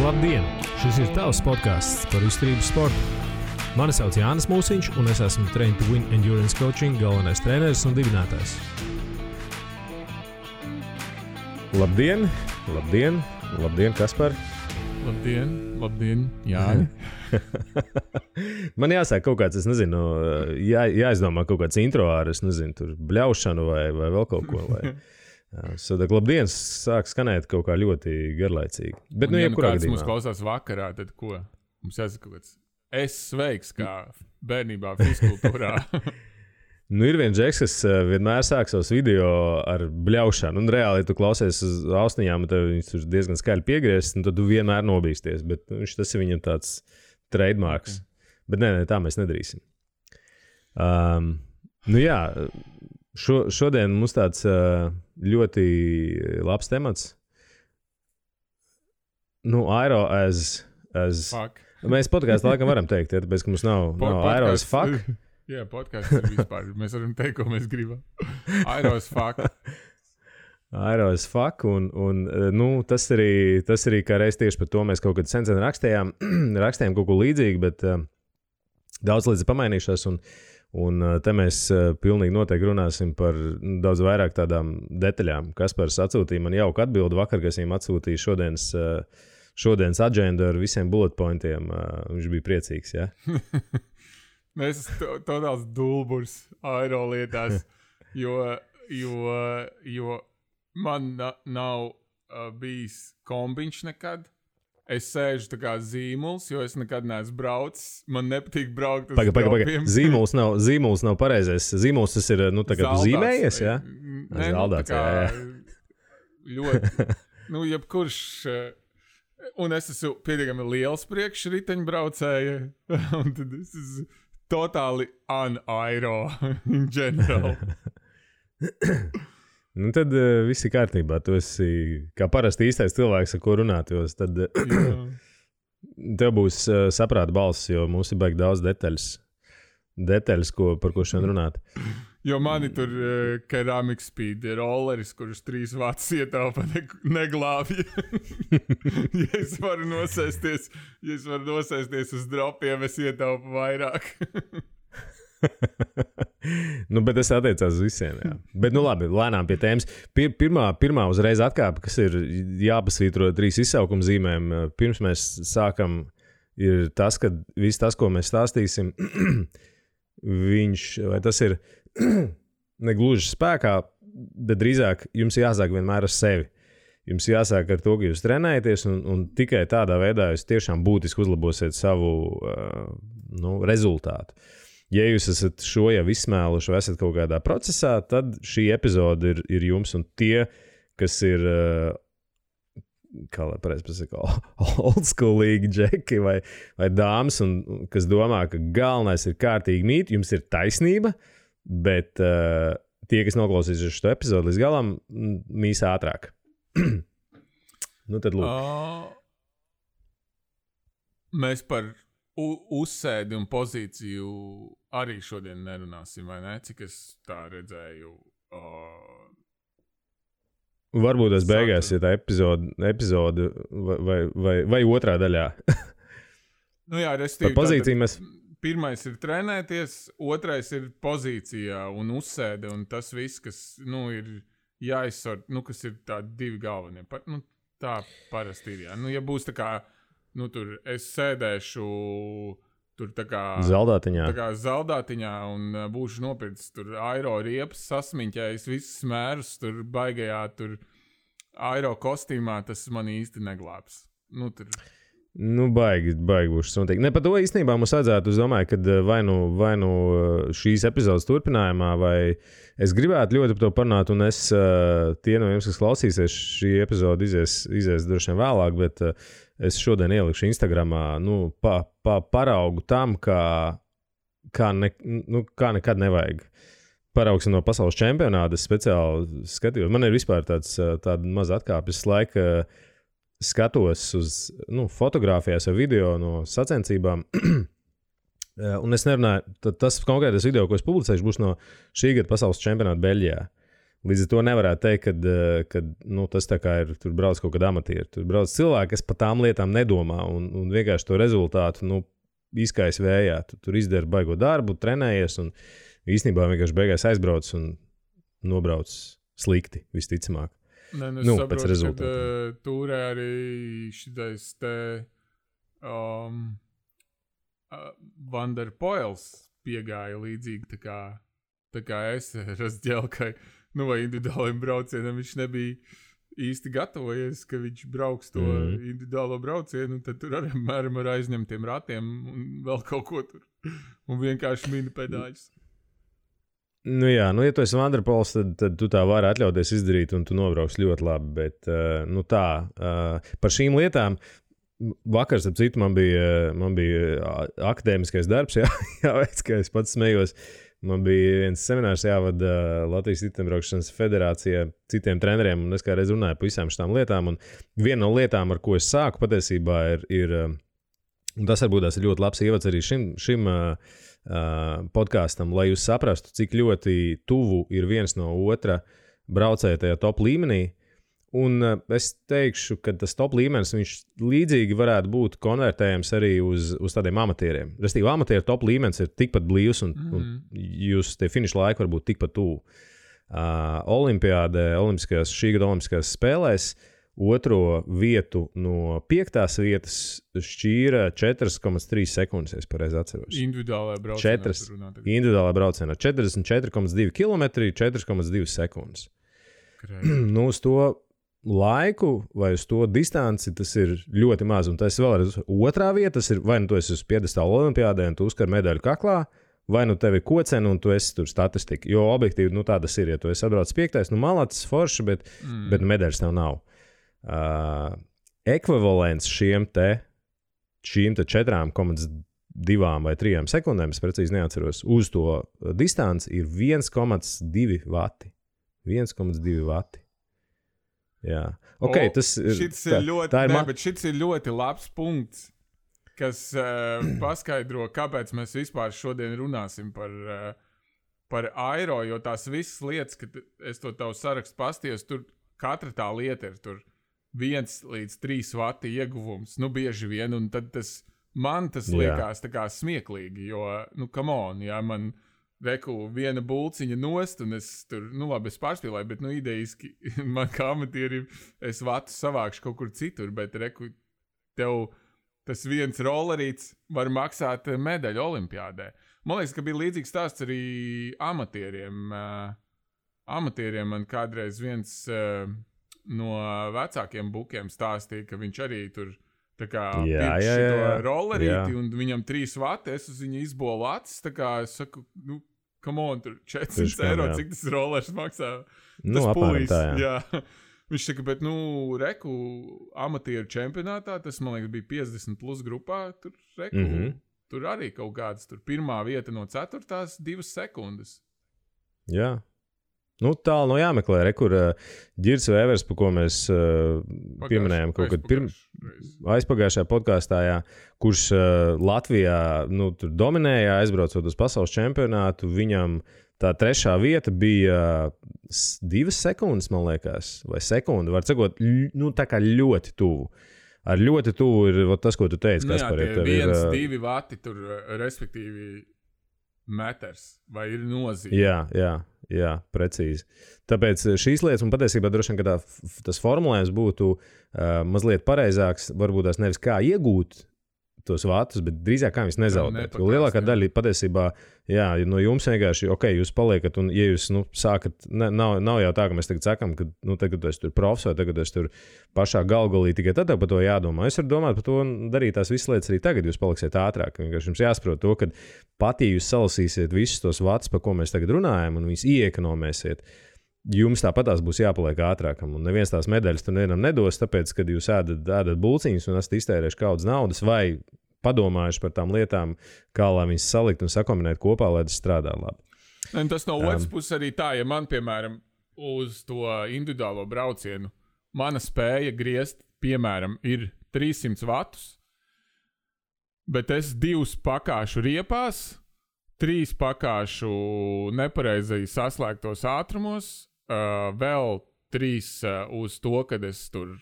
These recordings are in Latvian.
Labdien! Šis ir tavs podcasts par izturības sportu. Mani sauc Jānis Mūsiņš, un es esmu Train to Win Endurance Coaching galvenais treneris un dibinātājs. Labdien, labdien, labdien, Kaspar. Labdien, Jāni. Man jāsāk kaut kāds, es nezinu, jāizdomā kaut kāds intro ar, es nezinu, tur bļaušanu vai vēl kaut ko. Sadak, labdien, sāk skanēt kaut kā ļoti garlaicīgi. Bet, ja kāds mums klausās vakarā, tad ko? Mums jāsaka, ka es sveiks kā bērnībā fizkultūrā. Ir viens džeks, kas vienmēr sāk savus video ar bļaušanu. Un reāli, ja tu klausies uz austiņām, tad viņš tur diezgan skaļi piegriezis, un tad tu vienmēr nobīsties. Bet tas ir viņam tāds trademarks. Okay. Bet nē, tā mēs nedarīsim. Šodien mums tāds ļoti labs temats. Aero as fuck. Mēs podkāstā laikam varam teikt, ja, tāpēc, ka mums nav aero as fuck. Jā, podkāsts ir vispār. Mēs varam teikt, ko mēs gribam. Aero as fuck. Aero as fuck. Un tas arī kā reiz tieši par to mēs kaut kad sen rakstījām kaut ko līdzīgu, bet daudz līdz pamainījušās. Un te mēs pilnīgi noteikti runāsim par daudz vairāk tādām detaļām. Kaspars atsūtīja man jauku atbildi vakar, kas viņam atsūtīja šodienas agendu ar visiem bullet pointiem. Viņš bija priecīgs, jā? Mēs tādās dulburs aero lietās, jo man nav bijis kombiņš nekad. Es sēžu tā kā zīmuls, jo es nekad neesmu braucis. Man nepatīk braukt uz dropiem. Zīmuls nav pareizais. Zīmuls tas ir, tā kā tu zīmējies, jā? Zaldāts, jā. Ļoti, jebkurš... Un es esmu pietiekami liels priekšriteņbraucēja, un tad es esmu totāli un-aero in general. Tad viss ir kārtībā. Tu esi kā parasti īstais cilvēks, ar ko runāt, jo tad tev būs saprāta balss, jo mums ir baigi daudz detaļas par ko šodien runāt. Jo mani tur Ceramic Speed rolleris, kurš 3 vats ietaupa neglābja. Ja es varu nosēsties uz dropiem, es ietaupu vairāk. Bet tas attiecās uz visiem, jā. Bet, labi, lēnām pie tēmas. Pirmā uzreiz atkāpe, kas ir jāpasvītro 3 izsaukuma zīmēm, pirms mēs sākam, ir tas, ka viss tas, ko mēs stāstīsim, vai tas ir negluži spēkā, bet drīzāk jums jāsāk vienmēr ar sevi. Jums jāsāk ar to, ka jūs trenējaties, un tikai tādā veidā jūs tiešām būtiski uzlabosiet savu rezultātu. Ja jūs esat šo jau izsmēluši vai esat kaut kādā procesā, tad šī epizode ir jums, un tie, kas ir, kā lai pareizi pasaka, oldschoolīgi džeki vai dāmas, un kas domā, ka galvenais ir kārtīgi mīt, jums ir taisnība, bet tie, kas noklausīsies šo epizodu līdz galam, mīs ātrāk. Tad lūk. Mēs par uzsēdi un pozīciju arī šodien nerunāsim, vai ne? Cik es tā redzēju. Varbūt tas beigās, ja tā epizode vai otrā daļā. Jā, restīvi. Par pozīciju mēs... Pirmais ir trenēties, otrais ir pozīcijā un uzsēde, un tas viss, kas, ir jāizsort, kas ir tādi 2 galvenie. Tā parasti ir, jā. Ja būs tā kā, tur es sēdēšu tur tā kā... Zaldātiņā un būšu nopircis tur aero riepas, sasmiņķējis visus smērus, tur baigajā tur aero kostīmā, tas man īsti neglābs. Baigi būs noteikti. Ne, par to īstenībā mums vajadzētu, es domāju, ka vai nu šīs epizodes turpinājumā, vai es gribētu ļoti par to parunāt, un tie no jums, kas klausīsies, šī epizode izies droši vien vēlāk, bet es šodien ielikšu Instagramā, paraugu tam, kā nekad nevajag. Paraugsim no pasaules čempionāta, es speciāli skatījos. Man ir vispār tāda maza atkāpes laika, skatos uz fotogrāfijās vai video no sacensībām, un es nerunāju, tas konkrētais video, ko es publicēšu, būs no šī gada pasaules čempionāta Beļģijā. Līdz ar to nevarētu teikt, ka tas tā kā ir, tur brauc kaut kāda amatieri. Tur brauc cilvēki, kas par tām lietām nedomā un vienkārši to rezultātu izkais vējā. Tu tur izdari baigo darbu, trenējies un īstenībā vienkārši beigās aizbrauc un nobrauc slikti, visticamāk. Pēc rezultātiem. Tūrē arī šitais te Van der Poels piegāja līdzīgi tā kā es Razģelkai, vai individuāliem braucienam viņš nebija īsti gatavojies, ka viņš brauks to individuālo braucienu, un tad tur arī mēram ar aizņemtiem ratiem un vēl kaut ko tur, un vienkārši mini pedāļus. Ja tu esi Van der Poels, tad tu tā vari atļauties izdarīt, un tu nobrauks ļoti labi, bet par šīm lietām vakar, ap citu, man bija akadēmiskais darbs, jāveic, ka es pats smējos. Man bija viens seminārs jāvada Latvijas riteņbraukšanas federācijā citiem treneriem, un es kā reiz runāju par visām šitām lietām, un viena no lietām, ar ko es sāku patiesībā, ir un tas varbūt ir ļoti labs ievads arī šim podkāstam, lai jūs saprastu, cik ļoti tuvu ir viens no otra braucēja tajā top līmenī. Un es teikšu, ka tas top līmenis, viņš līdzīgi varētu būt konvertējams arī uz tādiem amatieriem. Restīvi, amatieru top līmenis ir tikpat blīvs, un jūs tie finiša laiki var būt tikpat tuvu. Šī gada olimpiskajās spēlēs otro vietu no 5. vietas šķīra 4,3 sekundes, ja es pareizi atceros. Individuālajā braucienā. Individuālajā braucienā. 44,2 km, 4,2 sekundes. Uz to laiku vai uz to distanci tas ir ļoti maz. Un tas vēlreiz otrā vieta, tas ir vai tu esi uz piedestāla olimpiādē un tu uzkar medaļu kaklā, vai tev ir kocena un tu esi tur statistika. Jo objektīvi tā tas ir. Ja tu esi atbraucis 5. malacis, forši, bet medaļas tev nav. Ekvivalents šīm 4,2 vai 3 sekundēm, es precīzi neatceros, uz to distanci ir 1,2 vati. 1,2 vati. Jā. Okay, tas ir ļoti labs punkts, kas paskaidro, kāpēc mēs vispār šodien runāsim par aero, jo tās visas lietas, kad es to tavu sarakstu pastījos, tur katra tā lieta ir tur 1 līdz 3 vati ieguvums, bieži vien, un tad man tas liekas tā kā smieklīgi, jo, come on, jā, man viena bulciņa nost, un es tur, labi, es pārspīlēju, bet, idejiski, man kā amatierim, es vatu savākšu kaut kur citur, bet, tev tas viens rollerīts var maksāt medaļu olimpiādē. Man liekas, ka bija līdzīgs stāsts arī amatieriem. Amatieriem man kādreiz viens no vecākiem bukiem stāstīja, ka viņš arī tur tā kā pirkš to rollerīti, un viņam 3 vati, es uz viņu izbolu acis, tā kā es saku, come on, tur 400 eiro, cik tas rollers maksā? Tas pulīs, jā. Viņš saka, bet, amatieru čempionātā, tas, man liekas, bija 50 plus grupā, tur, tur arī kaut kāds, tur 1. vieta no 4. 2 sekundes. Jā. Tālu jāmeklē, kur Ģirs Vēvers, par ko mēs pieminējām kaut kad aizpagājušajā podkāstā, kurš Latvijā tur dominēja, aizbraucot uz pasaules čempionātu, viņam tā 3. vieta bija 2 sekundes, man liekas, vai sekundi, var sakot, tā kā ļoti tuvu. Ar ļoti tuvu ir tas, ko tu teici, Kaspar. Jā, tie 1-2 vati tur, respektīvi, metrs, vai ir nozīme. Jā, precīzi. Tāpēc šīs lietas, un patiesībā droši vien, ka tas formulējums būtu mazliet pareizāks, varbūt tās nevis kā iegūt tos vatus, bet drīzāk kā viņus nezaudēt. Jo lielākā daļa patiesībā, no jums vienkārši, jūs paliekat, un ja jūs sākat, nav jau tā, ka mēs tagad sakam, ka tagad es tur profs vai tagad es tur pašā galgalī, tikai tad par to jādomā. Es varu domāt par to un darīt tās visas lietas arī tagad, jūs paliksiet ātrāk. Vienkārši jums jāsaprot to, ka pat ja jūs salasīsiet visus tos vatus, par ko mēs tagad runājam, un viņus ieekonomēsiet, jums tāpatās būs jāpaliek ātrākam. Un neviens tās medaļas tur nevienam nedos, tāpēc, kad jūs ēdat bulciņus un esat iztērējuši kaudzes naudas vai padomājuši par tām lietām, kā lai viņas salikt un sakombinēt kopā, lai tas strādā labi. Un tas no otras puses arī tā, ja man, piemēram, uz to individuālo braucienu mana spēja griezt, piemēram, ir 300 vatus, bet es 2 pakāšu riepās, 3 pakāšu nepareizi saslēgtos ātrumos, vēl 3 uz to, kad es tur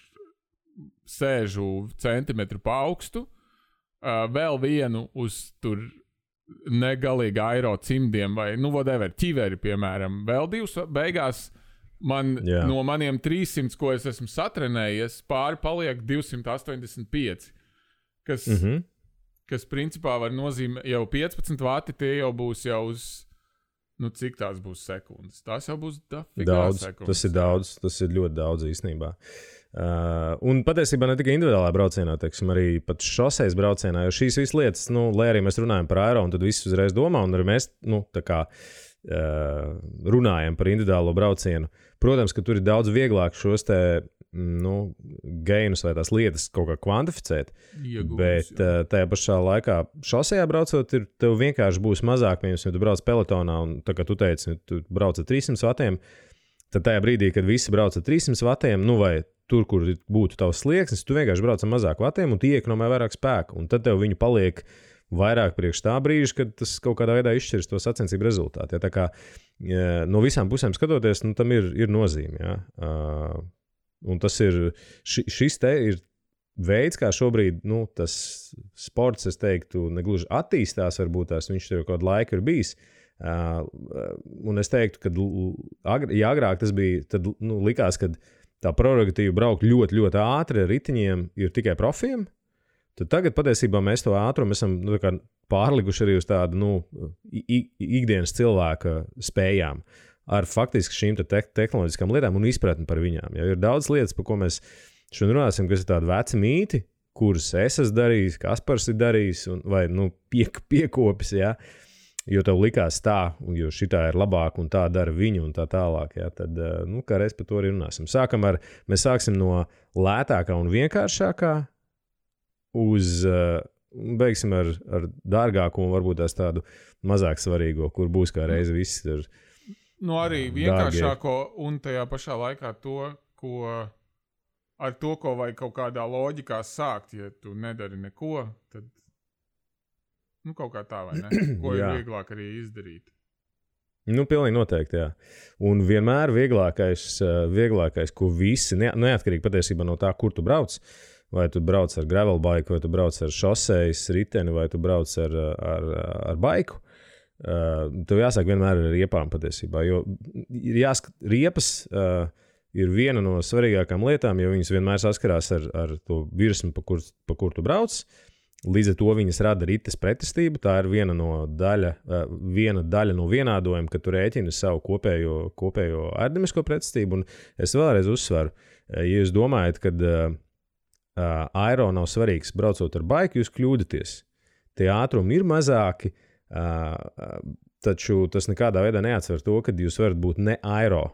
sēžu centimetru pa augstu, vēl 1 uz tur negalīgi aero cimdiem vai, whatever, ķiveri, piemēram. Vēl 2 beigās no maniem 300, ko es esmu satrenējies, pāri paliek 285, kas principā var nozīmēt jau 15 vati, tie jau būs jau uz, cik tās būs sekundes. Tās jau būs daudz sekundes. Tas ir daudz, tas ir ļoti daudz īstenībā. Un patiesībā ne tikai individuālā braucienā, teiksim, arī pat šoseis braucienā, jo šīs visas lietas, lai arī mēs runājam par aero, un tad viss uzreiz domā, un arī mēs, tā kā runājam par individuālo braucienu. Protams, ka tur ir daudz vieglāk šos te, gainus vai tās lietas kaut kā kvantificēt, bet tajā pašā laikā šosejā braucot, tev vienkārši būs mazāk, ja tu brauc pelotonā, un tā kā tu teici, tu brauc ar 300 vatiem, tad tajā brīdī, kad visi brauc ar 300 vatiem, vai tur, kur būtu tavs slieksnis, tu vienkārši brauc ar mazāk vatiem, un tu iekonomē vairāk spēku, un tad tev viņu paliek vairāk priekš tā brīža, kad tas kaut kādā veidā izšķirs to sacensību rezultātu. Ja, tā kā no visām pusēm skatoties, tam ir nozīme. Ja. Un tas ir, šis te ir veids, kā šobrīd tas sports, es teiktu, negluži attīstās, varbūt tās viņš jau kādu laiku ir bijis. Un es teiktu, ka ja agrāk tas bija, tad likās, ka tā prerogatīva braukt ļoti, ļoti ātri ar ritiņiem ir tikai profiem. Tad tagad patiesībā mēs to ātrumu esam pārlikuši arī uz tādu ikdienas cilvēka spējām ar faktiski šīm tehnoloģiskām lietām un izpratni par viņām. Ja ir daudz lietas, par ko mēs šodien runāsim, kas ir tādi veci mīti, kurus es esmu darījis, Kaspars ir darījis vai piekopis, ja, jo tev likās tā, jo šitā ir labāk un tā dara viņu un tā tālāk. Ja, tad kā reiz par to arī runāsim. Mēs sāksim no lētākā un vienkāršākā beigsim ar dārgāko un varbūt tās tādu mazāk svarīgo, kur būs kā reizi viss ir arī vienkāršāko un tajā pašā laikā ar to, ko vajag kaut kādā loģikā sākt, ja tu nedari neko, tad kaut kā tā, vai ne? Ko ir vieglāk arī izdarīt. Pilnīgi noteikti, jā. Un vienmēr vieglākais, ko visi, neatkarīgi patiesībā no tā, kur tu brauc, vai tu brauc ar gravel bike, vai tu brauc ar šosejas riteni, vai tu brauc ar baiku, tev jāsāk vienmēr ar riepām patiesībā, jo riepas ir viena no svarīgākām lietām, jo viņas vienmēr saskarās ar to virsmu, pa kur tu brauc. Līdz ar to viņas rada rites pretestību. Tā ir viena daļa no vienādojuma, kad tu rēķini savu kopējo aerodinamisko pretestību. Un es vēlreiz uzsveru, ja jūs domājat, ka aero nav svarīgs braucot ar baiku, jūs kļūdaties. Tie ātrumi ir mazāki, taču tas nekādā veidā neatsver to, ka jūs varat būt ne aero.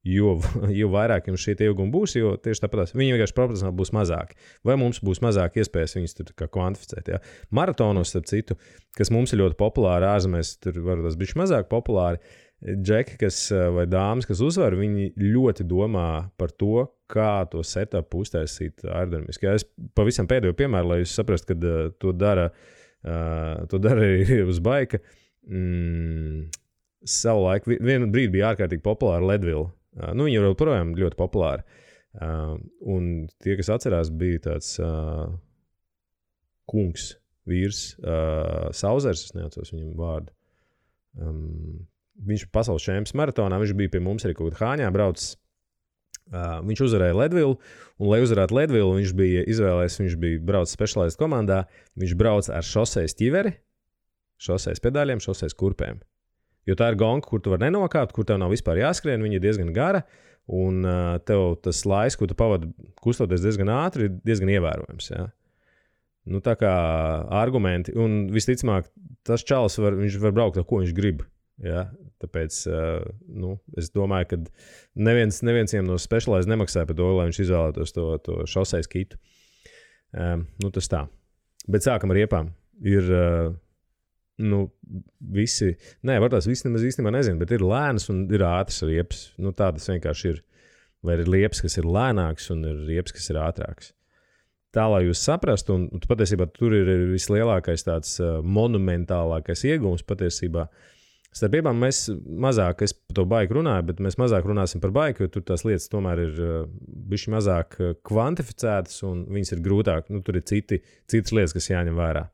Jo vairāk jums šie ilgumi būs, jo tieši tāpat viņi vienkārši proporcionāli būs mazāki. Vai mums būs mazāk iespējas viņus tur kā kvantificēt. Ja? Maratonos, starp citu, kas mums ir ļoti populāri ārzemēs, tur varbūt tas bišķi mazāk populāri, džeki, vai dāmas, kas uzvar, viņi ļoti domā par to, kā to setupu uztaisīt aerodinamiski. Ja? Es pavisam pēdējo piemēru, lai jūs saprastu, ka to dara arī uz baika. Savulaik, vienu brīdi bija ārkārtīgi populāra Leadville. Viņi ir joprojām ļoti populāri. Un tie, kas atcerās, bija tāds kungs, vīrs, Sauzers, es neatceros viņam vārdu. Viņš ir pasaules čempions maratonā, viņš bija pie mums arī kaut kādā Hāņā braucis. Viņš uzvarēja Leadville, un lai uzvarētu Leadville, viņš bija izvēlējies, viņš bija braucis specialized komandā, viņš brauc ar šosejas ķiveri, šosejas pedāļiem, šosejas kurpēm. Jo tā ir gonka, kur tu vari nenokāpt, kur tev nav vispār jāskrien, viņa ir diezgan gara, un tev tas laiks, ko tu pavadi kustoties diezgan ātri, ir diezgan ievērojams. Ja? Tā kā argumenti, un visticamāk, tas čalis viņš var braukt ar ko viņš grib. Ja? Tāpēc es domāju, ka neviens viņam no specialized nemaksāja par to, lai viņš izvēlētos to šosejas kitu. Tas tā. Bet sākam ar riepām. Ir... visi nemaz īstenībā nezinu, bet ir lēnas un ir ātras riepas. Tādas vienkārši ir. Vai ir riepas, kas ir lēnāks, un ir riepas, kas ir ātrāks. Tā, lai jūs saprastu, un patiesībā tur ir vislielākais tāds monumentālākais iegūms patiesībā. Starp riepām mēs mazāk, es par to baiku runāju, bet mēs mazāk runāsim par baiku, jo tur tās lietas tomēr ir bišķi mazāk kvantificētas un viņas ir grūtāk. Nu, tur ir citas lietas, kas jāņem vērā.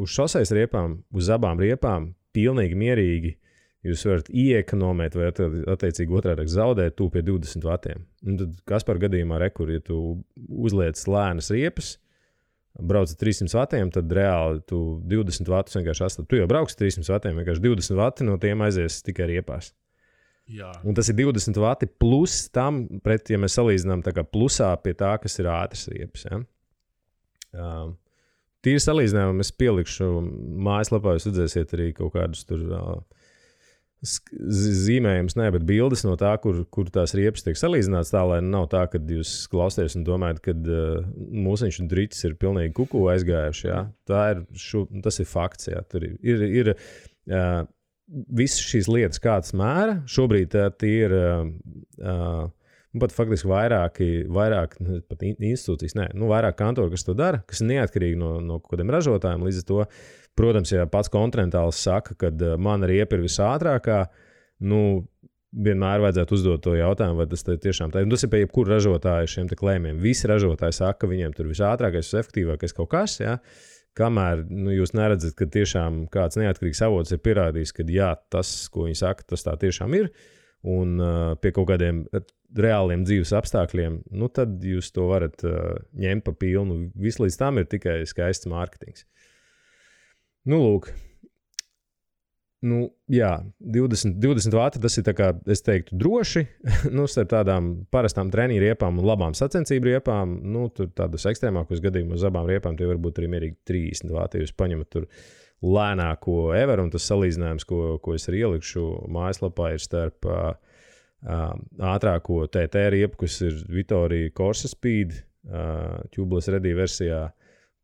Uz šoseis riepām, uz abām riepām, pilnīgi mierīgi jūs varat ieekonomēt vai attiecīgi otrādi zaudēt tu pie 20 vatiem. Un tad Kaspar gadījumā rekur, ja tu uzliec lēnas riepas, brauc ar 300 vatiem, tad reāli tu 20 vatus vienkārši astat. Tu jau brauks 300 vatiem, vienkārši 20 vati no tiem aizies tikai riepās. Jā. Un tas ir 20 vati plus tam, pret, ja mēs salīdzinām tā kā plusā pie tā, kas ir ātras riepas. Ja? Tīri salīdzinājumu es pielikšu mājaslapā, jūs redzēsiet arī kaut kādus tur zīmējums, bet bildes no tā, kur tās riepas tiek salīdzināts tā, lai nav tā, ka jūs klausties un domājat, ka mūsiņš un driķis ir pilnīgi kuku aizgājuši. Jā. Tas ir fakts. Jā. Tur ir visas šīs lietas, kādas mēra. Šobrīd tie ir pat faktiski vairāk pat institūcijas, vairāk kantori, kas to dara, kas ir neatkarīgi no kādiem ražotājiem. Līdz ar to, protams, ja pats kontinentāls saka, ka mana riepa ir visātrākā, vienmēr vajadzētu uzdot to jautājumu, vai tas tiešām tā ir. Tas ir pie jebkura ražotāja šiem te klējumiem. Visi ražotāji saka, ka viņiem tur visātrākais, visefektīvākais kaut kas, ja? Kamēr jūs neredzat, ka tiešām kāds neatkarīgs avots ir pierādījis, ka jā, tas, ko viņi saka, tas tā tiešām ir, un pie kaut kādiem reāliem dzīves apstākļiem, tad jūs to varat ņemt pa pilnu. Viss līdz tam ir tikai skaists mārketings. Lūk. Jā, 20 vati, tas ir tā kā, es teiktu, droši. Starp tādām parastām treniņu riepām un labām sacensību riepām, tur tādos ekstrēmākos gadījumos uz abām riepām tie varbūt arī mierīgi 30 vati. Jūs paņemat tur lēnāko ever, un tas salīdzinājums, ko es arī ielikšu mājaslapā, ir starp ātrāko TT riepu, kas ir Vittoria Corsa Speed, tubeless ready versijā,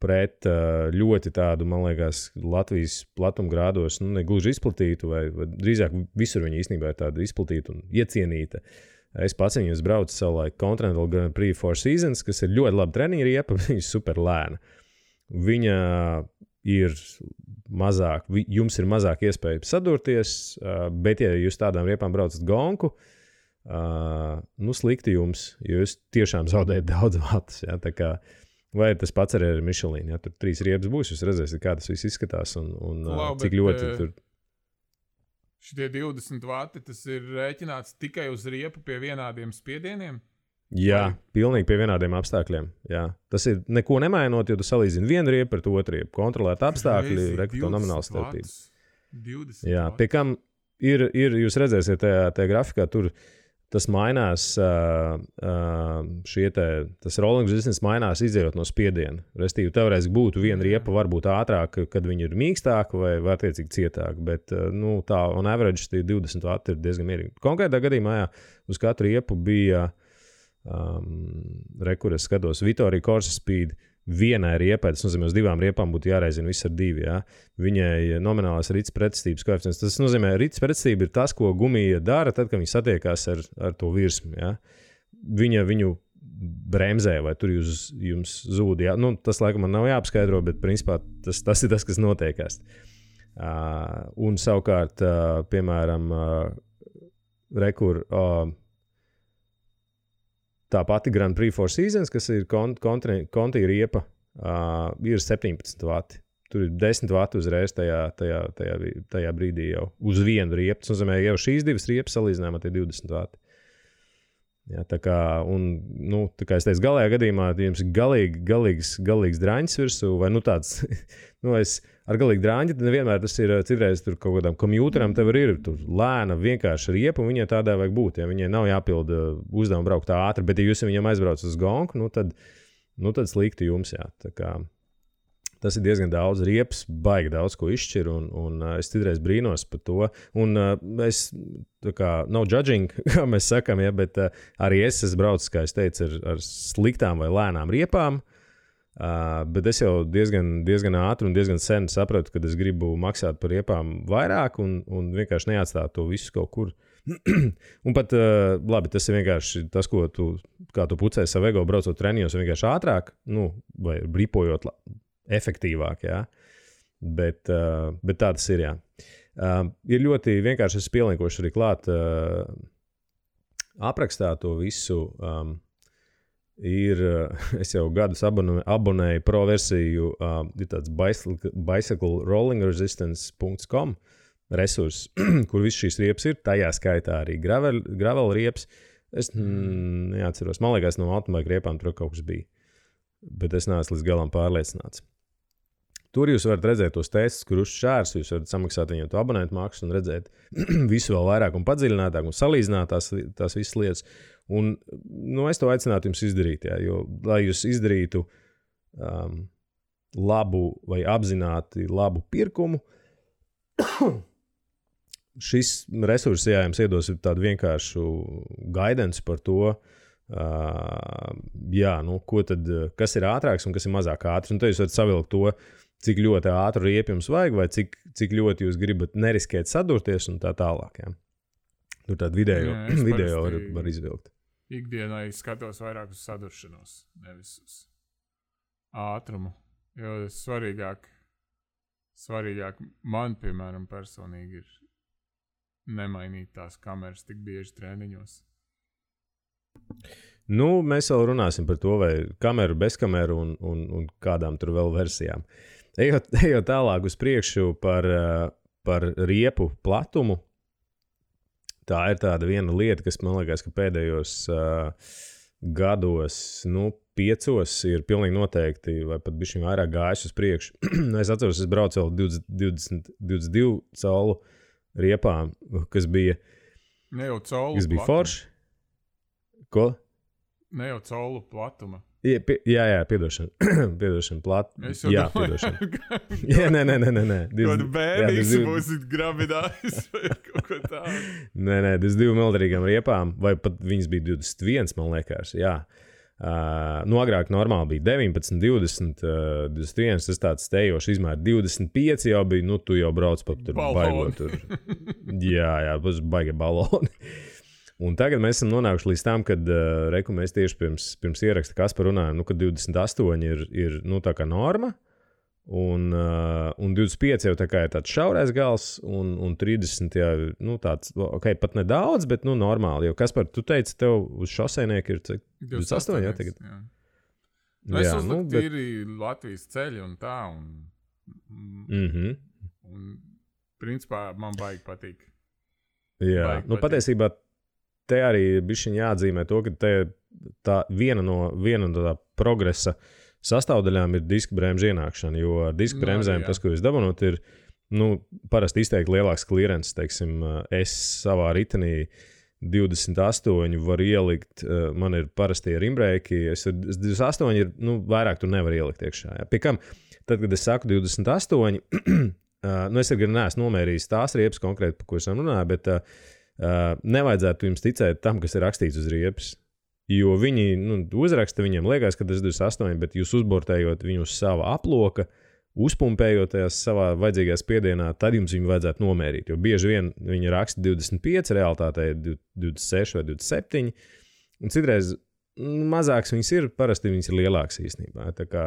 pret ļoti tādu, man liekas, Latvijas platumgrādos, ne gluži izplatītu, vai drīzāk visur viņa īstenībā ir tāda izplatīta un iecienīta. Es pats viņus braucu savulaik Continental Grand Prix Four Seasons, kas ir ļoti laba treniņa riepa, viņa ir super lēna. Viņa ir mazāk, jums ir mazāk iespēja sadurties, bet ja jūs tādām riepām braucat gonku, slikti jums, jo jūs tiešām zaudējat daudz vatus. Ja? Tā kā vai tas pats arī ar Michelin, ja tur 3 riepas būs, jūs redzēsiet, kā tas viss izskatās un cik ļoti tur. Šitie 20 vati, tas ir rēķināts tikai uz riepu pie vienādiem spiedieniem? Jā, pilnīgi pie vienādiem apstākļiem. Jā. Tas ir neko nemainot, jo tu salīdzini vienu riepu ar to otru riepu. Kontrolēt apstākļi, rekto nomināli starpību. 20 Jā, pie kam ir, jūs redzēsiet tajā grafikā, tur tas mainās, tas rolling resistance mainās izējot no spiediena. Restīvi, teorētiski būtu viena riepa varbūt ātrāk, kad viņi ir mīkstāka vai attiecīgi cietāk, bet tā on average tie 20 vati ir diezgan mierīgi. Konkrētā gadījumā, jā, uz katru riepu bija, kur es skatos, Vittoria Corsa Speed vienai riepai, tas nozīmē, uz 2 riepām būtu jāreizina viss ar 2, jā. Viņai nominālās rits pretestības koeficients. Tas nozīmē, rits pretestība ir tas, ko gumija dara tad, kad viņi satiekās ar to virsmu, jā. Viņa viņu bremzē, vai tur jums zūd, jā. Tas laikam man nav jāapskaidro, bet principā tas ir tas, kas notiekās. Un savukārt, piemēram, tā pati Grand Prix Four Seasons, kas ir Conti riepa, ir 17 vati. Tur ir 10 vati uzreiz tajā brīdī jau uz vienu riepu. Tas nozīmē, jau šīs 2 riepas salīdzinājumā tie 20 vati. Jā, tā kā es teicu, galējā gadījumā jums ir galīgs draņķis virsū, vai tāds, es ar galīgu draņķi, nevienmēr tas ir citreiz tur kaut kādam kompjūteram, tev ir tur lēna, vienkārši riepa, un viņai tādā vajag būt, ja viņai nav jāpilda uzdevumu braukt tā ātri, bet ja jūs viņam aizbrauc uz gonku, tad slikti jums, jā, tā kā tas ir diezgan daudz riepas, baigi daudz ko izšķir, un es citreiz brīnos par to. Un es, tā kā, no judging, kā mēs sakam, ja, bet arī es braucu, kā es teicu, ar sliktām vai lēnām riepām, bet es jau diezgan ātri un diezgan sen sapratu, ka es gribu maksāt par riepām vairāk un vienkārši neatstāt to visu kaut kur. Un pat, labi, tas ir vienkārši tas, ko kā tu pucēji savu ego braucot treniņos, vienkārši ātrāk, vai ripojot efektīvāk, jā. Bet tā tas ir, jā. Ir ļoti vienkārši, es pielinkošu arī klāt aprakstā to visu. Es jau gadus abonēju pro versiju, ir tāds bicyclerollingresistance.com resurs, kur viss šīs riepas ir, tajā skaitā arī gravel riepas. Es neatceros, man liekas, no automaika riepām tur kaut kas bija, bet es neesmu līdz galam pārliecināts. Tur jūs varat redzēt tos testus, kur uzšķērs, jūs varat samaksāt viņiem to abonentu maksu un redzēt visu vēl vairāk un padziļinātāk un salīdzināt tās visas lietas. Un, es to aicinātu jums izdarīt, jā, jo, lai jūs izdarītu labu vai apzināti labu pirkumu, šis resurs, jā, jums iedos tādu vienkāršu guidance par to, kas ir ātrāks un kas ir mazāk ātrs. Un tad jūs varat savilkt to, cik ļoti ātru riepu jums vajag, vai cik ļoti jūs gribat neriskēt sadurties un tā tālāk. Jā. Tur tādu video var izvilkt. Ikdienā es skatos vairāk uz saduršanos, nevis uz ātrumu. Jo svarīgāk man, piemēram, personīgi ir nemainīt tās kameras tik bieži treniņos. Mēs vēl runāsim par to, vai kameru, bez kameru un kādām tur vēl versijām. Ejot tālāk uz priekšu par riepu platumu, tā ir tāda viena lieta, kas man liekas, ka pēdējos gados, 5 ir pilnīgi noteikti, vai pat bišķiņ vairāk gājis uz priekšu. Es atceros, es braucu vēl 22 colu riepām, kas bija forši. Ko? Ne jau colu platuma. Jā, piedošana. Piedošana. Jā, piedošana. Nē. Kādu bērnīgs būs grabinājis vai kaut ko tādu. Nē, 22 mildarīgām riepām, vai pat viņas bija 21, man liekas, jā. Agrāk normāli bija 19, 20, 21, tas tāds stejošs izmērs. 25 jau bija, tu jau brauc pa tur baigot tur. Jā, būs baigi baloni. Un tagad mēs esam nonākuši līdz tam, kad mēs tieši pirms ieraksta Kaspar runājam, ka 28 ir tā kā norma, un 25 jau tā kā ir tāds šaurais gals, un 30 jau tāds, pat nedaudz, bet normāli. Jo Kaspar, tu teici, tev uz šoseinieku ir 28, jā, tagad? Jā. Es uzliku tīri Latvijas ceļi un tā, un principā man baigi patīk. Jā, patiesībā te arī bišķiņ jāatzīmē to, ka tā viena no tā progresa sastāvdaļām ir diska bremžu ienākšana, jo ar diska bremzēm tas, ko jūs dabonot, ir parasti izteikti lielāks klierens. Teiksim, es savā ritenī 28 varu ielikt, man ir parasti ar imbrēki, 28 ir, vairāk tu nevar ielikt iekšā. Jā. Pie kam, tad, kad es saku 28, es arī neesmu nomērījis tās riepas konkrēti, par ko esam runāju, bet nevajadzētu jums ticēt tam, kas ir rakstīts uz riepas. Jo viņi uzraksta, viņiem liekas, ka tas ir 28, bet jūs uzbortējot viņu uz sava aploka, uzpumpējoties savā vajadzīgajā spiedienā, tad jums viņu vajadzētu nomērīt. Jo bieži vien viņi raksta 25, realitātē 26 vai 27, un citreiz mazāks viņas ir, parasti viņas ir lielāks īstenībā. Tā kā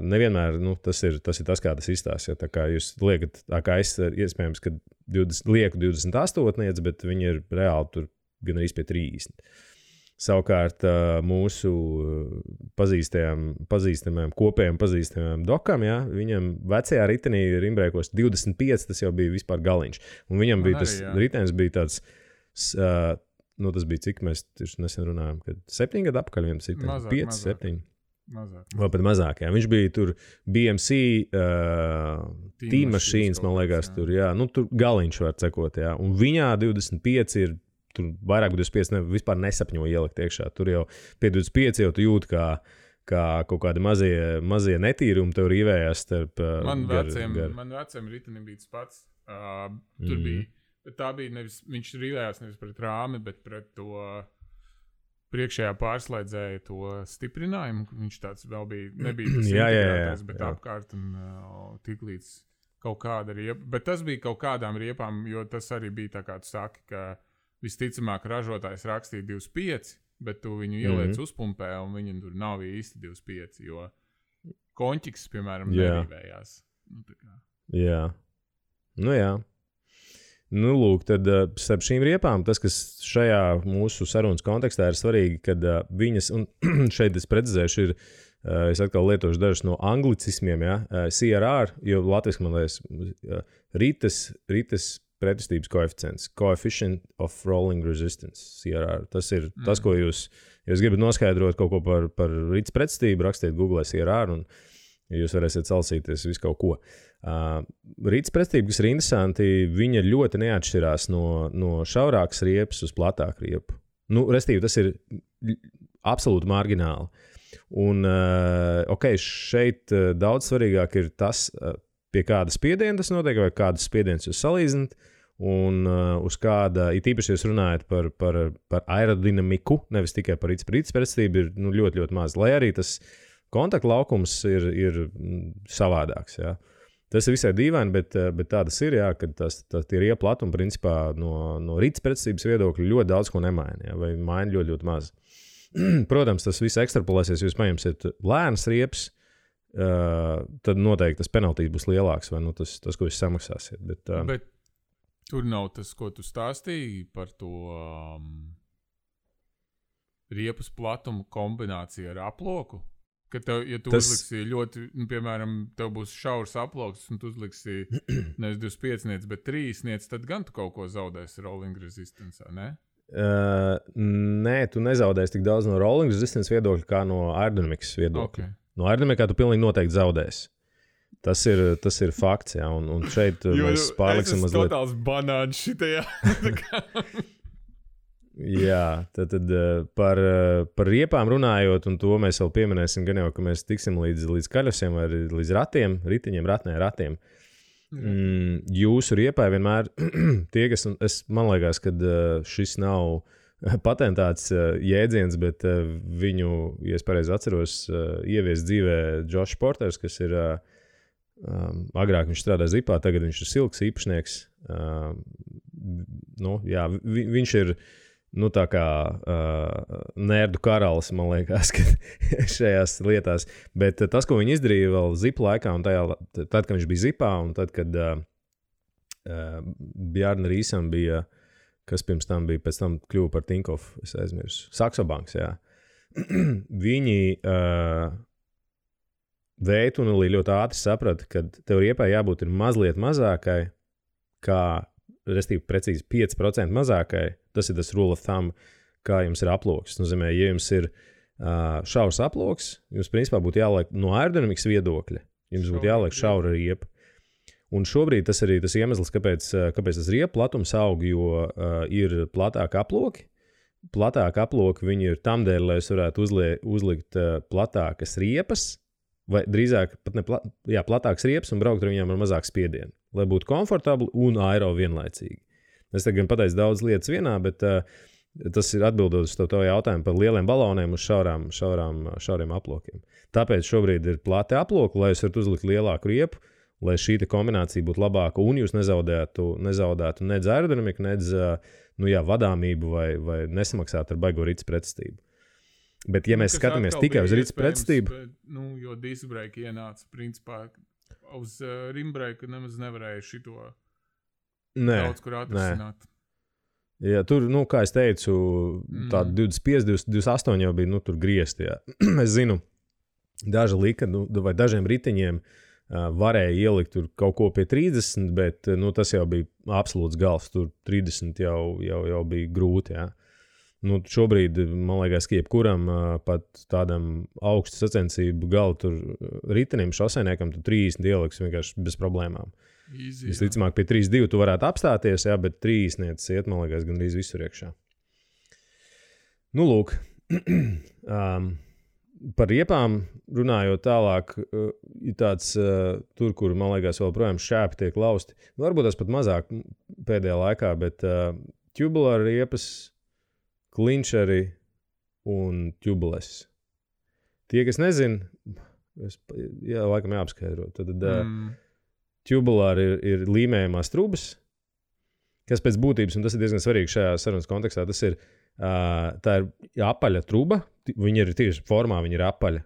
nevienmēr tas ir tas, kā tas izstāsta. Tā kā jūs liekat, kā es iespējams, ka lieku 28, bet viņi ir reāli tur gan arī pie 30. Savukārt mūsu pazīstamajam, kopējam pazīstamajam dokam, jā, viņam vecajā ritenī rimbrēkos 25, tas jau bija vispār galiņš. Un viņam bija tas ritenis bija tāds, tas bija cik mēs nesen runājām, kad 7 gadu apakaļ viens ritenis, 5, 7. Mazāk. Vai pat mazāk, jā. Viņš bija tur BMC Team Machines, man liekas, tur, jā. Tur galiņš var cekot, jā. Un viņā 25 ir, tur vairāk 25 vispār nesapņo ielikt iekšā. Tur jau pie 25 jau tu jūti, kā kaut kādi mazie netīrumi tev rīvējās starp Man veciem ritenim bija tas pats. Tur bija, bet tā bija nevis, viņš rīvējās nevis pret rāmi, bet pret to priekšējā pārslēdzēja to stiprinājumu. Viņš tāds vēl bija, nebija tas integrētais, bet apkārt un tik līdz kaut kāda riepa. Bet tas bija kaut kādām riepām, jo tas arī bija tā kā tu saki, ka visticamāk ražotājs rakstīja 25, bet tu viņu ieliec uzpumpē un viņam tur nav īsti 25, jo konķiks, piemēram, nerīvējās. Jā. Jā. Nu, lūk, tad starp šīm riepām, tas, kas šajā mūsu sarunas kontekstā ir svarīgi, kad viņas, un šeit es precizēšu, ir, es atkal lietošu dažus no anglicismiem, ja, CRR, jo latviski man liekas, rites pretestības koeficients, Coefficient of Rolling Resistance, CRR. Tas ir tas, ko jūs gribat noskaidrot kaut ko par rites pretestību, rakstiet Google CRR, un jūs varēsiet salsīties visu kaut ko. Rītas pretestība, kas ir interesanti, viņa ļoti neatšķirās no šaurākas riepas uz platāku riepu. Nu, restīvi, tas ir absolūti margināli. Un, šeit daudz svarīgāk ir tas, pie kāda spiediena tas notiek, vai kādas spiedienas jūs salīdzināt, un uz kāda, it īpaši jūs runājat par aerodinamiku, nevis tikai par rītas pretestību, ir ļoti, ļoti maz, lai arī tas kontaktlaukums ir savādāks, jā. Tas ir visai dīvaini, bet tā tas ir, jā, kad tie riepu platumi principā no rītas pretestības viedokļa ļoti daudz ko nemaina, jā, vai maina ļoti, ļoti maz. Protams, tas viss ekstrapolēsies, ja jūs paņemsiet lēnas riepas, tad noteikti tas penaltīs būs lielāks, vai tas, ko jūs samaksāsiet. Bet tur nav tas, ko tu stāstīji par to riepas platumu kombināciju ar aploku? Ka tev, ja tu uzliksi ļoti, piemēram, tev būs šaurs aploks, un tu uzliksi nevis 25, bet 3, tad gan tu kaut ko zaudēsi rolling resistance, ne? Nē, tu nezaudēsi tik daudz no rolling resistance viedokļa, kā no aerodinamikas viedokļa. Okay. No aerodinamikā tu pilnīgi noteikti zaudēsi. Tas ir fakts, jā, un šeit mēs pārliksim mazliet. Es esmu totāls banāns šitajā. Jā, tad par riepām runājot, un to mēs vēl pieminēsim, gan jau, ka mēs tiksim līdz kaļosiem vai līdz ratiem, ritiņiem, ratiem. Jūsu riepai vienmēr tie, kas, man liekas, ka šis nav patentāts jēdziens, bet viņu, ja es pareizi atceros, ievies dzīvē Josh Porters, kas ir agrāk viņš strādā Zipā, tagad viņš ir Silks īpašnieks. Viņš ir tā kā nerdu karalis, man liekas, šajās lietās. Bet tas, ko viņi izdarīja vēl Zipa laikā, un tad, kad viņš bija Zipā, un tad, kad Bjarna Rīsam bija, kas pirms tam bija, pēc tam kļuva par Tinkoff, es aizmirsu, Saxo Banks, jā. Viņi veitunulī ļoti ātri saprata, ka tev riepai jābūt ir mazliet mazākai, kā, restīvi precīzi 5% mazākai. Tas ir tas rule of thumb, kā jums ir aploks. Nozīmē, ja jums ir šaurs aploks, jums principā būtu jāliek no aerodinamikas viedokļa. Jums būtu jāliek šaura riepa. Un šobrīd tas arī tas iemesls, kāpēc tas riepu platums aug, jo ir platāki aploki. Platāki aploki viņi ir tamdēļ, lai jūs varētu uzlikt platākas riepas, vai drīzāk pat platākas riepas un braukt ar viņām ar mazāku spiedienu, lai būtu komfortabli un aero vienlaicīgi. Es tagad pateicu daudz lietas vienā, bet tas ir atbildot uz to jautājumu par lieliem baloniem uz šauriem aplokiem. Tāpēc šobrīd ir plati aploki, lai jūs varat uzlikt lielāku riepu, lai šī kombinācija būtu labāka un jūs nezaudētu nedz aerodinamiku, nedz vadāmību vai nesamaksātu ar baigo rītas pretestību. Bet, ja mēs skatāmies tikai uz rītas pretestību... Jo disbrake ienāca, principā, uz rimbreika nemaz nevarēja šito daudz kur atrisināt. Jā, tur, kā es teicu, tāda 25, 28 jau bija, tur griezti, jā. Es zinu, daži lika, vai dažiem ritiņiem varēja ielikt tur kaut ko pie 30, bet, tas jau bija absolūts gals, tur 30 jau bija grūti, jā. Šobrīd, man liekas, ka jebkuram pat tādam augstu sacensību galu tur ritenim, šosēniekam, tu 30 ieliks vienkārši bez problēmām. Visticamāk, pie 3.2 tu varētu apstāties, jā, bet 30 iet, man liekas, gandrīz visur iekšā. Lūk, par riepām runājot tālāk, ir tāds tur, kur, man liekas, vēl projām šķēpi tiek lausti. Varbūt tas pat mazāk pēdējā laikā, bet tubular riepas, klinčeri un tubules. Tie, kas nezin, laikam jāapskaidro, tad tubulāri ir līmējumās trubas, kas pēc būtības, un tas ir diezgan svarīgi šajā sarunas kontekstā, tas ir, tā ir apaļa truba, viņa ir tieši formā, viņa ir apaļa,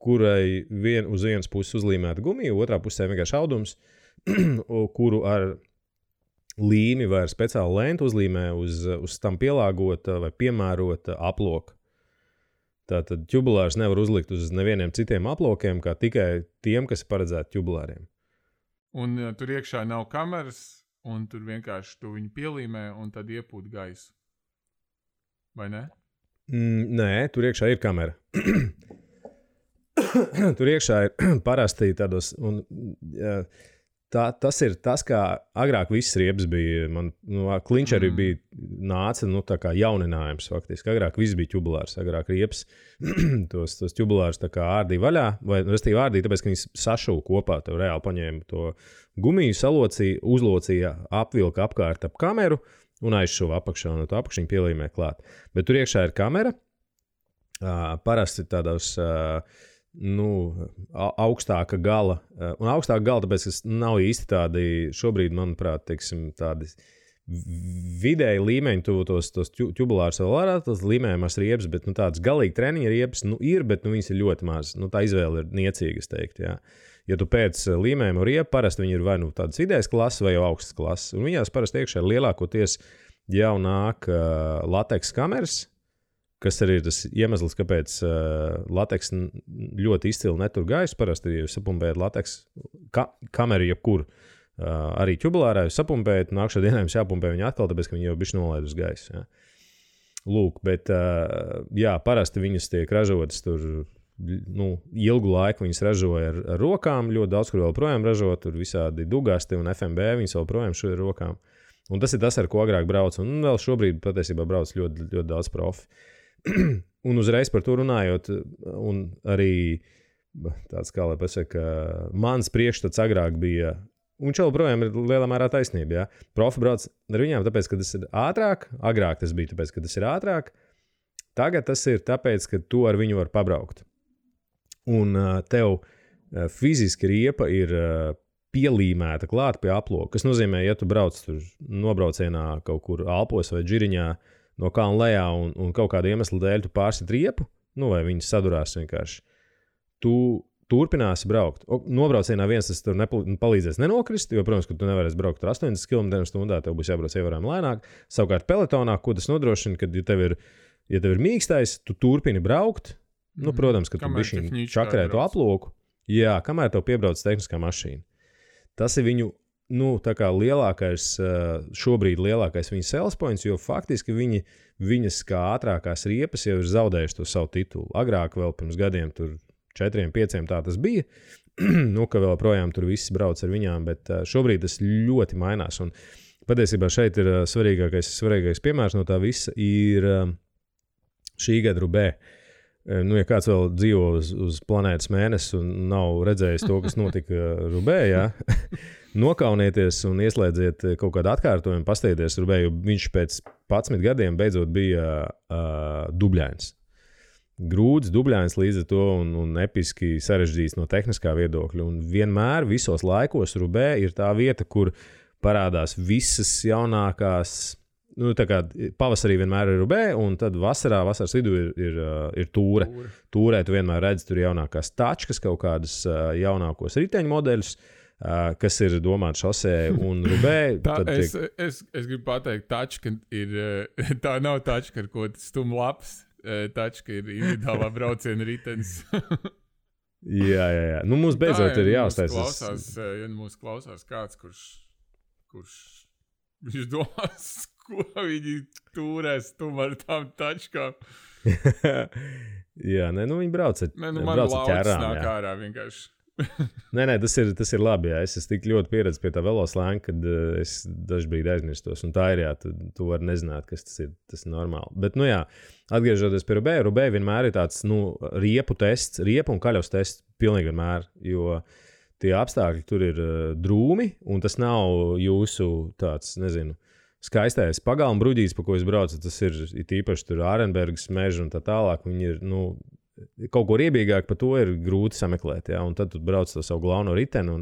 kurai uz vienas puses uzlīmēta gumija, otrā pusē vienkārši audums, kuru ar līmi vai ar speciālu lentu uzlīmē uz tam pielāgota vai piemērota aploka. Tātad ķubulārs nevar uzlikt uz nevieniem citiem aplokiem, kā tikai tiem, kas ir paredzēti ķubulāriem. Un tur iekšā nav kameras, un tur vienkārši tu viņu pielīmē un tad iepūt gaisu. Vai ne? Nē, tur iekšā ir kamera. Tur iekšā ir parasti tādos... Tas ir tas, kā agrāk viss riepas bija. Man klinčeri bija nāca tā kā jauninājums faktiski. Agrāk viss bija ķubulārs. Agrāk riepas tos ķubulārus tā kā ārdīja vaļā. Vai restīvi ārdīja, tāpēc, ka viņi sašūva kopā. Tev reāli paņēma to gumiju, salocīja, uzlocīja, apvilka apkārt ap kameru un aizšuva apakšā. Un to apakšiņu pielīmē klāt. Bet tur iekšā ir kamera. Parasti tādos... augstāka gala. Un augstāka gala, tāpēc, ka nav īsti tādi, šobrīd, manuprāt, teiksim, tādi vidēji līmeņi, tos ķubulārus vēl varētu, tas līmējumās riepas, bet tādas galīgi treniņa riepas, ir, bet viņas ir ļoti maz. Tā izvēle ir niecīga, es teiktu, jā. Ja tu pēc līmējuma riepa, parasti viņi ir vai tādas vidējas klases vai jau augstas klases. Un viņās parasti iekšā lielākoties jau nāk lateks kameras, kas arī ir tas iemesls, kāpēc lateks ļoti izcili netur gaisu. Parasti, ja jūs sapumpējat lateks kameru jebkur, arī ķubulārā jūs sapumpējat, nākšā dienā jums jāpumpē viņa atkal, tāpēc, ka viņi jau bišķi nolaid uz gaisu. Jā. Lūk, bet parasti viņas tiek ražotas tur, ilgu laiku viņas ražoja ar rokām, ļoti daudz, kur vēl projām ražo, tur visādi dugasti un FMB, viņas vēl projām šo ar rokām. Un tas ir tas, ar ko agrāk brauc, un vēl šobrīd patiesībā brauc ļoti, ļoti daudz profi. Un uzreiz par to runājot, un arī tāds, kā lai pasaka, mans priekšstats agrāk bija, un šeit projām ir lielā mērā taisnība, jā. Profi brauc ar viņām, tāpēc, ka tas ir ātrāk, agrāk tas bija tāpēc, ka tas ir ātrāk, tagad tas ir tāpēc, ka tu ar viņu var pabraukt. Un tev fiziski riepa ir pielīmēta klāt pie aploka, kas nozīmē, ja tu brauc tur nobraucienā kaut kur Alpos vai Džiriņā, no kalna lejā un kaut kāda iemesla dēļ tu pārsit riepu, vai viņas sadurās vienkārši. Tu turpināsi braukt. Nobraucienā viens tas tur palīdzēs nenokrist, jo, protams, ka tu nevarēsi braukt tur 80 km/h, tev būs jābrauc ievērojami lēnāk. Savukārt peletonā, ko tas nodrošina, kad ja tev ir mīkstais, tu turpini braukt, protams, ka tu bišķiņ čakarē to aploku. Jā, kamēr tev piebrauc tehniskā mašīna. Tas ir viņu tā kā šobrīd lielākais viņa sales points, jo faktiski viņas kā ātrākās riepas jau ir zaudējuši to savu titulu. Agrāk vēl pirms gadiem tur 4-5 tā tas bija, ka vēl projām tur viss brauc ar viņām, bet šobrīd tas ļoti mainās. Un patiesībā šeit ir svarīgākais piemērs no tā visa ir šī gada Rubē. Ja kāds vēl dzīvo uz planētas Mēnesi un nav redzējis to, kas notika Rubē, jā, nokaunieties un ieslēdziet kaut kādu atkārtojumu, pasteigties Rubē, jo viņš pēc 11 gadiem beidzot bija dubļains. Grūts, dubļains līdz ar to un episki sarežģīts no tehniskā viedokļa. Un vienmēr visos laikos Rubē ir tā vieta, kur parādās visas jaunākās. Tā kā pavasarī vienmēr ir Rubē, un tad vasaras vidū ir Tūre. Tūrē tu vienmēr redzi tur jaunākās tačkas, kaut kādas jaunākos riteņu modeļus, kas ir domāti šosē un Rubē. Es gribu pateikt, tačka tā nav tačka, ar ko stum lapas. Tačka ir individuālā brauciena ritenis. Jā. Mums beidzot ir jāuztais. Ja mūs klausās kāds, kurš viņš domās, ko viņi turēs ar tām tačkām. Jā, viņi brauc ar ķērām. Man laucis nāk ārā vienkārši. Nē, tas ir labi, jā. Es esmu tik ļoti pieredzis pie tā veloslēnga, kad es dažbrīd aizmirstos. Un tā ir, jā, tu vari nezināt, kas tas ir. Tas ir normāli. Bet, atgriežoties pie Rubē, Rubē vienmēr ir tāds, riepu tests, riepu un kaļavas tests pilnīgi vienmēr, jo tie apstākļi tur ir drūmi, un tas nav jūsu tāds, skaistais pagalma bruģītis, pa ko es braucu. Tas ir īpaši tur Ārenbergas meža un tā tālāk. Viņi ir, kaut ko riebīgāk par to ir grūti sameklēt, jā, un tad tu brauc to savu galveno riteni un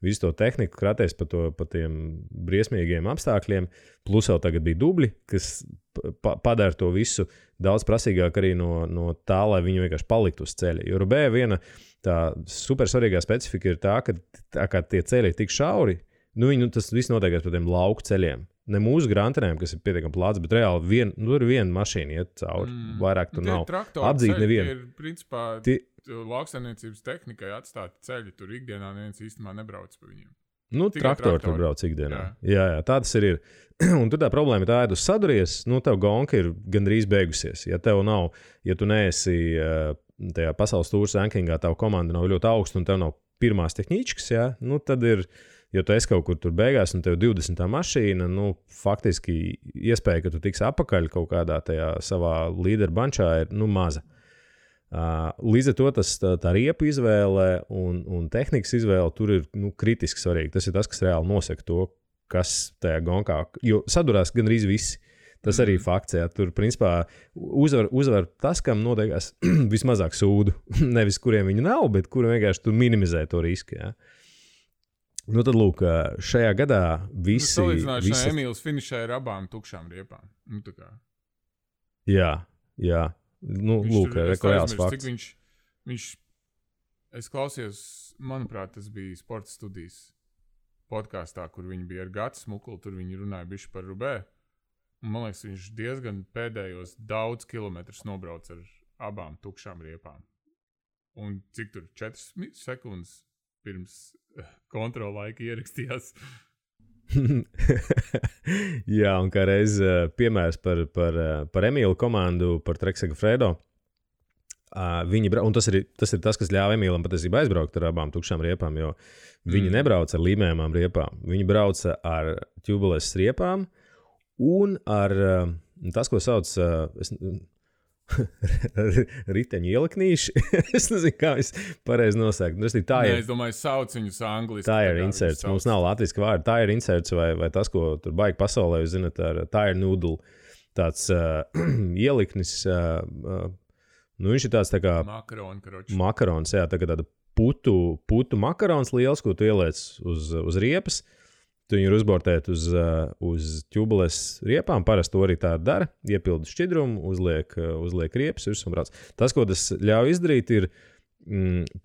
visu to tehniku kraties pa tiem briesmīgiem apstākļiem, plus vēl tagad bija dubļi, kas padara to visu daudz prasīgāk arī no tā, lai viņi vienkārši paliktu uz ceļa. Jo Rubē viena tā super svarīgā specifika ir tā, ka tie ceļi ir tik šauri, Tas viss notiekās par tiem lauku ceļiem. Ne mūsu grantenēm, kas ir pietiekami plāts, bet reāli tur ir viena mašīna iet cauri. Vairāk tur nav. Apdzīt nevienu. Ir, principā, lauksaimniecības tehnikai atstāti ceļi. Tur ikdienā neviens īstenībā nebrauc pa viņiem. Traktori tur brauc ikdienā. Jā, tā tas ir. Un tur tā problēma ir tā, ja tu saduries, tev gonka ir gandrīz beigusies. Ja tev nav, ja tu neesi tajā pasaules tūras rankingā, tava komanda nav ļoti augsta un tev nav pirmās tehničkas, tad ir, ja tu esi kaut kur tur beigās un tev 20. mašīna, faktiski iespēja, ka tu tiksi apakaļ kaut kādā tajā savā līderu bančā ir, maza. Līdz ar to tā riepu izvēle un tehnikas izvēle tur ir kritiski svarīgi. Tas ir tas, kas reāli nosaka to, kas tajā gonkā, jo sadurās gandrīz visi. Tas arī fakts, tur principā uzvar tas, kam noteikās vismazāk sūdu. Nevis kuriem viņi nav, bet kuri vienkārši tur minimizē to risku. Tad lūk, šajā gadā visi... Salīdzināšanā Emīls finišē ar abām tukšām riepām. Jā. Lūk, reāls fakts. Es klausījos, manuprāt, tas bija sporta studijas podkāstā, kur viņi bija ar Gatu Smuklu, tur viņi runāja bišķi par Rubē. Un, man liekas, viņš diezgan pēdējos daudz kilometrus nobrauc ar abām tukšām riepām. Un cik tur 4 sekundes pirms kontrola laika ierakstījās. Jā, un kā reiz piemērs par Emīlu komandu, par Trek Segafredo. Un tas ir tas, kas ļāva Emīlam patiesībā aizbraukt ar abām tukšām riepām, jo viņi nebrauca ar līmējumām riepām. Viņi brauca ar tubules riepām un ar tas, ko sauc riteņu ieliknīši. Es nezinu, kā es pareizi nosaukt. Es domāju, sauc viņus angliski. Tire inserts. Mums nav latviski vārdi. Tire inserts vai tas, ko tur baigi pasaulē, jūs zināt, ar tire noodle. Tāds ieliknis... viņš ir tāds tā kā makarons, tā kā tāda putu makarons liels, ko tu ieliec uz riepas. Tu viņu uzbortēt uz tubules riepām. Parasti to arī tā dara. Iepildi šķidrumu, uzliek riepas virsū un brauc. Tas, ko tas ļauj izdarīt, ir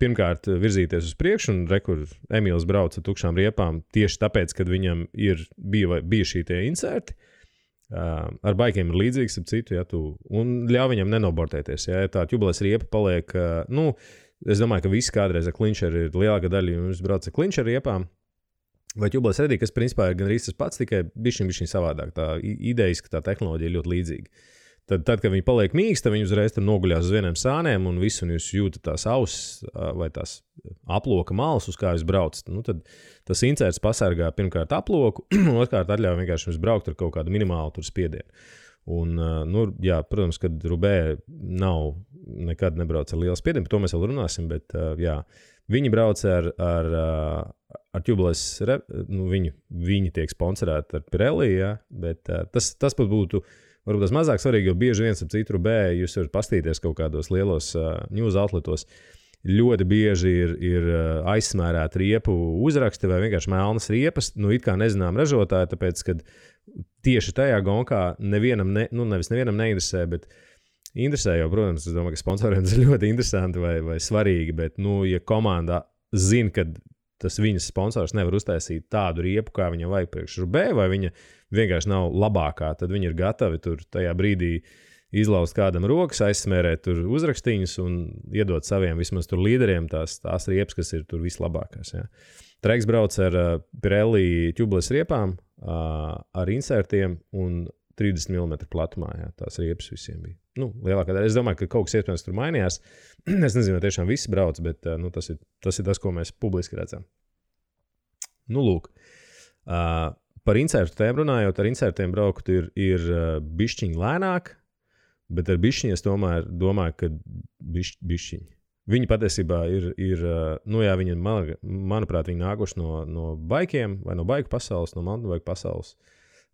pirmkārt virzīties uz priekšu, un rekur Emīls brauca tukšām riepām tieši tāpēc, kad viņam bija šī tie inserti. Ar baikiem ir līdzīgs, ap citu, un ļauj viņam nenobortēties. Ja tā tubules riepa paliek, es domāju, ka visi kādreiz ar klinčeri ir lielākā daļa, jums brauc ar klinčeri riepām, vai tubules redī, kas principā ir gandrīz tas pats, tikai bišķiņ savādāk. Tā idejas, ka tā tehnoloģija ir ļoti līdzīga. Tad, kad viņi paliek mīksti, viņi uzreiz tur noguļās uz vieniem sāniem un visu, un jūs jūtat tās ausis vai tās aploka malas, uz kā jūs braucat. Tad tas inserts pasargā pirmkārt aploku, un otrkārt atļauj vienkārši jums braukt ar kaut kādu minimālu tur spiedienu. Un, protams, kad Rubē nekad nebrauc ar lielu spiedienu, par to mēs vēl runāsim, bet viņi brauc ar tubules, viņi tiek sponsorēti ar Pirelli, bet tas pat būtu varbūt tas mazāk svarīgi, jo bieži viens ap citu Rubē, jūs varat pastīties kaut kādos lielos news outletos, ļoti bieži ir aizsmērēti riepu uzraksti vai vienkārši melnas riepas, it kā nezinām ražotāji, tāpēc, ka tieši tajā gonkā nevis nevienam neinteresē, bet interesē jau, protams, es domāju, ka sponsoriem tas ir ļoti interesanti vai svarīgi, bet, ja komanda zina, ka tas viņas sponsors nevar uztaisīt tādu riepu, kā viņam vajag priekš Rubē, vai viņa vienkārši nav labākā, tad viņi ir gatavi tur tajā brīdī izlaust kādam rokas, aizsmērēt tur uzrakstīņus un iedot saviem vismaz tur līderiem tās riepas, kas ir tur vislabākās. Ja. Treks brauc ar Pirelli tubules riepām, ar insertiem un 30 mm platumā. Ja, tās riepas visiem bija. Lielākā daļa. Es domāju, ka kaut kas iespējams tur mainījās. Es nezinu, vai tiešām visi brauc, bet tas ir tas, ko mēs publiski redzam. Lūk. Par insertu tēmu runājot, ar insertiem braukt ir bišķiņ lēnāk, bet ar bišķiņ es tomēr domāju, ka bišķiņ. Viņi patiesībā ir viņi, manuprāt, viņi nākuši no baikiem vai no baiku pasaules, no mountain bike pasaules.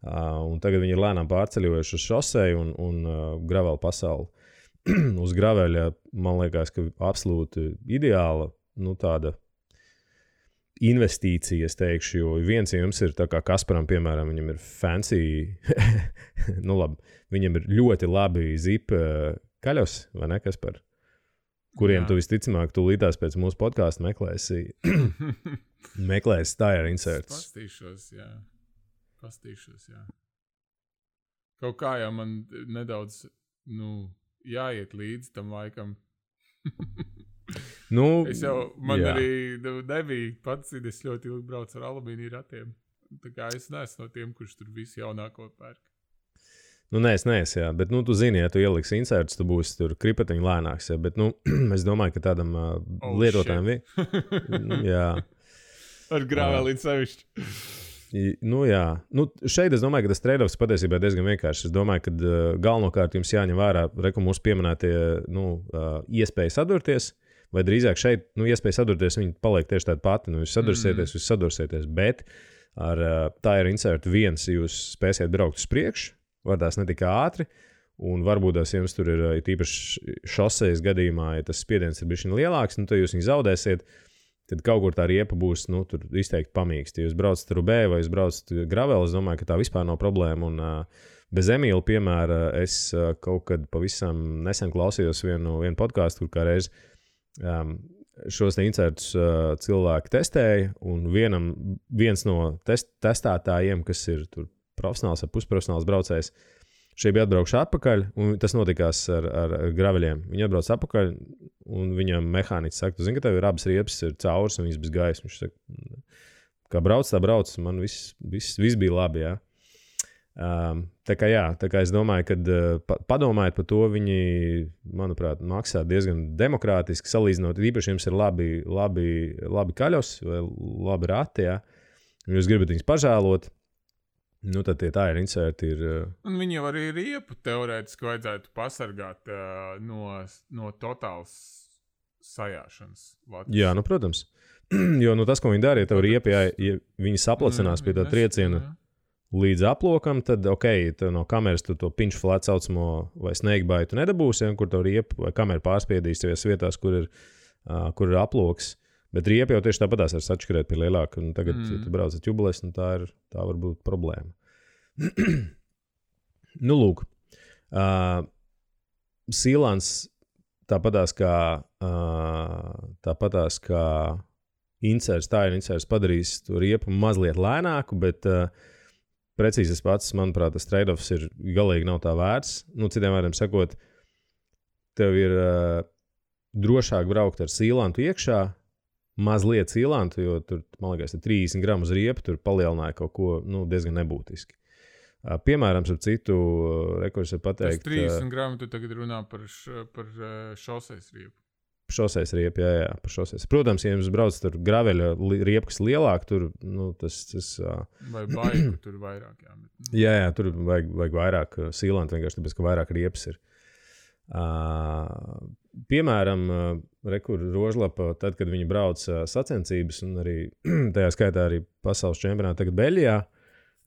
Un tagad viņi ir lēnām pārceļojuši uz šoseju un gravelu pasauli. Uz graveļa, man liekas, ka absolūti ideāla, tāda investīcija, es teikšu, jo viens jums ir tā kā Kasparam, piemēram, viņam ir fancy, labi, viņam ir ļoti labi zip kaļos, vai ne, Kaspar? Kuriem tu visticamāk tūlītās pēc mūsu podkāsta meklēsi. Meklēs tire inserts. Pastīšos, jā. Kaut kā jau man nedaudz, jāiet līdz tam laikam. Es jau, arī nebija pats, es ļoti ilgi braucu ar alumīniju ratiem. Tā kā es neesmu no tiem, kurš tur visu jaunāko pērk. Es neesmu, jā, bet, tu zini, ja tu ieliksi inserts, tu būsi tur kripatiņi lēnāks, jā, bet, es domāju, ka tādam lietotājiem jā. Ar grāvēlīti sevišķi. Jā. Šeit es domāju, ka tas trade-offs patiesībā ir diezgan vienkāršs. Es domāju, ka galvenokārt jums jāņem vērā, mūsu pieminētie, iespēja sadurties, vai drīzāk šeit, iespēja sadurties, viņi paliek tieši tāda pati, jūs sadursieties, bet ar tire insert 1 jūs spēsiet braukt uz priekšu, vardās ne tik ātri, un varbūt tās jums tur ir tīpaši šosejas gadījumā, ja tas spiediens ir bišķiņ lielāks, tad jūs viņu zaudēsiet, tad kaut kur tā riepa būs, tur izteikti pamīksti. Ja jūs braucat rubē vai jūs braucat gravel, es domāju, ka tā vispār nav problēma, un bez Emīla piemēra es kaut kad pavisam nesen klausījos vienu podcastu, kur kā reiz šos insertus cilvēki testēja, un viens no testētājiem, kas ir tur profesionāls vai pusprofesionāls braucējs, šeit bija atbraukšu atpakaļ, un tas notikās ar graveļiem. Viņi atbrauc atpakaļ, un viņam mehāniķis saka, tu zini, ka tev ir abas riepas ir caurs, un viss bez gaisa. Viņš saka, kā brauc, tā brauc, man viss bija labi, jā. Tā kā es domāju, ka padomājiet par to, viņi, manuprāt, maksā diezgan demokrātiski salīdzinot, īpaši jums ir labi kaļos vai labi rati, jā. Jūs gribat viņus pažēlot, tad tie tire inserti ir... Un viņi jau arī riepu teorētiski vajadzētu pasargāt no totāls sajāšanas. Latvijas. Jā, protams. Jo tas, ko viņi dara, ja tev riepa, ja viņi saplacinās pie tā trieciena līdz aplokam, tad, tev no kameras tu to pinch flat saucamo vai snakebite tu nedabūsi, kur tev riepa vai kamera pārspiedīs tevies vietās, kur ir aploks. Bet riepa jau tieši tāpatās var sačkarēt pie lielāka, un tagad, ja tu brauc ar ķubules, tā var būt problēma. Lūk. Sealants tāpatās kā tire inserts padarīs to riepu mazliet lēnāku, bet precīzi tas pats, manuprāt, tas trade-offs ir galīgi nav tā vērts. Citiem vārdiem sakot, tev ir drošāk braukt ar sealantu iekšā, mazliet sealantu, jo tur, man liekas, 30 gramus riepa tur palielināja kaut ko diezgan nebūtiski. Piemēram, ar citu rekursu pateikt... Tas 30 gramu tu tagad runā par šosejas riepu. Šosejas riepu, jā, par šosejas. Protams, ja jums brauc tur graveļa riepa, kas lielāk, tur, tas... Vai baigu tur vairāk, jā. Jā, tur vajag vairāk sealantu, vienkārši tāpēc, ka vairāk riepas ir. Piemēram, Rožlapa, tad, kad viņi brauc sacensības, un arī tajā skaitā arī pasaules čempionātā tagad Beļģijā,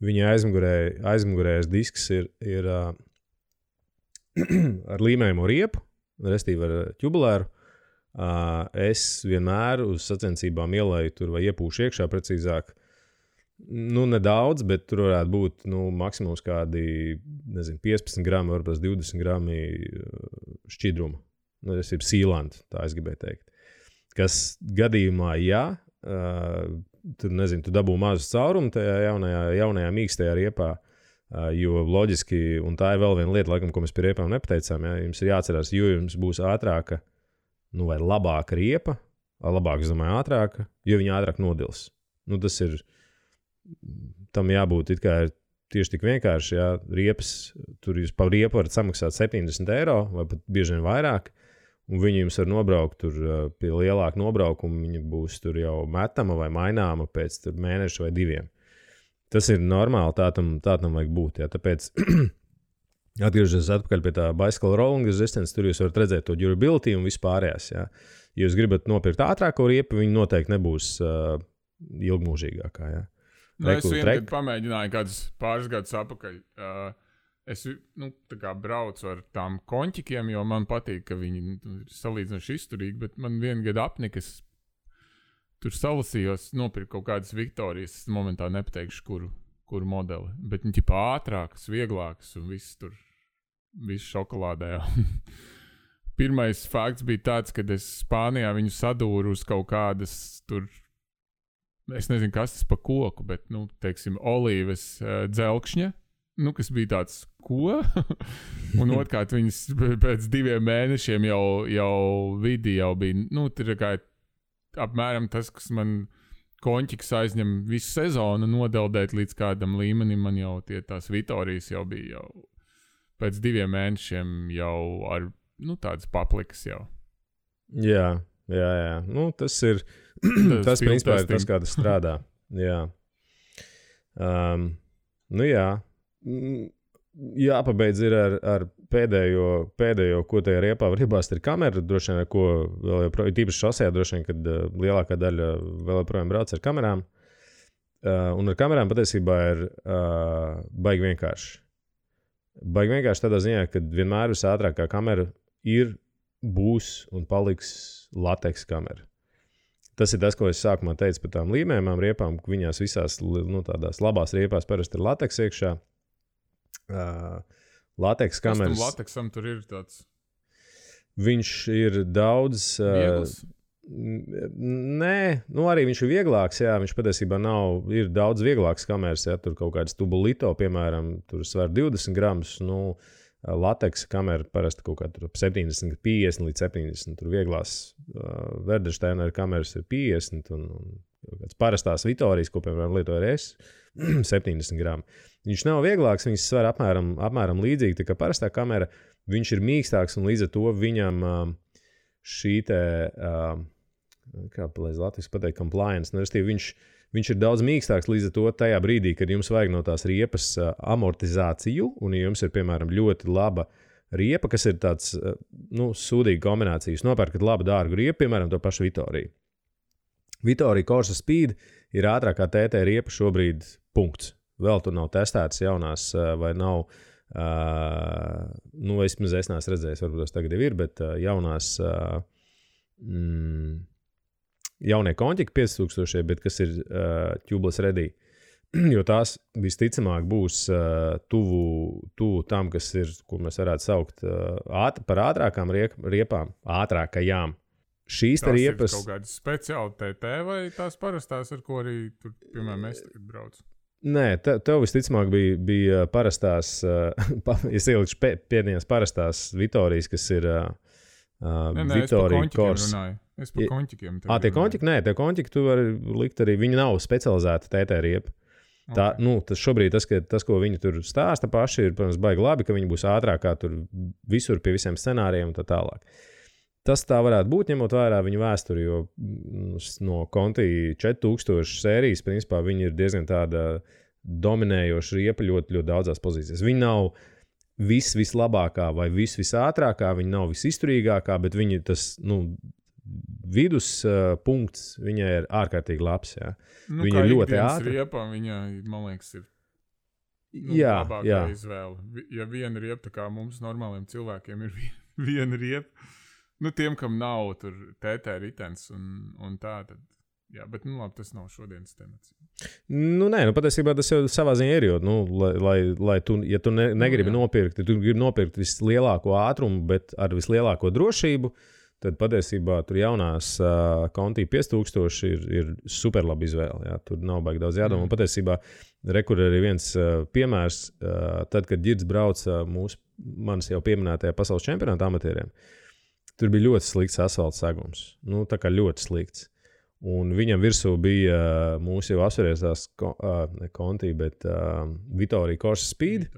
viņa aizmugurējais disks ir ar līmējumu riepu, restīvi ar ķubulēru. Es vienmēr uz sacensībām ielēju tur vai iepūšu iekšā precīzāk. Nedaudz, bet tur varētu būt maksimums kādi, 15 grami, varbūt 20 grami šķidruma. Tas ir sealant, tā es gribēju teikt. Kas gadījumā, tu dabū mazu caurumu tajā jaunajā mīkstajā riepā, jo loģiski, un tā ir vēl viena lieta, laikam, ko mēs pie riepām nepateicām, jums ir jāatcerās, jo jums būs ātrāka, vai labāka riepa, labāk, es domāju, ātrāka, jo viņa ātrāk nodils. Tas ir, tam jābūt it kā tieši tik vienkārši, riepas, tur jūs par riepu varat samaksāt 70 eiro, vai pat bieži vien vairāk, un viņi jums var nobraukt tur pie lielāka nobraukuma, viņa būs tur jau metama vai maināma pēc tur mēneša vai 2. Tas ir normāli, tā tam vajag būt, tāpēc atgriežoties atpakaļ pie tā bicycle rolling resistance, tur jūs varat redzēt to durability un vispārējās, Ja jūs gribat nopirkt ātrāko riepu, viņi noteikti nebūs ilgmūžīgākā, Es vienkārši pamēģināju kādus pāris gadus atpakaļ. Es tā kā braucu ar tām konķikiem, jo man patīk, ka viņi ir salīdzinoši izturīgi, bet man vienu gadu apnika, es tur salasījos, nopirku kaut kādas Viktorijas, es momentā nepateikšu, kuru modeli, bet viņi ķipā ātrākas, vieglākas un viss šokolādē. Pirmais fakts bija tāds, kad es Spānijā viņu sadūru uz kaut kādas tur es nezinu, kas tas pa koku, bet, nu, teiksim, olīves dzelkšņa, nu, kas bija tāds, ko? Un otrkārt, viņas pēc 2 mēnešiem jau vidi jau bija, nu, tur kā apmēram tas, kas man konķiks aizņem visu sezonu nodeldēt līdz kādam līmenim, man jau tās Vitorijas jau bija jau pēc 2 mēnešiem jau ar, nu, tādas paplikas jau. Jā. Nu, tas ir, tas principā ir tas, kā tas strādā. Jā. Nu, jā. Jāpabeidz ir ar pēdējo, ko tajā riepā var iebāzt, ir kamera, droši vien, ar ko vēl joprojām, tīpaši šosejā, droši vien, kad lielākā daļa vēl joprojām brauc ar kamerām. Un ar kamerām patiesībā ir baigi vienkārši. Baigi vienkārši tādā ziņā, ka vienmēr visātrākā kamera būs un paliks lateks kamera. Tas ir tas, ko es sākumā teicu par tām līmējumām riepām, ka viņās visās, nu, tādās labās riepās parasti ir lateks iekšā. Lateks kameras. Kas tam lateksam tur ir tāds? Viņš ir daudz... Viegls? Nē, nu arī viņš ir vieglāks, jā, viņš patiesībā ir daudz vieglāks kameras, jā, tur kaut kāds tubulito, piemēram, tur sver 20 gramus, nu, lateks kamera parasti kaut kā tur 70, 50 līdz 70, tur vieglās Verdersteiner kameras ir 50 un kāds parastās Vitorijas, ko, piemēram, lietoju es, 70 gramu. Viņš nav vieglāks, viņš sver apmēram līdzīgi, tā kā parastā kamera, viņš ir mīkstāks un līdz ar to viņam šī te, kā palīdz Latvijas pateikt, compliance, nu, viņš ir daudz mīkstāks līdz ar to tajā brīdī, kad jums vajag no tās riepas amortizāciju, un ja jums ir, piemēram, ļoti laba riepa, kas ir tāds, nu, sūdīga kombinācija. Jūs nopērkat labu dārgu riepu, piemēram, to pašu Vitoriju. Vitorija Corsa Speed ir ātrākā TT riepa šobrīd punkts. Vēl tur nav testētas jaunās, vai nav, nu, es neesmu redzējis, varbūt tas tagad jau ir, bet jaunās, jaunie konķiki 5000, bet kas ir tubeless ready, jo tās visticamāk būs tuvu tam, kas ir, ko mēs varētu saukt par ātrākām riepām, ātrākajām. Šīs tās riepas... ir kaut kādas speciāli TT vai tās parastās, ar ko arī tur, piemēram, es tagad braucu? Nē, tev visticamāk bija parastās, es ielikšu pēdējās parastās Vitorijas, kas ir Vitorija Corsa. Es par konķikiem. Tie konķiki? Nē, tie konķiki tu vari likt arī, viņi nav specializēti TT riepa. Tā, nu, tas šobrīd tas, ko viņi tur stāsta paši, ir, protams, baigi labi, ka viņi būs ātrākā tur visur pie visiem scenārijiem un tā tālāk. Tas tā varētu būt, ņemot vērā viņu vēsturi, jo no Conti 4000 sērijas, principā, viņi ir diezgan tāda dominējoša riepa ļoti, ļoti daudzās pozīcijās. Viņi nav vislabākā vai visātrākā, viņi nav visizturīgākā, bet viņi tas, nu, vidus punkts viņai ir ārkārtīgi labs, jā. Nu, viņa ir ļoti ātra. Riepa, viņa, man liekas, ir labākā izvēle. Ja viena riepa, tā kā mums normāliem cilvēkiem ir viena riepa, nu, tiem, kam nav tur TT ritens un tā, tad, jā, bet, nu, labi, tas nav šodienas temats. Nu, nē, nu, patiesībā tas jau savā ziņā ir, jo, nu, lai tu, ja tu negribi nopirkt, ja tu gribi nopirkt vislielāko ātrumu, bet ar vislielāko drošību, tad patiesībā tur jaunās Conti 5000 ir superlabi izvēle, jā, tur nav baigi daudz jādomā. Patiesībā, rekur arī viens piemērs, tad, kad Girds brauca manis jau pieminētajā pasaules čempionāta amatieriem, tur bija ļoti slikts asfalta segums. Nu, tā kā ļoti slikts. Un viņam virsū bija mūsu jau apsvērstās Conti, bet Vitorija Corsa Speed.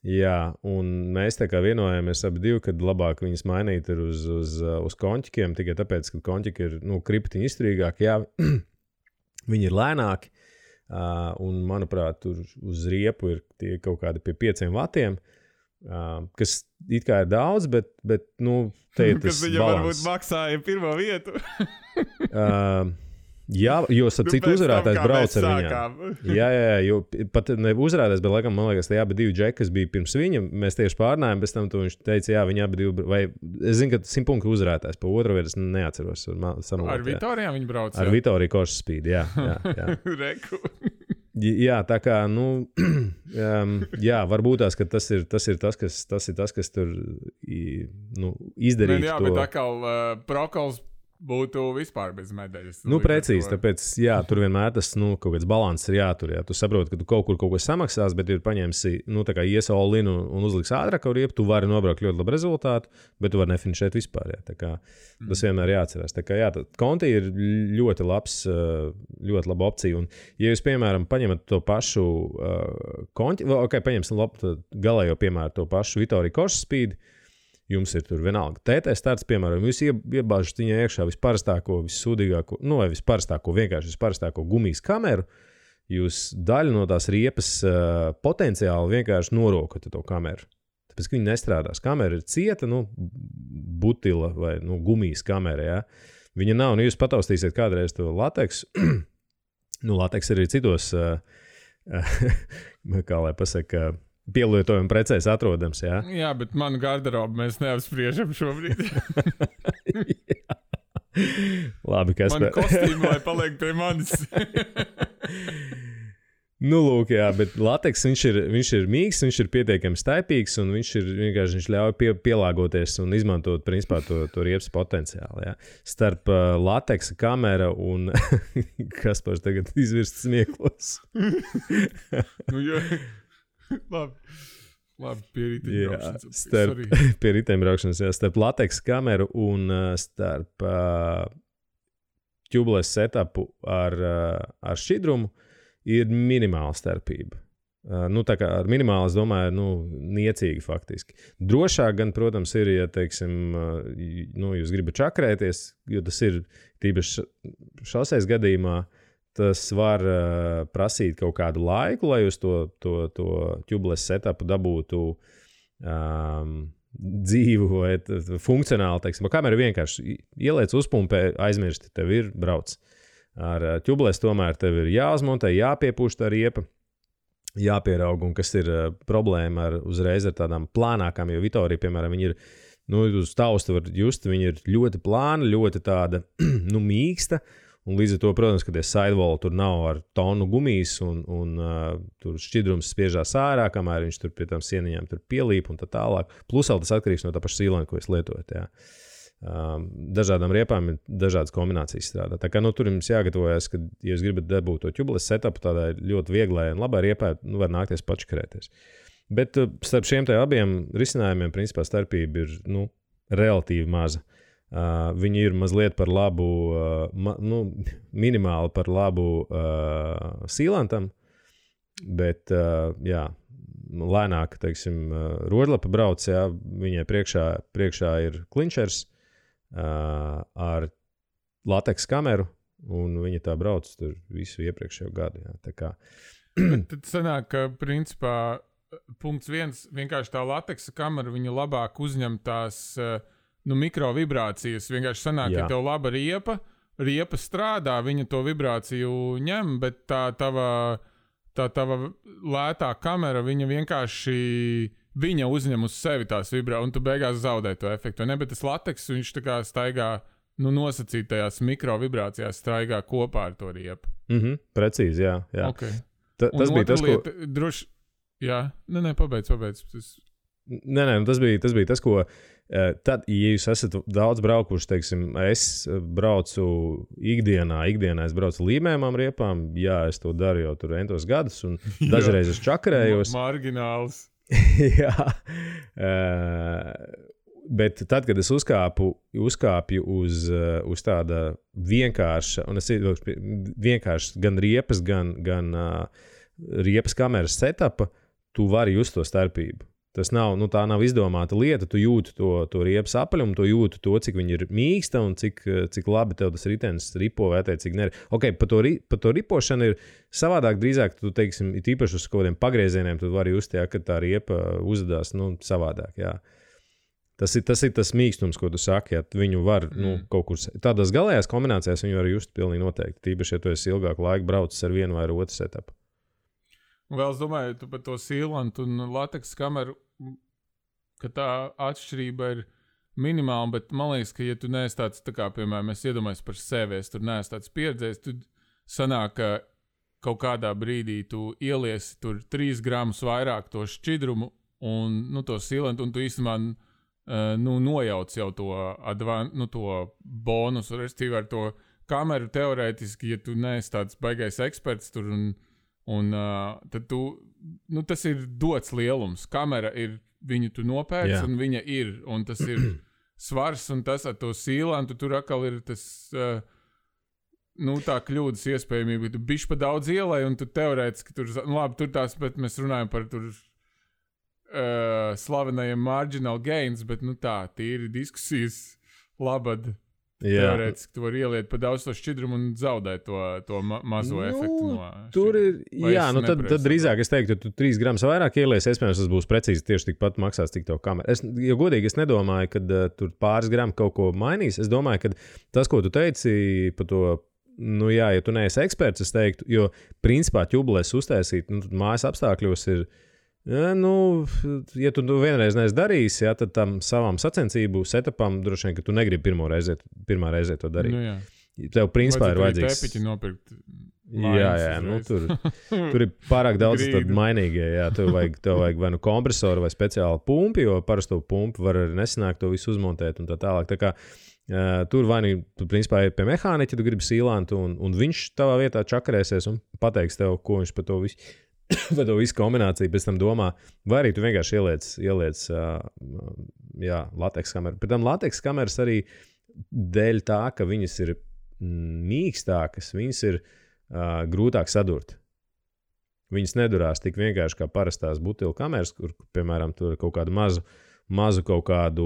Jā, un mēs tā kā vienojāmies abi divi, kad labāk viņas mainīt ir uz konķikiem, tikai tāpēc, ka konķiki ir, nu, kriptiņi izturīgāki, jā, viņi ir lēnāki, un, manuprāt, tur uz riepu ir tie kaut kādi pie 5 vatiem, kas it kā ir daudz, bet nu, te ir tas balans. Kas viņa varbūt maksāja pirmo vietu. Jā, jo citu uzvarētājs brauc ar viņām. Jā, jo pat ne uzvarētājs, bet laikam, man liekas, tie abi divi džeki, kas bija pirms viņa, mēs tieši pārnājām, bez tam viņš teica, jā, viņi abi divi, vai es zinu, ka 100 punktu uzvarētājs, pa otru vietu es neatceros. Ar Vitorijām viņi brauc? Ar Vitoriju Corsa Speed, jā. Reku. Jā, tā kā, nu, jā, varbūt tās, ka tas ir tas, kas tur, nu, izdarīt to. Jā, bet atkal Prokols būtu vispār bez medaļas. Precīzi, tāpēc, tur vienmēr tas, kaut kāds balanss ir jātur, Tu saproti, ka tu kaut ko samaksās, bet ir paņemsi, tā kā ies all-in un uzliks ātrāk riepu, tu vari nobraukt ļoti labu rezultātu, bet tu vari nefinišēt vispār, Tā kā tas vienmēr jāatcerās. Tā kā, Conti ir ļoti laba opcija, un, ja jūs, piemēram, paņemat to pašu Conti, paņemsim galējo, piemēram, to pašu Vittorio Korsa Speed, jums ir tur vienalga TT starts, piemēram, jūs iebāžat viņai iekšā visparastāko, vissūdīgāko, vai visparastāko gumijas kameru, jūs daļu no tās riepas potenciāli vienkārši norokat to kameru. Tāpēc, ka viņi nestrādās. Kamera ir cieta, butila vai gumijas kamera, Viņa nav, jūs pataustīsiet kādreiz to lateksu. Lateks arī citos, kā lai pasaka, pielietojuma precēs atrodams, Jā, bet manu garderobu mēs neapspriežam šobrīd. Labi, kas man kostīmi, lai paliek pie manis. Lūk, bet lateks, viņš ir mīgs, viņš ir pietiekami staipīgs, un viņš ļauj pielāgoties un izmantot, principā, to riepas potenciālu, Starp lateksa kamera un Kaspars tagad izvirst smieklos. Labi, pie riteņbraukšanas. Pie riteņbraukšanas, starp lateksa kameru un starp tubeless setupu ar šķidrumu ir minimāla starpība. Tā kā ar minimālu, es domāju, niecīgi faktiski. Drošāk gan, protams, ir, ja, teiksim, jūs gribat čakrēties, jo tas ir tīpaši šoseis gadījumā, tas var prasīt kaut kādu laiku, lai jūs to tubeless setupu dabūtu dzīvu vai funkcionāli, teiksim. Kamera vienkārši ieliec uzpumpē, aizmirsti, tev ir brauc. Ar tubeless tomēr tev ir jāuzmontē, jāpiepūš tā riepa, jāpieraug, un kas ir problēma uzreiz ar tādām plānākām, jo Vittorio, piemēram, viņi ir, uz tausta var just, viņi ir ļoti plāna, ļoti tāda, mīksta, un līdz ar to, protams, ka tie sidewall tur nav ar tonu gumijas, un tur šķidrums spiežās ārā, kamēr viņš tur pie tām sieniņām tur pielīp un tā tālāk. Plus vēl tas atkarīgs no tā paša sīlēna, ko jūs lietojat, Dažādām riepām ir dažādas kombinācijas strādā. Tā kā, tur jums jāgatavojas, ka, ja jūs gribat dabūt to tubeless setupu, tādai ļoti vieglai un labai riepai, var nākties pačakarēties. Bet starp šiem te abiem risinājumiem, principā, starpība ir, relatīvi maza. Viņi ir mazliet par labu, minimāli par labu sīlantam, bet, lēnāk, teiksim, rožlapa brauc, viņai priekšā ir klinčers ar lateks kameru, un viņa tā brauc tur visu iepriekšējo gadu, Tā kā. Tad sanāk, ka, principā, punkts 1, vienkārši tā lateksa kamera, viņa labāk uzņem tās mikrovibrācijas. Vienkārši sanāk, ka tev laba riepa strādā, viņa to vibrāciju ņem, bet tā tava lētā kamera, viņa vienkārši uzņem uz sevi tās vibrācijas, un tu beigās zaudē to efektu. Ne, bet tas lateks, viņš tā kā staigā, nosacītajās mikrovibrācijās staigā kopā ar to riepu. Precīzi, jā. Okay. Tas bija tas, lieta, ko... Droši... Jā, pabeidz. Nē, tas bija tas, ko tad, ja jūs esat daudz braukuši, teiksim, es braucu ikdienā es braucu līmējumām riepām, es to daru jau tur entos gadus, un dažreiz es čakarējos. Margināls. Jā. Bet tad, kad es uzkāpju uz tāda vienkārša, un es vienkārši gan riepas, gan riepas kameras setupa, tu vari just to starpību. Tas nav, tā nav izdomāta lieta, tu jūti to riepas apaļumu, tu jūti to, cik viņi ir mīksta un cik labi tev tas ritenis ripo vai cik neri. Pa to ripošanu ir savādāk drīzāk, tu teiksim, it īpaši uz kaut kādiem pagriezieniem, tu vari just, ka tā riepa uzvedās, savādāk, Tas ir tas mīkstums, ko tu saki, viņu var, kaut kur, tādās galējās kombinācijās viņu var just pilnīgi noteikti, tīpaši, ja tu esi ilgāku laiku braucis ar vienu vai ar otru setupu. Un vēl es domāju, tu par to sīlantu un lateksa kameru, ka tā atšķirība ir minimāla, bet man liekas, ka ja tu neesi tāds, tā kā, piemēram, es iedomājos par sevi, es tur neesi tāds pieredzējis, tad sanāk, ka kaut kādā brīdī tu ieliesi tur 3 gramus vairāk to šķidrumu un, to sīlantu, un tu īstenībā nojauc jau to bonusu, respektīvi ar to kameru teorētiski, ja tu neesi tāds baigais eksperts tur tad tu, tas ir dots lielums. Kamera ir, viņu tu nopērci un viņa ir, un tas ir svars, un tas ar to sīlantu tur atkal ir tas, tā kļūdas iespējamība, ka tu bišķi pa daudz ielai, un tu teorētiski tur, labi, tur tās, bet mēs runājam par tur slavenajiem marginal gains, bet tīri diskusijas labad. Teorētiski tu vari ieliet pa daudz to šķidrumu un zaudēt to mazo efektu no tur ir, tad drīzāk es teiktu, ka tu 3 gramus vairāk ielies, iespējams, tas būs precīzi tieši tikpat maksās, cik to kameru. Jo godīgi es nedomāju, ka tur pāris gramu kaut ko mainīs. Es domāju, ka tas, ko tu teici par to, ja tu neesi eksperts, es teiktu, jo principā ķubules uztaisīt, mājas apstākļos ir, ja tu vienreiz neesi darījis, tad tam savam sacensību setupam droši vien, ka tu negribi pirmā reize to darīt. Tev principā ir vajadzīgs. Tepiķi nopirkt. Tur ir pārāk daudz mainīgie. Tev vajag vai kompresoru vai speciālu pumpi, jo parasto pumpu var arī nesanākt to visu uzmontēt un tā tālāk. Tā kā tur vai tu principā ir pie mehāniķa, tu gribi sīlantu un viņš tavā vietā čakarēsies un pateiks tev, ko viņš par to visu. Vai to visu kombināciju pēc tam domā, vai arī tu vienkārši ieliec lateks kameru. Pēc tam lateks kameras arī dēļ tā, ka viņas ir mīkstākas, viņas ir grūtāk sadurt. Viņas nedurās tik vienkārši kā parastās butilu kameras, kur, piemēram, tur ir kaut kādu mazu kaut kādu,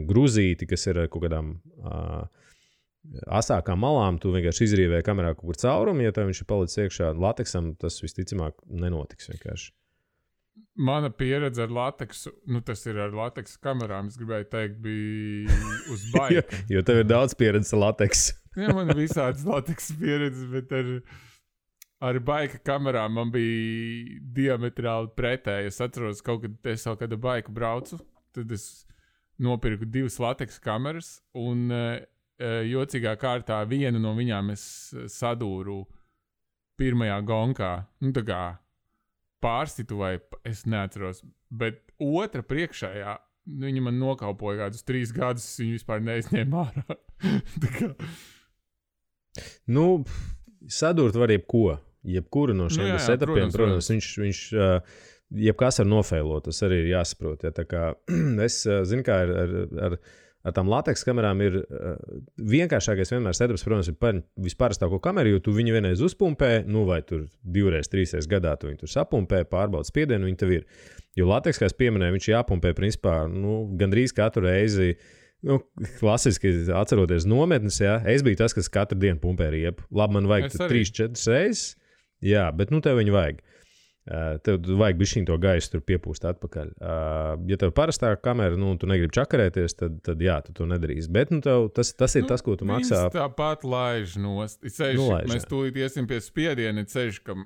gruzīti, kas ir kaut kādām asākām malām, tu vienkārši izrīvēji kamerā kaut kur caurumu, ja tev viņš ir palicis iekšā lateksam, tas visticamāk nenotiks vienkārši. Mana pieredze ar lateksu, tas ir ar lateksa kamerām, es gribēju teikt, bija uz baika. jo tev ir daudz pieredzes ar lateksu. Man ir visādas lateksa pieredzes, bet ar baika kamerām man bija diametrāli pretēji. Es atceros, es kaut kādu baiku braucu, tad es nopirku 2 lateksa kameras, un jocīgā kārtā vienu no viņām es sadūru pirmajā gonkā. Tā kā pārstitu vai es neatceros, bet otra priekšējā, viņa man nokaupoja kādus 3 gadus, viņa vispār neizņēma ārā. Sadurt var jebkuru no šiem setupiem, protams, viņš jebkas var nofeilot, tas arī ir jāsaprot. Tā kā es zinu, kā ar tām lateks kamerām ir vienkāršākais vienmēr setups, protams, ir visparastāko kameru, jo tu viņu vienreiz uzpumpē, vai tur 2-3 gadā tu viņu tur sapumpē, pārbaudi spiedienu, viņi tev ir. Jo lateks, kā es pieminēju, viņš jāpumpē principā, gandrīz katru reizi, klasiski atceroties nometnes, es biju tas, kas katru dienu pumpē riepu. Labi, man vajag 3-4 reizes, bet tev viņu vajag. Tev vajag bišķiņ to gaisu tur piepūst atpakaļ. Ja tev parastā kamera, tu negribi čakarēties, tad tu to nedarīsi. Bet tas ir tas, ko tu maksā. Viņas tāpat laiž nost. Mēs tūlīt iesim pie spiediena, ceļš, ka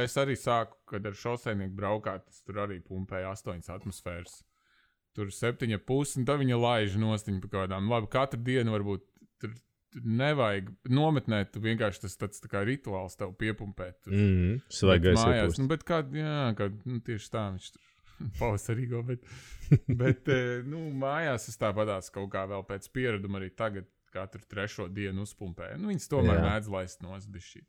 es arī sāku, kad ar šoseinieku braukāt, tas tur arī pumpēja 8 atmosfēras. Tur 7,5, un tad viņa laiž nostiņu pa kādām. Labi, katru dienu varbūt tur nevajag nometnēt, tu vienkārši tas tāds tā kā rituāls tev piepumpēt. Svaigais iepūst. Bet tieši tā viņš tur pavasarīgo, bet mājās es tāpatās kaut kā vēl pēc piereduma arī tagad katru 3. dienu uzpumpēju. Viņas tomēr mēdz laist nost bišķī.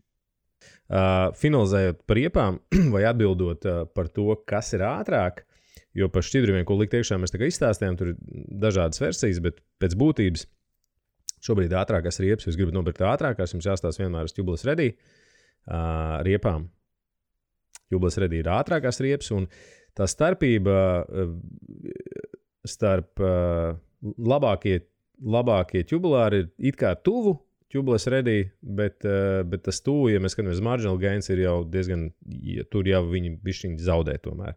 Finalizējot par riepām vai atbildot par to, kas ir ātrāk, jo par šķidrumiem, ko likt iekšā, mēs tā kā izstāstījām, tur ir dažādas versijas, bet pēc būtības šobrīd ātrākās riepas, jūs gribat nopirkt ātrākās, jums jāstāsta vienmēr uz Tubeless Ready riepām. Tubeless Ready ir ātrākās riepas, un tā starpība starp labākie tubulāri ir it kā tuvu Tubeless Ready, bet tas tuvu, ja mēs skatāmies marginal gains, ir jau diezgan, tur jau viņi bišķiņi zaudē tomēr.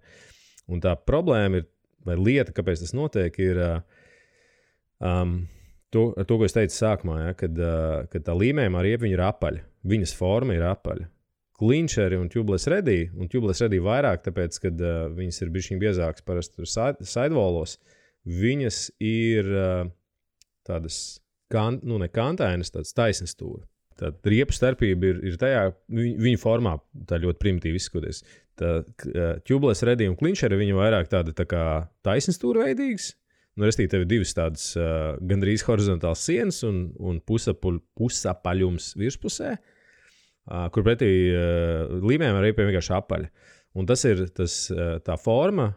Un tā problēma ir, vai lieta, kāpēc tas notiek, ir to, ko es teicu sākumā, kad tā līmējumā riepa ir apaļa. Viņas forma ir apaļa. Clincheri un Tubeless Ready vairāk, tāpēc, kad viņas ir bišķiņ biezākas parasti sidewallos, viņas ir tādas, ne kantainas, tādas taisnas stūra. Tad riepu starpība ir tajā, viņa formā tā ļoti primitīvi izskatoties. Tubeless Ready un Clincheri viņa vairāk tāda tā kā taisnas stūra veidīgas, restīvi, tev ir divas tādas gandrīz horizontāls sienas un pusapaļums virspusē, kur pretī līmējiem ar riepiem vienkārši apaļi. Un tas ir tā forma,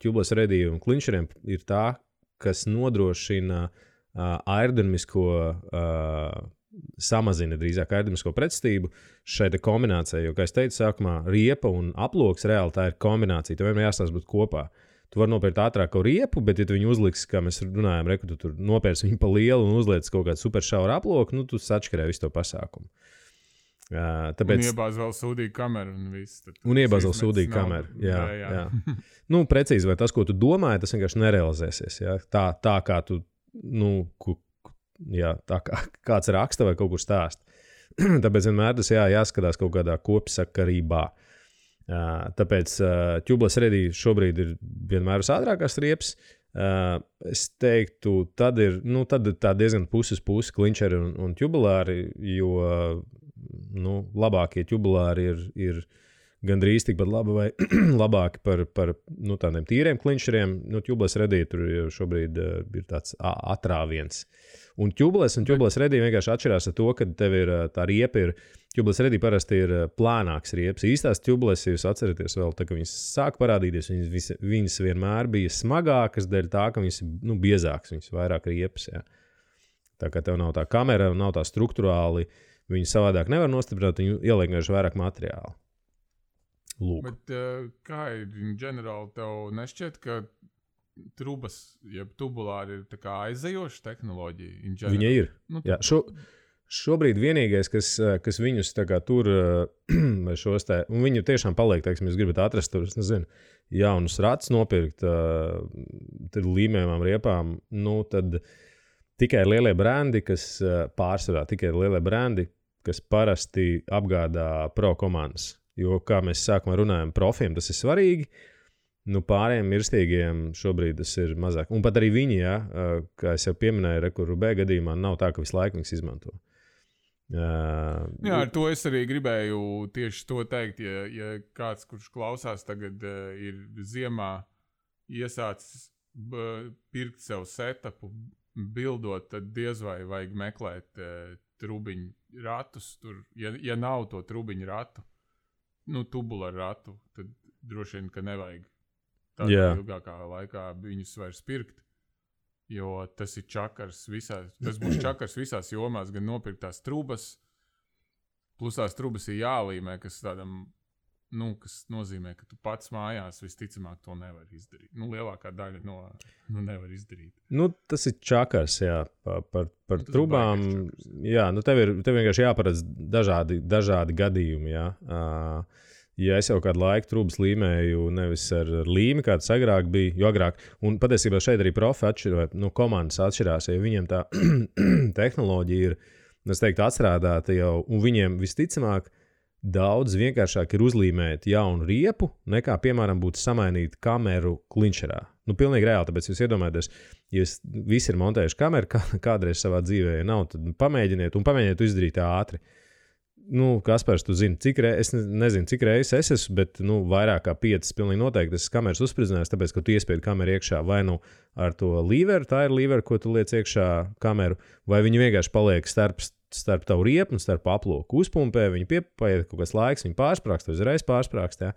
tubeless ready un klinčeriem ir tā, kas nodrošina aerodinamisko, samazina drīzāk aerodinamisko pretstību šai kombinācijai. Jo, kā es teicu sākumā, riepa un aploks reāli tā ir kombinācija. Tev vienmēr jāstāsta būt kopā. Tu vari nopērkt ātrāku riepu, bet ja tu viņu uzliksi, kā mēs runājam, tu tur nopērci viņu pa lielu un uzliec kaut kādu super šauru aploku, nu tu sačkarē visu to pasākumu. Tāpēc... Un iebāz vēl sūdīgu kameru un viss. Un iebāz vēl sūdīgu kameru, jā. Nu, precīzi, vai tas, ko tu domāji, tas vienkārši nerealizēsies, jā. Tā kā tu, tā kā kāds raksta vai kaut kur stāst. Tāpēc vienmēr tas jāskatās kaut kādā kopsakarībā. Tāpēc tubeless ready šobrīd ir vienmēr uz ātrākās riepas. Es teiktu, tad ir tā diezgan puses klinčeri un tubulāri, jo labākie tubulāri ir gandrīz tikpat labi vai labāki par tādiem tīriem klinčeriem. Tubeless ready tur šobrīd ir tāds atrāviens. Un tubeless ready vienkārši atšķirās ar to, ka tev ir tā riepa tubeless ready parasti ir plānāks riepas. Īstās tubeless, ja jūs atceraties vēl, tā, ka viņas sāk parādīties, viņas vienmēr bija smagākas dēļ tā, ka viņas ir biezākas, viņas vairāk riepas. Jā. Tā kā tev nav tā kamera, nav tā struktūrāli, viņi savādāk nevar nostiprināt, viņi ieliek vienkārši vairāk materiālu. Lūk. Bet kā ir ģenerāli, tev nešķiet, ka trubas, jeb tubulāri ir tā kā aizejoša tehnoloģija? Viņa ir. Jā, šobrīd vienīgais, kas viņus tā kā tur, vai šos te, un viņu tiešām paliek, teiksim, jūs gribat atrast tur, es nezinu, jaunus ratus nopirkt, tad līmējumām riepām, tad tikai lielie brendi, kas pārsvarā, kas parasti apgādā pro komandas. Jo, kā mēs sākumā runājam, profiem tas ir svarīgi, pārējiem mirstīgiem šobrīd tas ir mazāk. Un pat arī viņi, kā es jau pieminēju, Rubē gadījumā nav tā, ka visu laiku viņas izmanto. Jā, ar to es arī gribēju tieši to teikt, ja kāds, kurš klausās tagad ir ziemā iesācis pirkt sev setupu, bildot, tad diez vai vajag meklēt trubiņu ratus. Tur, ja nav to trubiņu ratu, tubularu ratu, tad droši vien, ka nevajag tādā ilgākā laikā viņus vairs pirkt. Jo tas ir čakars tas būs čakars visās jomās, gan nopirkt tās trubas, plus tās trubas ir jālīmē, kas tādam, kas nozīmē, ka tu pats mājās visticamāk to nevar izdarīt. Lielākā daļa nevar izdarīt. Tas ir čakars, jā, par trubām. Jā, tev vienkārši jāparedz dažādi gadījumi, jā. Ja es jau kādu laiku trubas līmēju nevis ar līmi, kā tas agrāk bija, jo agrāk, un patiesībā šeit arī profi atšķirās, komandas atšķirās, ja viņiem tā tehnoloģija ir, es teiktu, atstrādāta jau, un viņiem visticamāk daudz vienkāršāk ir uzlīmēt jaunu riepu, nekā, piemēram, būtu samainīt kameru klinčerā. Pilnīgi reāli, tāpēc jūs iedomājaties, ja visi ir montējuši kameru kādreiz savā dzīvē, ja nav, tad pamēģiniet izdarīt ātri. Kaspars, tu zini, es nezinu, cik reizes es esmu, bet vairāk kā 5 pilnīgi noteikti esmu kameras uzspridzinājis, tāpēc, ka tu iespiedi kameru iekšā vai ar to līveru, tā ir līvera, ko tu liec iekšā kameru, vai viņi vienkārši paliek starp tavu riepu un starp aploku uzpumpē, viņi paiet kaut kāds laiks, viņi pārsprākst, uzreiz pārsprākst, jā.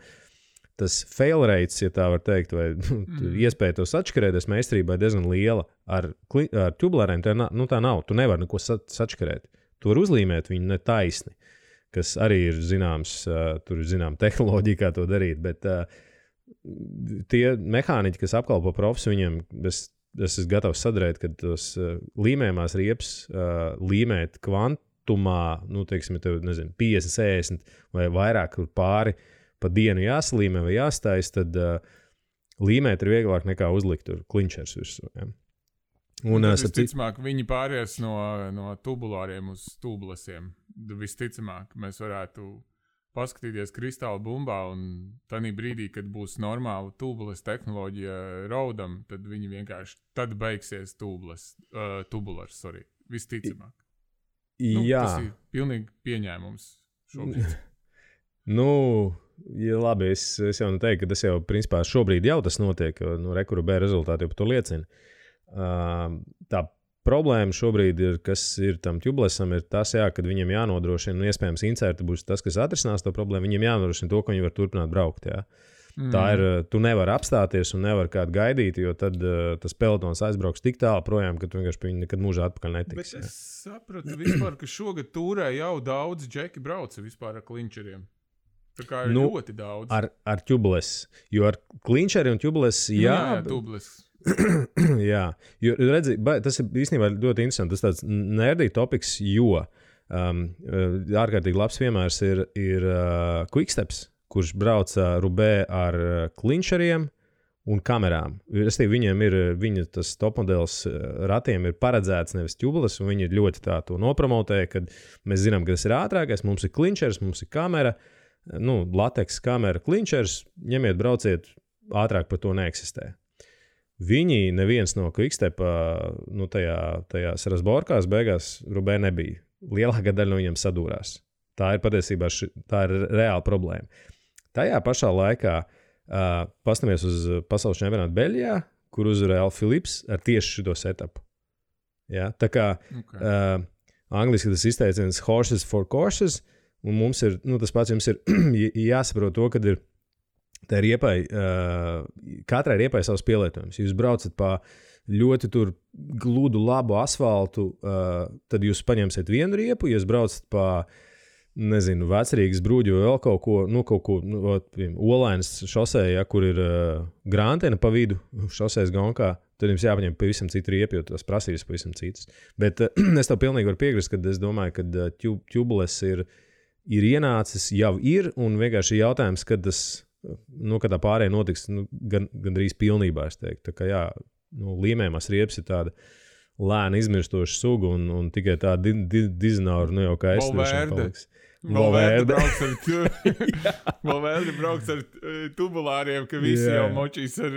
Tas fail rates, ja tā var teikt, vai iespēja to sačkarēties meistarībā ir diezgan liela. Ar tubulāriem tā nav, tu nevari neko sačkarēt. Tu vari uzlīmēt viņu netaisni, kas arī ir zināms, tur ir zināma tehnoloģija, kā to darīt, bet tie mehāniķi, kas apkalpo profs, viņiem es esmu gatavs sadarīt, ka tos līmējumās riepas līmēt kvantumā, teiksim, tev, 50, 60 vai vairāk pāri pa dienu jāsalīmē vai jāstājas, tad līmēt ir vieglāk nekā uzlikt tur klinčers virsū. Ja. Un visticamāk, viņi pāries no tubulāriem uz tubelessiem. Visticamāk, mēs varētu paskatīties kristāla bumbā un tanī brīdī, kad būs normāla tubuless tehnoloģija raudam, tad viņi vienkārši, tad beigsies tubulars, visticamāk. Jā. Tas ir pilnīgi pieņēmums šobrīd. Ja labi, es jau teiktu, ka tas jau principā šobrīd jau tas notiek, Rubē rezultāti jau par to liecina. Tā problēma šobrīd ir, kas ir tam tubelessam, ir tas, jā, kad viņam jānodrošina, un iespējams incerti būs tas, kas atrisinās to problēmu, viņam jānodrošina to, ka viņi var turpināt braukt, jā. Tā ir, tu nevari apstāties un nevari kādu gaidīt, jo tad tas pelotons aizbrauks tik tālu projām, ka tu vienkārši pie viņa nekad mūžā atpakaļ netiks. Bet es sapratu vispār, ka šogad tūrē jau daudz džeki brauca vispār ar klinčeriem. Tā kā ir ļoti daudz. Ar tubeles, jo ar klinčeri un tubeles, jā. Jā, tubeles. Jā, jo redzi, tas ir īstenībā ļoti interesanti, tas tāds nerdī topiks, jo ārkārtīgi labs piemērs ir Quicksteps, kurš brauca Rubē ar klinčeriem un kamerām. Viņiem ir, tas topmodelis ratiem ir paredzēts nevis tubeles, un viņi ļoti tā to nopromotēja, kad mēs zinām, ka tas ir ātrākais, mums ir klinčers, mums ir kamera, lateks kamera klinčers, ņemiet, brauciet, ātrāk par to neeksistē. Viņi neviens no Quickstepa, tajās Rasborkās beigās Rubē nebija. Lielākā daļa no viņiem sadūrās. Tā ir patiesībā tā ir reāla problēma. Tajā pašā laikā pastamies uz pasaules čempionātu Beļģijā, kur uzvarēja Al Philips ar tieši šito setupu. Ja? Tā kā angliski tas izteiciens horses for courses, un mums ir, tas pats jums ir jāsaprot to, kad ir tā riepai, katrai riepai savs pielietojums. Jūs braucat pa ļoti tur gludu labu asfaltu, tad jūs paņemsiet vienu riepu, ja jūs braucat pa Vecrīgas brūģi vai vēl kaut ko, Olainas šosē, ja, kur ir grāntena pa vidu šosēs gonkā, tad jums jāpaņem pavisam citu riepu, jo tās prasības pavisam citas. Bet es tev pilnīgi varu piekrist, kad es domāju, ka tubeles ir ienācis, jau ir, un vienkārši jautājums, kad tas, kad tā pārējā notiks, gandrīz pilnībā, es teiktu. Tā kā jā, līmējumās riepas ir tāda lēna izmirstoša suga, un tikai tā dizināra, jau kā es paliks. Valverde brauks ar tubulāriem, ka visi jau močīs ar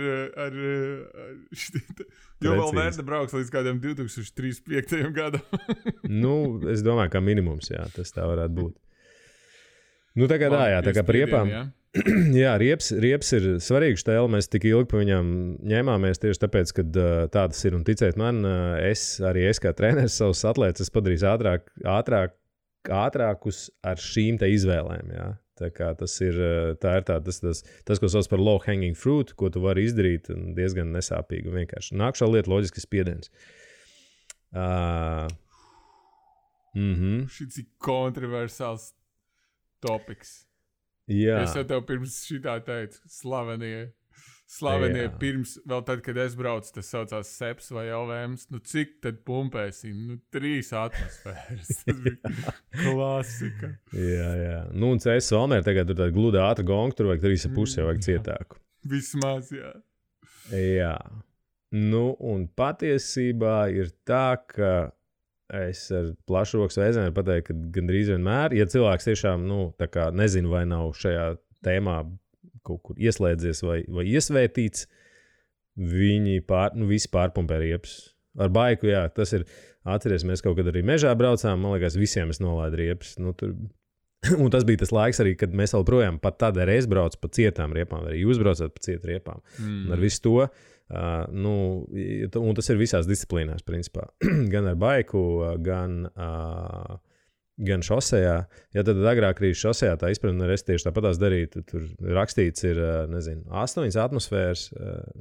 jo Valverde brauks līdz kādiem 2035. gadam. Es domāju, kā minimums, jā, tas tā varētu būt. Tagad tā kā par riepām. Jā, rieps ir svarīgs tēl, mēs tik ilgi pa viņām ņēmāmies tieši tāpēc, ka tā tas ir, un ticēt man, es kā treneris savus atlētas padarīs ātrākus ar šīm te izvēlēm, jā. Tā kā tas ir tas, ko sauc par low hanging fruit, ko tu vari izdarīt diezgan nesāpīgi un vienkārši. Nākšā lieta loģiski spiediens. Šis ir kontroversāls topiks. Jā. Es jau tev pirms šitā teicu, slavenie pirms, vēl tad, kad es braucu, tas saucās Seps vai LVMs, cik tad pumpēsim? 3 atmosfēras. Tas bija klasika. Jā. Un CS Valmēr tagad tur tāda gluda ātra gonga, tur vajag 3,5, jau vajag cietāku. Vismaz, jā. Jā. Un patiesībā ir tā, ka es ar plašu rokas vēzienu pateicu, ka gandrīz vienmēr, ja cilvēks tiešām, tā kā nezinu, vai nav šajā tēmā kaut kur ieslēdzies vai iesvētīts, viņi visi pārpumpē riepas. Ar baiku, jā, tas ir, atceries, mēs kaut kad arī mežā braucām, man liekas, visiem es nolaidu riepas. Un tas bija tas laiks arī, kad mēs vēl projām pat tad arī es braucu pa cietām riepām, arī jūs braucat pa cietu riepām. Un ar visu to, un tas ir visās disciplīnās, principā. Gan ar baiku, gan šosejā. Ja tad agrāk arī šosejā tā izpratne, es tieši tāpatās darītu, tur rakstīts ir, 8 atmosfēras,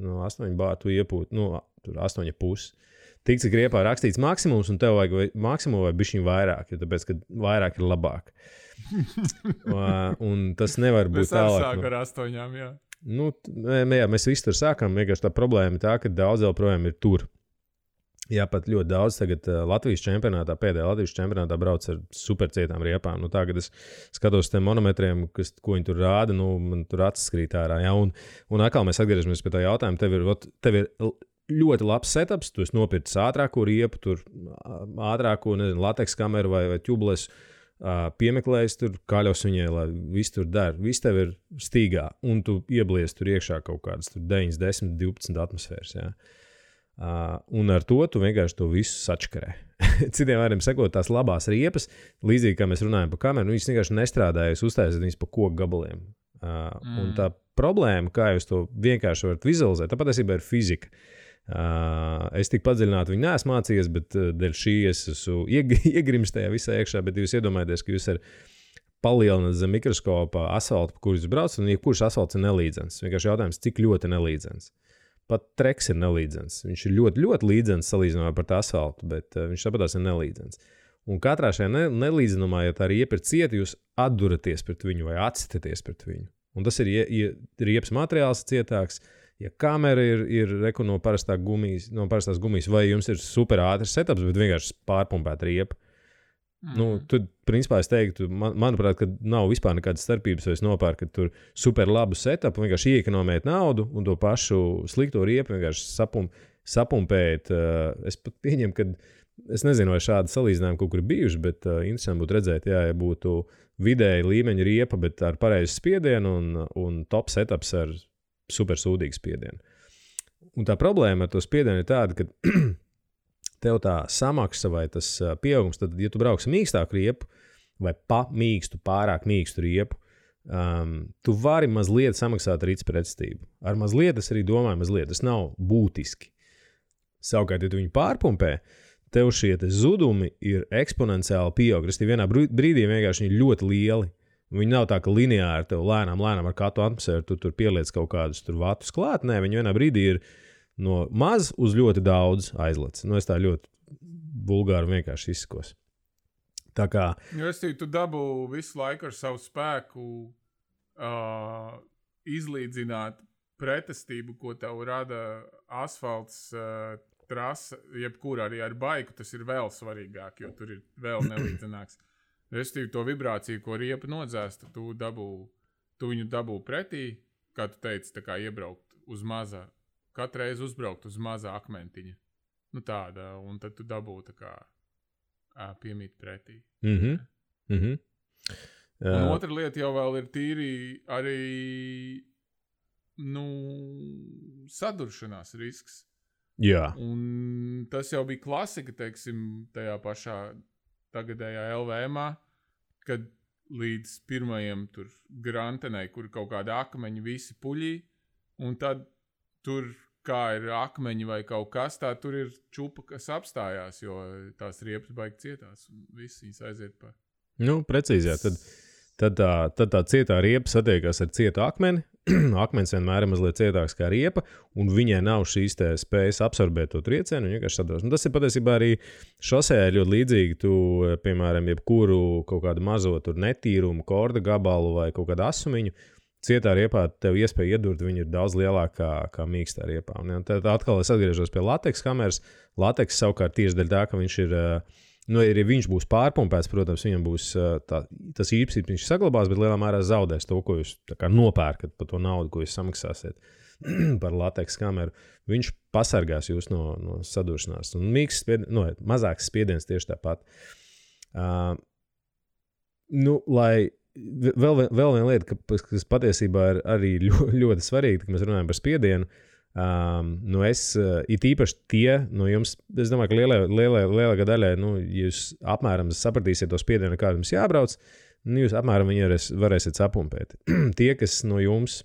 8 bāru tu iepūt, tur 8,5. Tik, cik riepā rakstīts maksimums, un tev vajag maksimumu vai bišķiņ vairāk, jo tāpēc, ka vairāk ir labāk. Un tas nevar būt tālāk. Mēs sākam ar 8, jā. Jā, mēs visi tur sākam, vienkārši tā problēma ir tā, ka daudz vēl projām ir tur. Jā, pat ļoti daudz tagad Latvijas čempionātā, pēdējā Latvijas čempionātā brauc ar supercietām riepām. Tā, kad es skatos tiem monometriem, ko viņi tur rāda, man tur acis krīt ārā. Jā, un atkal mēs atgriežamies pie tā jautājuma. Tev ir ļoti labs setups, tu esi nopircis ātrāko riepu, tur ātrāko, lateks kameru vai tubeles, piemeklējis tur, kaļos viņai, lai viss tur der. Viss tev ir stīgā, un tu ieblies tur iekšā kaut kādas 9, 10, 12 atmosfēras, jā. Un ar to tu vienkārši to visu sačkarē. Citiem vārdiem sakot, tās labās riepas, līdzīgi kā mēs runājam par kameru, viņas vienkārši nestrādājas, uztaisīt viņas pa koku gabaliem. Un tā problēma, kā jūs to vienkārši varat vizualizēt, tā patiesībā ir fizika. Es tik padziļināti viņu neesmu mācījies, bet dēļ šī es esmu iegrims tajā visā iekšā, bet jūs iedomājaties, ka jūs palielināt zem mikroskopa asfaltu, pa kur jūs brauc, un jebkurš asfalts ir nelīdzens. Vienkārši jautājums, cik ļoti nelīdzens. Pat treks ir nelīdzens. Viņš ir ļoti, ļoti līdzens salīdzinājumā par asfaltu, bet viņš tāpatās ir nelīdzens. Un katrā šajā nelīdzenumā, ja tā riepa ir cieta, jūs atduraties pret viņu vai atsitaties pret viņu. Un tas ir, ja riepas materiāls cietāks, ja kamera ir no parastās gumijas, vai jums ir super ātrs setups, bet vienkārši pārpumpēt riepu. Tad, principā, es teiktu, manuprāt, ka nav vispār nekādas starpības, vai es nopērku tur super labu setupu, vienkārši iekonomēt naudu un to pašu slikto riepu vienkārši sapumpēt. Es pat pieņemu, ka es nezinu, vai šādi salīdzinājumi kaut kur bijuši, bet interesanti būtu redzēt, ja būtu vidēji līmeņa riepa, bet ar pareizu spiedienu un top setups ar super sūdīgu spiedienu. Un tā problēma ar to spiedienu ir tāda, ka tev tā samaksa vai tas pieaugums, tad, ja tu brauksi mīkstāku riepu vai pārāk mīkstu riepu, tu vari mazliet samaksāt ar pretestību. Ar mazliet es arī domāju, mazliet tas nav būtiski. Savukārt, ja tu viņu pārpumpē, tev šie zudumi ir eksponenciāli pieaug. Restīvi vienā brīdī vienkārši viņi ir ļoti lieli. Viņi nav tā, ka lineāri tev lēnām ar katru atmosfēru tu tur pieliec kaut kādus tur vatus klāt. Nē, viņi vienā brīdī ir no maz uz ļoti daudz aizlec. Es tā ļoti vulgāri vienkārši izskos. Tā kā... Tu dabū visu laiku ar savu spēku izlīdzināt pretestību, ko tev rada asfalts trasa, jebkur arī ar baiku, tas ir vēl svarīgāk, jo tur ir vēl nelīdzenāks. Restīvi to vibrāciju, ko riepa nodzēsta, tu viņu dabū pretī, kā tu teici, tā kā iebraukt uz mazā. Katru reizi uzbraukt uz mazā akmentiņa. Tāda, un tad tu dabū tā kā piemīt pretī. Un otra lieta jau vēl ir tīri arī, saduršanās risks. Jā. Un tas jau bija klasika, teiksim, tajā pašā tagadējā LVM-ā, kad līdz pirmajiem tur grantenei, kur kaut kādi akmeņi visi puļī, un tad tur, kā ir akmeņi vai kaut kas, tā tur ir čupa, kas apstājās, jo tās riepas baigi cietās, un viss viņas aiziet pa... Precīzi, jā. Tad tā cietā riepa satiekās ar cietu akmeni. Akmens vienmēr ir mazliet cietāks kā riepa, un viņai nav šīs spējas absorbēt to triecienu, un vienkārši sadros. Un tas ir patiesībā arī šosē ļoti līdzīgi. Tu, piemēram, jebkuru kaut kādu mazo tur netīrumu, korda gabalu vai kaut kādu asumiņu, cietā riepā tev iespēja iedurt, viņa ir daudz lielākā kā mīkstā riepā. Un tad atkal es atgriežos pie lateks kameras. Lateks savukārt tieši dēļ tā, ka viņš ir... ja viņš būs pārpumpēts, protams, viņam būs tas īpašības, viņš saglabās, bet lielā mērā zaudēs to, ko jūs nopērkat par to naudu, ko jūs samaksāsiet par lateks kameru. Viņš pasargās jūs no saduršanās. Un mazāks spiediens tieši tāpat. Lai vēl viena lieta, kas patiesībā ir arī ļoti svarīga, kad mēs runājam par spiedienu, es it īpaši tie no jums, es domāju, ka lielākā daļai, jūs apmēram sapratīsiet to spiedienu, kādu jums jābrauc, jūs apmēram viņu varēsiet sapumpēt. Tie, kas no jums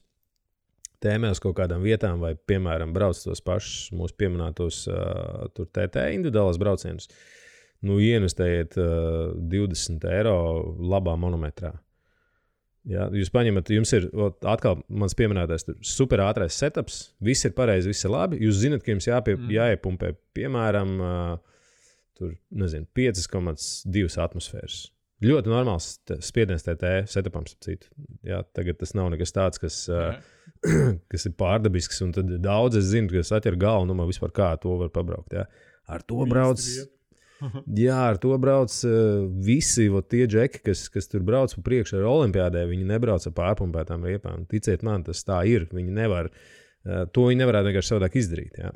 tēmē uz kaut kādām vietām vai, piemēram, brauc tos pašus mūsu pieminētos tur TT individuālās braucienus, ieinvestējiet 20 eiro labā monometrā. Jā, jūs paņemat, jums ir atkal mans pieminētais super ātrais setups, viss ir pareizi, viss ir labi. Jūs zinat, ka jums jāiepumpē, piemēram, 5,2 atmosfēras. Ļoti normāls spiediens TT setupam, citu. Jā, tagad tas nav nekas tāds, kas ir pārdabisks, un tad daudz es zinu, ka es atķeru galvu, man vispār kā to var pabraukt. Jā. Ar to brauc... Jā, ar to brauc visi tie džeki, kas tur brauc pa priekšu ar olimpiādē, viņi nebrauc ar pārpumpētām riepām. Ticiet man, tas tā ir. Viņi nevar, to viņi nevarētu vienkārši savādāk izdarīt. Jā.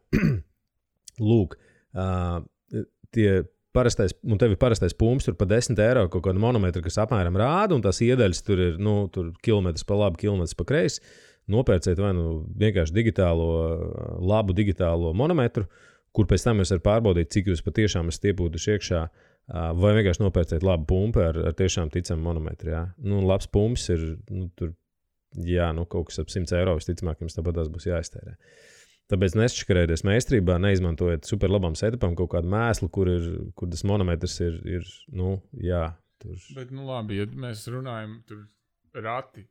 Lūk, tev ir parastais pumps, tur pa 10 eiro kaut kādu monometru, kas apmēram rāda, un tās iedaļas tur ir, tur kilometrs pa labi, kilometrs pa kreisi. Nopērciet vai vienkārši labu digitālo monometru, kur pēc tam jūs varat pārbaudīt, cik jūs patiešām esat iepūtuši iekšā, vai vienkārši nopērciet labu pumpu ar tiešām ticamu monometru. Jā. Labs pumps ir tur, kaut kas ap 100 eiro, visticamāk, jums tāpat tās būs jāiztērē. Tāpēc nešķakarēties meistarībā, neizmantojot super labam setupam kaut kādu mēslu, kur tas monometrs ir jā. Tur. Bet, labi, ja mēs runājam tur rati,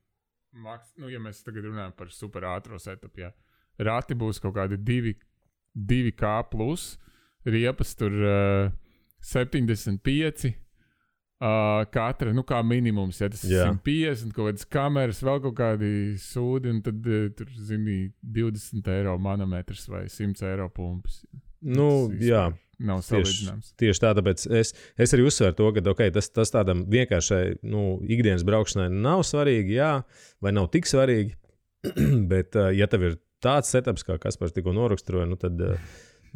ja mēs tagad runājam par super ātro setupu, jā. Rati būs kaut kādi 2K plus, riepas tur 75, katra, kā minimums, ja tas ir 150, kaut kādas kameras, vēl kaut kādi sūdi, un tad tur, zini, 20 eiro manometrs vai 100 eiro pumpis. Jā. Nav salīdzināms. Tieši tā, tāpēc es arī uzsveru to, ka tas tādam vienkāršai ikdienas braukšanai nav svarīgi, jā, vai nav tik svarīgi, bet ja tev ir tāds setups, kā Kaspars tikko noraksturoja, tad,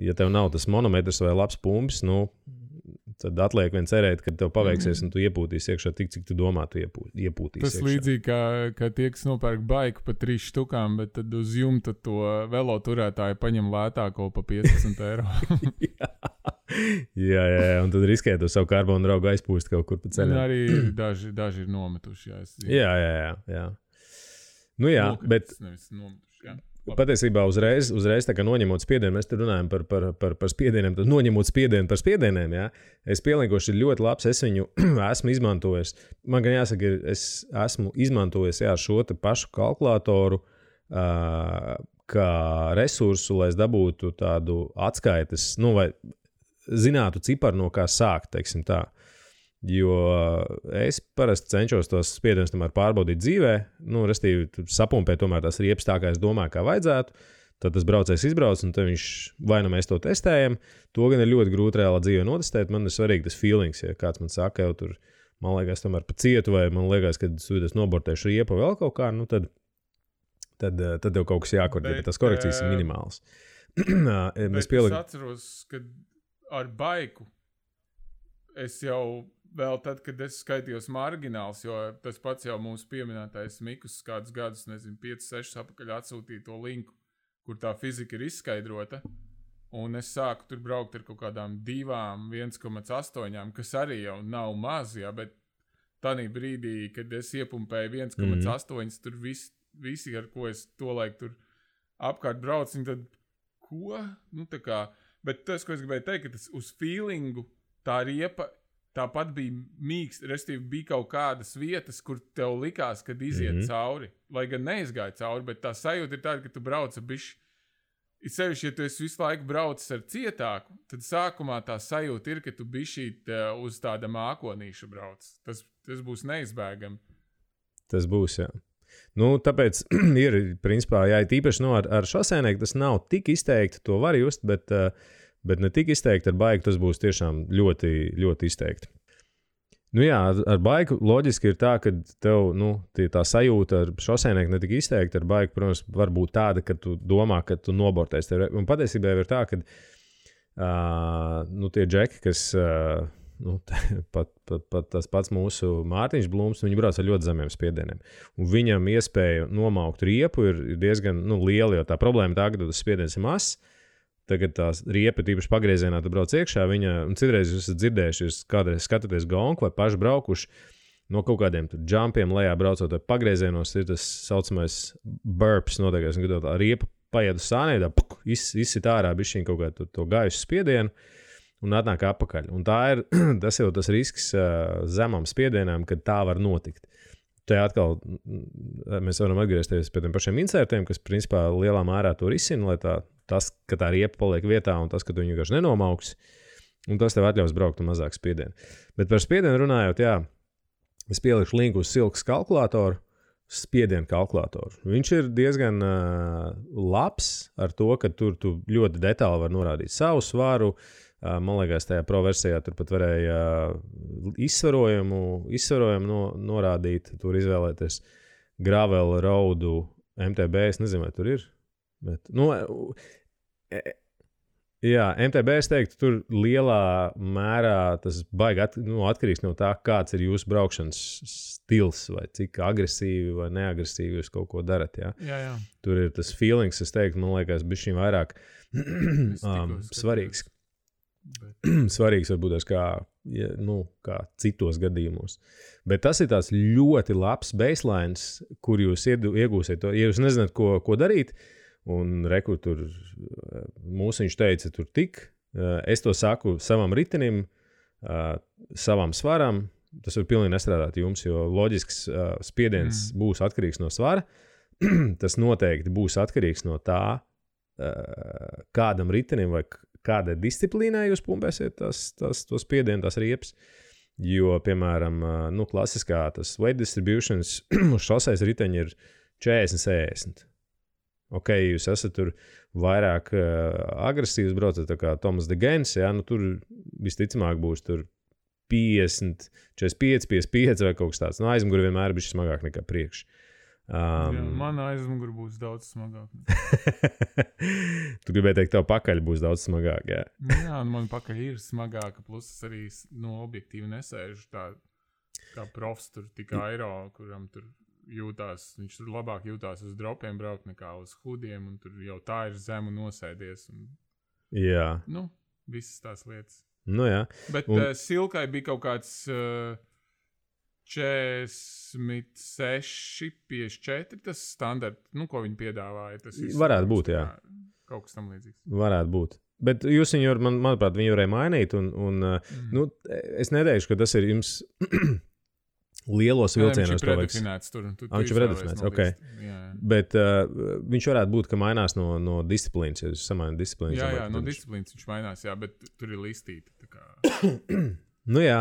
ja tev nav tas monometrs vai labs pumpis, tad atliek vien cerēt, ka tev paveiksies un tu iepūtīsi iekšā tik, cik tu domā, tu iepūtīsi tas iekšā. Tas līdzīgi, kā tie, kas nopērk baiku pa 3 štukām, bet tad uz jumta to velo turētāju paņem lētāko pa 15 eiro. jā, un tad riskē to savu karbonu draugu aizpūst kaut kur pa ceļam. Un arī daži ir nometuši, jā. Jā, bet... Nometuši, jā. Patiesībā uzreiz tā kā noņemot spiedienu, mēs te runājam par spiedieniem, tad noņemot spiedienu par spiedieniem, jā. Es pieliekoši ļoti labs, es viņu esmu izmantojis. Man gan jāsaka, es esmu izmantojis šo te pašu kalkulātoru kā resursu, lai es dabūtu tādu atskaites, vai zinātu ciparu, no kā sākt, teiksim tā. Jo es parasti cenšos tos spiedienus tomēr pārbaudīt dzīvē, restīvi sapumpēt tomēr tās riepas tā, kā es domāju, kā vajadzētu, tad tas braucējs izbrauc, un tad viņš vai nu mēs to testējam, to gan ir ļoti grūti reālā dzīvē notestēt, man ir svarīgi tas feelings, ja kāds man saka, jau tur, man liekas, tomēr pa cietu, vai man liekas, ka es nobortēšu riepu vēl kaut kā, tad jau kaut kas jākorģē, bet tas korekcijas ir minimāls. Es atceros, ka ar baiku es jau vēl tad, kad es skaitījos margināls, jo tas pats jau mūsu pieminētais Mikus kādus gadus, 5-6 apakaļ atsūtīja to linku, kur tā fizika ir izskaidrota, un es sāku tur braukt ar kaut kādām 1,8, kas arī jau nav maz, jā, bet tādā brīdī, kad es iepumpēju 1,8, tur visi, ar ko es tolaik tur apkārt braucu, un tad, ko? Bet tas, ko es gribēju teikt, ka tas uz feelingu tā riepa tāpat bija mīksts, restīvi bija kaut kādas vietas, kur tev likās, kad iziet cauri. Lai gan neizgāja cauri, bet tā sajūta ir tāda, ka tu brauc bišķi. Ir sevišķi, ja tu esi visu laiku braucis ar cietāku, tad sākumā tā sajūta ir, ka tu bišķīt uz tāda mākonīša brauc. Tas būs neizbēgami. Tas būs, jā. Tāpēc ir, principā, jā, tīpaši ar šosēnieku tas nav tik izteikti, to var just, bet ne tik izteikti ar baiku, tas būs tiešām ļoti, ļoti izteikti. Jā, ar baiku loģiski ir tā, ka tev, tā sajūta ar šosēnieku ne tik izteikti, ar baiku, protams, var būt tāda, ka tu domā, ka tu nobortēs. Un patiesībā ir tā, ka tie džeki, kas, pat tas pats mūsu Mārtiņš Blūms, viņi brauc ar ļoti zemiem spiedieniem. Un viņam iespēja nomaukt riepu ir diezgan liela, jo tā problēma tā, ka tas spiediens ir mazs. Tagad tās riepa, tīpaši pagriezienā, tu brauc iekšā, un citreiz jūs esat dzirdējuši, jūs kādreiz skatāties gonku vai paši braukuši no kaut kādiem jumpiem lejā braucot vai pagriezienos, ir tas saucamais burps noteikais, un kad tā riepa paiet uz sānē, izsit ārā bišķiņ kaut kā to gaisu spiedienu un atnāk apakaļ. Un tas jau tas risks zemam spiedienām, kad tā var notikt. Te atkal mēs varam atgriezties pie tiem pašiem insertiem, kas principā lielā mērā to risina, lai tas, ka tā riepa paliek vietā un tas, ka tu viņu vienkārši nenomauks, un tas tev atļaus braukt un mazāk spiedienu. Bet par spiedienu runājot, jā, es pielikšu linku uz Silkas kalkulātoru, spiedienu kalkulātoru. Viņš ir diezgan labs ar to, ka tur tu ļoti detāli var norādīt savu svaru. Man liekas, tajā pro versijā tur pat varēja izsvarojumu norādīt, tur izvēlēties gravel, roadu, MTB, es nezinu, vai tur ir. Bet, jā, MTB, es teiktu, tur lielā mērā tas baigi atkarīgs no tā, kāds ir jūsu braukšanas stils, vai cik agresīvi vai neagresīvi jūs kaut ko darat, jā. Jā. Tur ir tas feelings, es teiktu, man liekas, bišķiņ vairāk svarīgs. Svarīgs varbūt kā citos gadījumos. Bet tas ir tāds ļoti labs baselines, kur jūs iegūsiet to. Ja jūs nezināt, ko darīt, un rekur tur mūsiņš teica, tur tik. Es to saku savam ritenim, savam svaram. Tas var pilnīgi nestrādāt jums, jo loģisks spiediens būs atkarīgs no svara. Tas noteikti būs atkarīgs no tā, kādam ritenim vai kādai disciplīnai jūs pumpēsiet to spiedienu, tās riepas. Jo, piemēram, klasiskā tas weight distributions uz šoseis riteņi ir 40-60. Ok, jūs esat tur vairāk agresīvs braucat, tā kā Tomas de Gens, tur visticamāk būs tur 50, 45, 55 vai kaut kas tāds. Aizmuguri vienmēr ir bišķi smagāk nekā priekš. Mana aizmuguri būs daudz smagāk. Tu gribēji teikt, tev pakaļ būs daudz smagāk, jā? Jā, un man pakaļ ir smagāka, plus arī objektīvi nesēžu tā kā profs tur tik aero, kuram tur jūtās, viņš tur labāk jūtās uz dropiem braukt nekā uz hudiem, un tur jau tā ir zemu nosēdies. Un, jā. Visas tās lietas. Jā. Bet Silkai bija kaut kāds 46, 54, tas standarts, ko viņi piedāvāja. Tas varētu būt, jā. Kaut kas tam līdzīgs. Varētu būt. Bet jūs viņu, manuprāt, viņu varēja mainīt, un es neteikšu, ka tas ir jums lielos vilcienos. Viņš ir predefinēts tur. Viņš ir predefinēts, ok. Jā. Bet viņš varētu būt, ka mainās no disciplīnas, ja jūs samaināt disciplīnas. Jā, no disciplīnas viņš mainās, jā, bet tur ir listīta. Tā kā... Jā.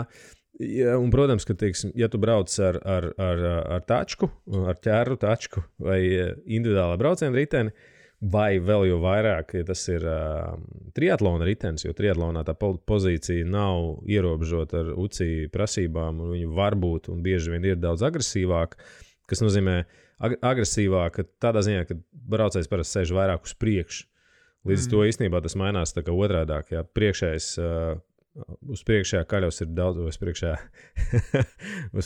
Ja, un, protams, ka, teiksim, ja tu brauc ar tačku, ar ķēru tačku vai individuālā brauciena riteni, vai vēl jau vairāk, ja tas ir triatlona ritenis, jo triatlonā tā pozīcija nav ierobežota ar UCI prasībām, un viņi var būt un bieži vien ir daudz agresīvāk, kas nozīmē agresīvāk tādā ziņā, ka braucējs parasti sēž vairāk uz priekšu. Līdz to īstenībā tas mainās tā kā otrādāk, ja priekšējais uz priekšējā kaļos ir daudz, uz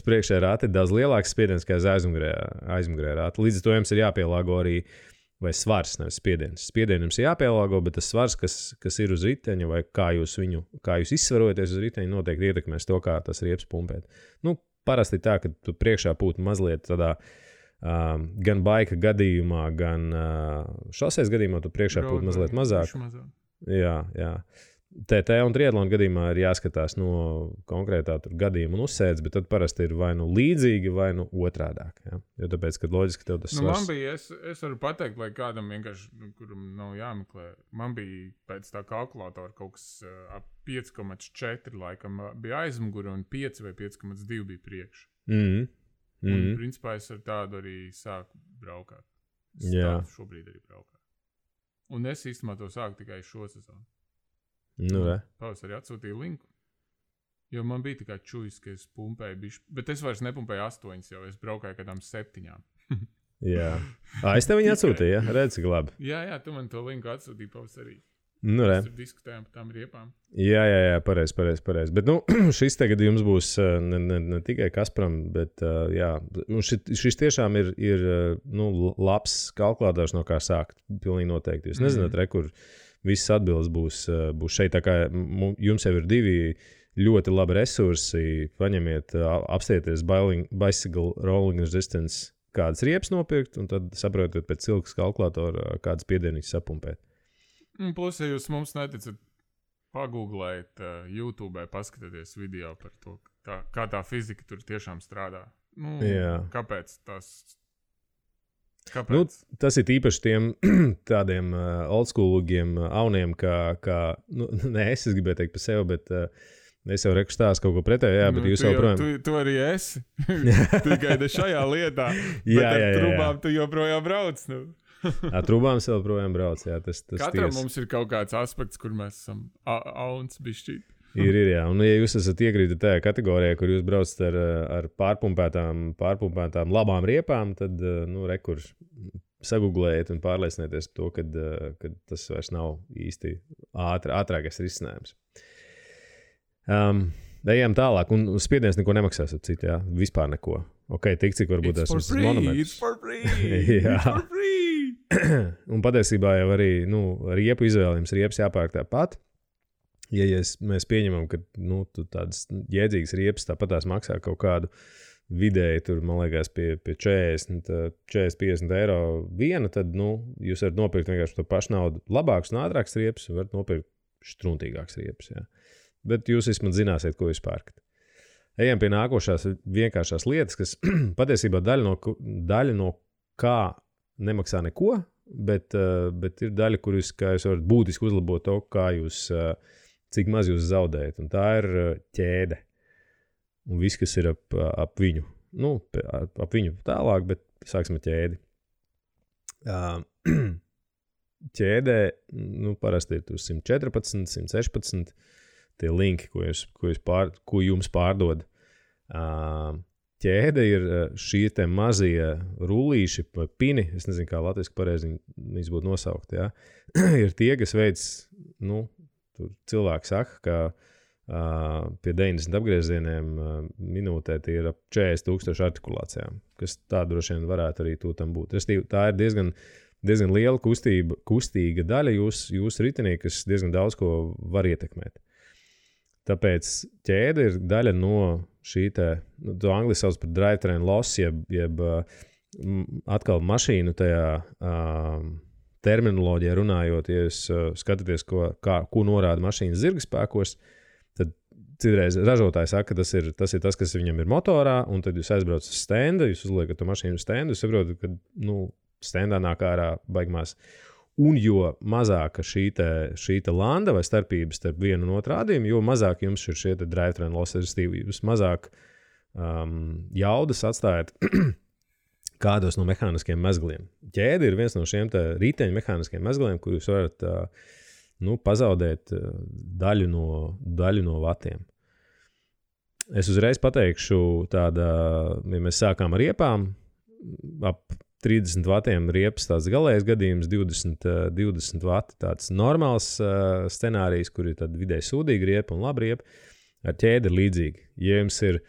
priekšējā rāta ir daudz lielāks spiediens, kā aizmugurējā rāta. Līdz to jums ir jāpielāgo arī, vai svars, nevis spiediens. Spiedienu jums ir jāpielāgo, bet tas svars, kas ir uz riteņa, vai kā jūs izsvarojaties uz riteņa, noteikti ietekmēs to, kā tas riepas pumpēt. Parasti tā, ka tu priekšā būtu mazliet tādā gan baika gadījumā, gan šoseis gadījumā, tu priekšā būtu mazliet mazāk. Jā. TT un triatlona gadījumā ir jāskatās no konkrētā gadījuma un uzsēdz, bet tad parasti ir vai līdzīgi, vai otrādāk. Ja? Jo tāpēc, kad loģiski tev tas svars... Man bija, es varu pateikt, lai kādam vienkārši, kuram nav jāmeklē, man bija pēc tā kalkulātora kaut kas ap 5,4 laikam bija aizmuguri un 5 vai 5,2 bija priekš. Un principā es ar tādu arī sāku braukāt. Šobrīd arī braukāt. Un es īstenībā to sāku tikai šo sezonu. Pavasarī atsūtīju linku, jo man bija tikai čujs, ka es pumpēju bišķi, bet es vairs nepumpēju 8, jau es braukāju kādām 7. Jā. Es tev viņu atsūtīju, ja? Redz, cik labi. Jā, tu man to linku atsūtīji pavasarī. Mēs tur diskutējām par tām riepām. Jā, pareizi. Bet, šis tagad jums būs ne tikai Kasparam, bet, šis tiešām ir labs kalkulātors, no kā sākt, pilnīgi noteikti. Jūs nezināt, kur visas atbildes būs šeit, tā kā jums jau ir 2 ļoti labi resursi, paņemiet, apstieties bicycle rolling resistance, kādas riepas nopirkt, un tad saprotiet pēc cilkas kalkulātora, kādas piedienības sapumpēt. Plus, ja jūs mums neticat, pagūglēt YouTube, paskatieties video par to, kā tā fizika tur tiešām strādā. Kāpēc tas... Kāpēc? Tas ir īpaši tiem tādiem oldschoolīgiem auniem, es gribēju teikt par sevi, bet es jau rekustāstu kaut ko pretēju, bet jūs jau projām... Tu arī esi, tikai šajā lietā, bet ar trubām tu joprojām brauc, Ar trubām es joprojām brauc, jā, tas Katram mums ir kaut kāds aspekts, kur mēs esam auns bišķīt. Ir, jā. Un, ja jūs esat iekrīti tajā kategorijā, kur jūs braucat ar pārpumpētām labām riepām, tad, rekur sagooglējiet un pārliecinieties to, kad tas vairs nav īsti ātrākais risinājums. Ejam tālāk, un spiediens neko nemaksās ar citu, jā, vispār neko. Ok, tik cik varbūt esmu monometrs. It's for free! Un patiesībā jau arī, riepu izvēlējums, riepas jāpērk tāpat. Ja mēs pieņemam, ka tu tādas jēdzīgas riepas tāpat tās maksā kaut kādu vidēji tur, man liekas, pie 40-50 eiro viena, tad, jūs varat nopirkt vienkārši to pašu naudu labāks un ātrāks riepas, un varat nopirkt štruntīgāks riepas, jā. Bet jūs vismaz zināsiet, ko jūs pērkat. Ejam pie nākošās vienkāršās lietas, kas patiesībā daļa no kā nemaksā neko, bet ir daļa, kur jūs varat būtiski uzlabot to, cik maz jūs zaudējat, un tā ir ķēde. Un viss, kas ir ap viņu. Ap viņu tālāk, bet sāksim ar ķēdi. Ķēdē, parasti ir 114, 116 tie linki, ko jums pārdod. Ķēde ir šie te mazie rullīši vai pini, es nezinu, kā latviski pareizi viņas būtu nosaukt, jā. Ir tie, kas veids, tur cilvēki saka, ka pie 90 apgriezieniem minūtē tie ir ap 40,000 artikulācijām, kas tā droši vien varētu arī tam būt. Tā ir diezgan liela kustīga daļa jūsu ritenī, kas diezgan daudz ko var ietekmēt. Tāpēc ķēde ir daļa no šī to angliski sauc par drivetrain loss, jeb atkal mašīnu tajā terminoloģijā runājot, ja jūs skatāties, ko norāda mašīnas zirgspēkos, tad citreiz ražotājs saka, ka tas ir tas, kas viņam ir motorā, un tad jūs aizbraucat uz stenda, jūs uzliekat to mašīnu uz stendu, jūs saprotat, ka stendā nāk ārā baigmās. Un jo mazāka šī landa vai starpības starp vienu un otru rādījumu, jo mazāk jums ir šie drivetrain loss, jūs mazāk jaudas atstājat kādos no mehāniskiem mezgliem. Ķēde ir viens no šiem riteņu mehāniskiem mezgliem, kur jūs varat pazaudēt daļu no vatiem. Es uzreiz pateikšu ja mēs sākām ar riepām, ap 30 vatiem riepas tāds galējais gadījums, 20 vati tāds normāls scenārijs, kur ir tāda vidēji sūdīga riepa un laba riepa. Ar ķēdi ir līdzīgi. Ja jums ir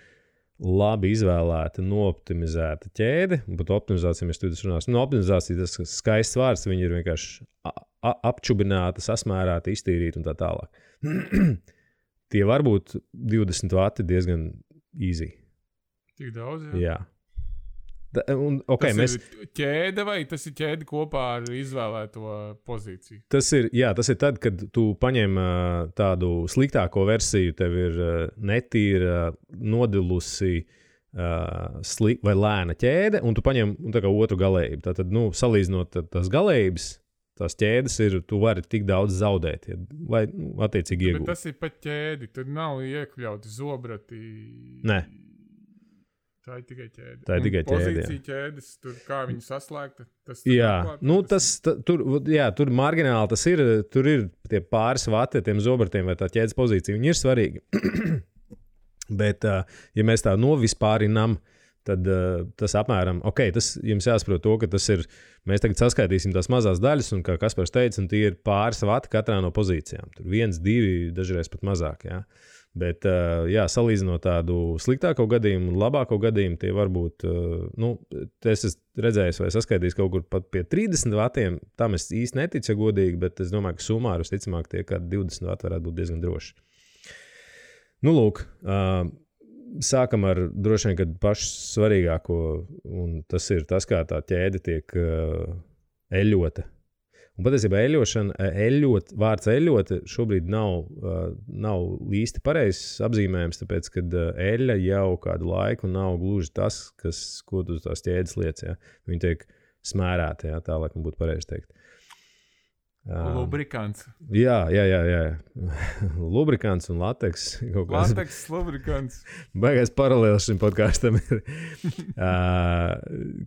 labi izvēlēta, nooptimizēta ķēde, un pat optimizācija mēs studijas runāsim. Optimizācija tas skaists vārds, viņi ir vienkārši apčubināti, sasmērāti, iztīrīti un tā tālāk. Tie var būt 20 vati diezgan easy. Tik daudz, jā. Tas ir ķēde vai tas ir ķēde kopā ar izvēlēto pozīciju? Tas ir tad, kad tu paņem tādu sliktāko versiju, tev ir netīra, nodilusi vai lēna ķēde, un tu paņem tā kā otru galējību. Tātad, salīdzinot tās galējības, tās ķēdes ir, tu vari tik daudz zaudēt, vai attiecīgi iegūt. Bet tas ir pat ķēdi, tur nav iekļauti zobrati. Nē. Tā ir tikai ķēde. Tā ir tikai ķēde, pozīcija ķēdes, tur kā viņi saslēgta. Tur margināli tas ir, tur ir tie pāris vati, tiem zobratiem vai tā ķēdes pozīcija, viņi ir svarīgi. Bet, ja mēs tā novispārinām, tad tas apmēram, tas jums jāsaprot to, ka tas ir, mēs tagad saskaitīsim tās mazās daļas, un kā Kaspars teica, un tie ir pāris vati katrā no pozīcijām. Tur 1, 2, dažreiz pat mazāk, jā. Bet, salīdzinot tādu sliktāko gadījumu un labāko gadījumu, tie varbūt, es esmu redzējis vai saskaitījis kaut kur pat pie 30 vatiem, tam es īsti neticu, ja godīgi, bet es domāju, ka sumāri visticamāk tie kādi 20 vati varētu būt diezgan droši. Lūk, sākam ar droši vien, kad pašu svarīgāko, un tas ir tas, kā tā ķēde tiek eļota. Un patiesībā vārds eļot šobrīd nav īsti pareizs apzīmējums, tāpēc, kad eļa jau kādu laiku nav gluži tas, ko tu tās ķēdes liec. Ja? Viņi tiek smērēti, ja? Tā laikam būtu pareizi teikt. Lubrikants. Jā. Lubrikants un lateks. Lateks, lubrikants. Baigais paralēls šim podkāstam ir.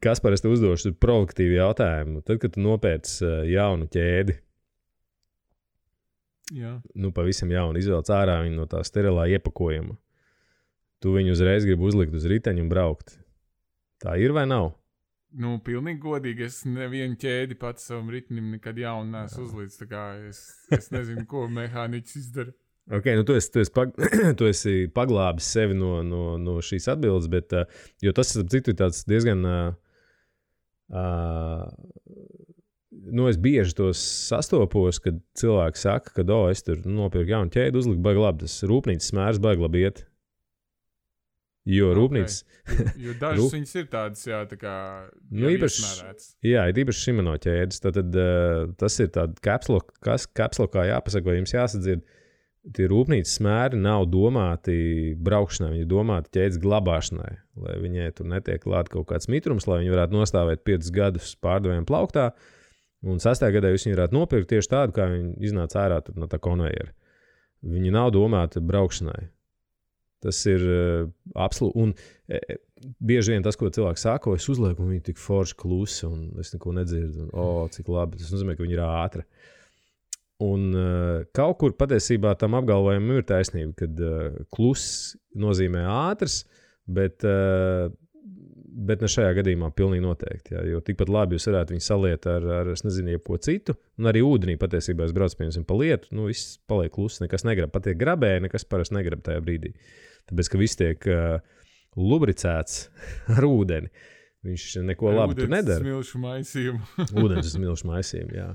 Kaspar, es te uzdošu provokatīvu jautājumu. Tad, kad tu nopērc jaunu ķēdi, pavisam jaunu, izvelc ārā viņu no tā sterilā iepakojuma, tu viņu uzreiz gribi uzlikt uz riteņu un braukt. Tā ir vai nav? Pilnīgi godīgi, es nevienu ķēdi pats savam ritinim nekad jaunu neesmu uzlīdz, tā kā es nezinu, ko mehāniķis izdara. Tu esi paglābis sevi no šīs atbildes, bet, jo tas, citu, ir tāds diezgan, es bieži tos sastopos, kad cilvēki saka, ka, es tur nopirku jaunu ķēdi, uzliku baigi labi, tas rūpnīcas smērs baigi labi iet. Jo rūpnīcas... Jo dažas viņas ir tādas, jā, tā kā iesmērētas. Jā, ir īpaši Shimano ķēdes. Tad tas ir tāda kapslokā jāpasaka, vai jums jāsadzird. Tie rūpnīcas smēri nav domāti braukšanai, viņi ir domāti ķēdes glabāšanai, lai viņai tur netiek klāt kaut kāds mitrums, lai viņi varētu nostāvēt 5 gadus pārdevējiem plauktā, un 6. gadā jūs viņu varētu nopirkt tieši tādu, kā viņi iznāca ārā no tā konvejera. Viņi nav domāti braukšanai. Tas ir absolūti. Un bieži vien tas, ko cilvēks saka, es uzlieku, un viņi tik forši klusi, un es neko nedzirdu. Un, cik labi. Tas nozīmē, ka viņi ir ātri. Un kaut kur patiesībā tam apgalvojumam ir taisnība, kad kluss nozīmē ātrs, bet ne šajā gadījumā pilnīgi noteikti. Jā, jo tikpat labi jūs varētu viņu saliet ar es nezinu, jebko citu. Un arī ūdenī patiesībā es braucu, piemēram, pa lietu, viss paliek kluss, nekas negrib. Pat tiek grabēji, nekas parasti negrib tajā brīdī. Tāpēc, ka viss tiek lubricēts ar ūdeni. Viņš neko labu tur nedara. Ūdens smilšu maisījumu. Ūdens smilšu maisījumu, jā.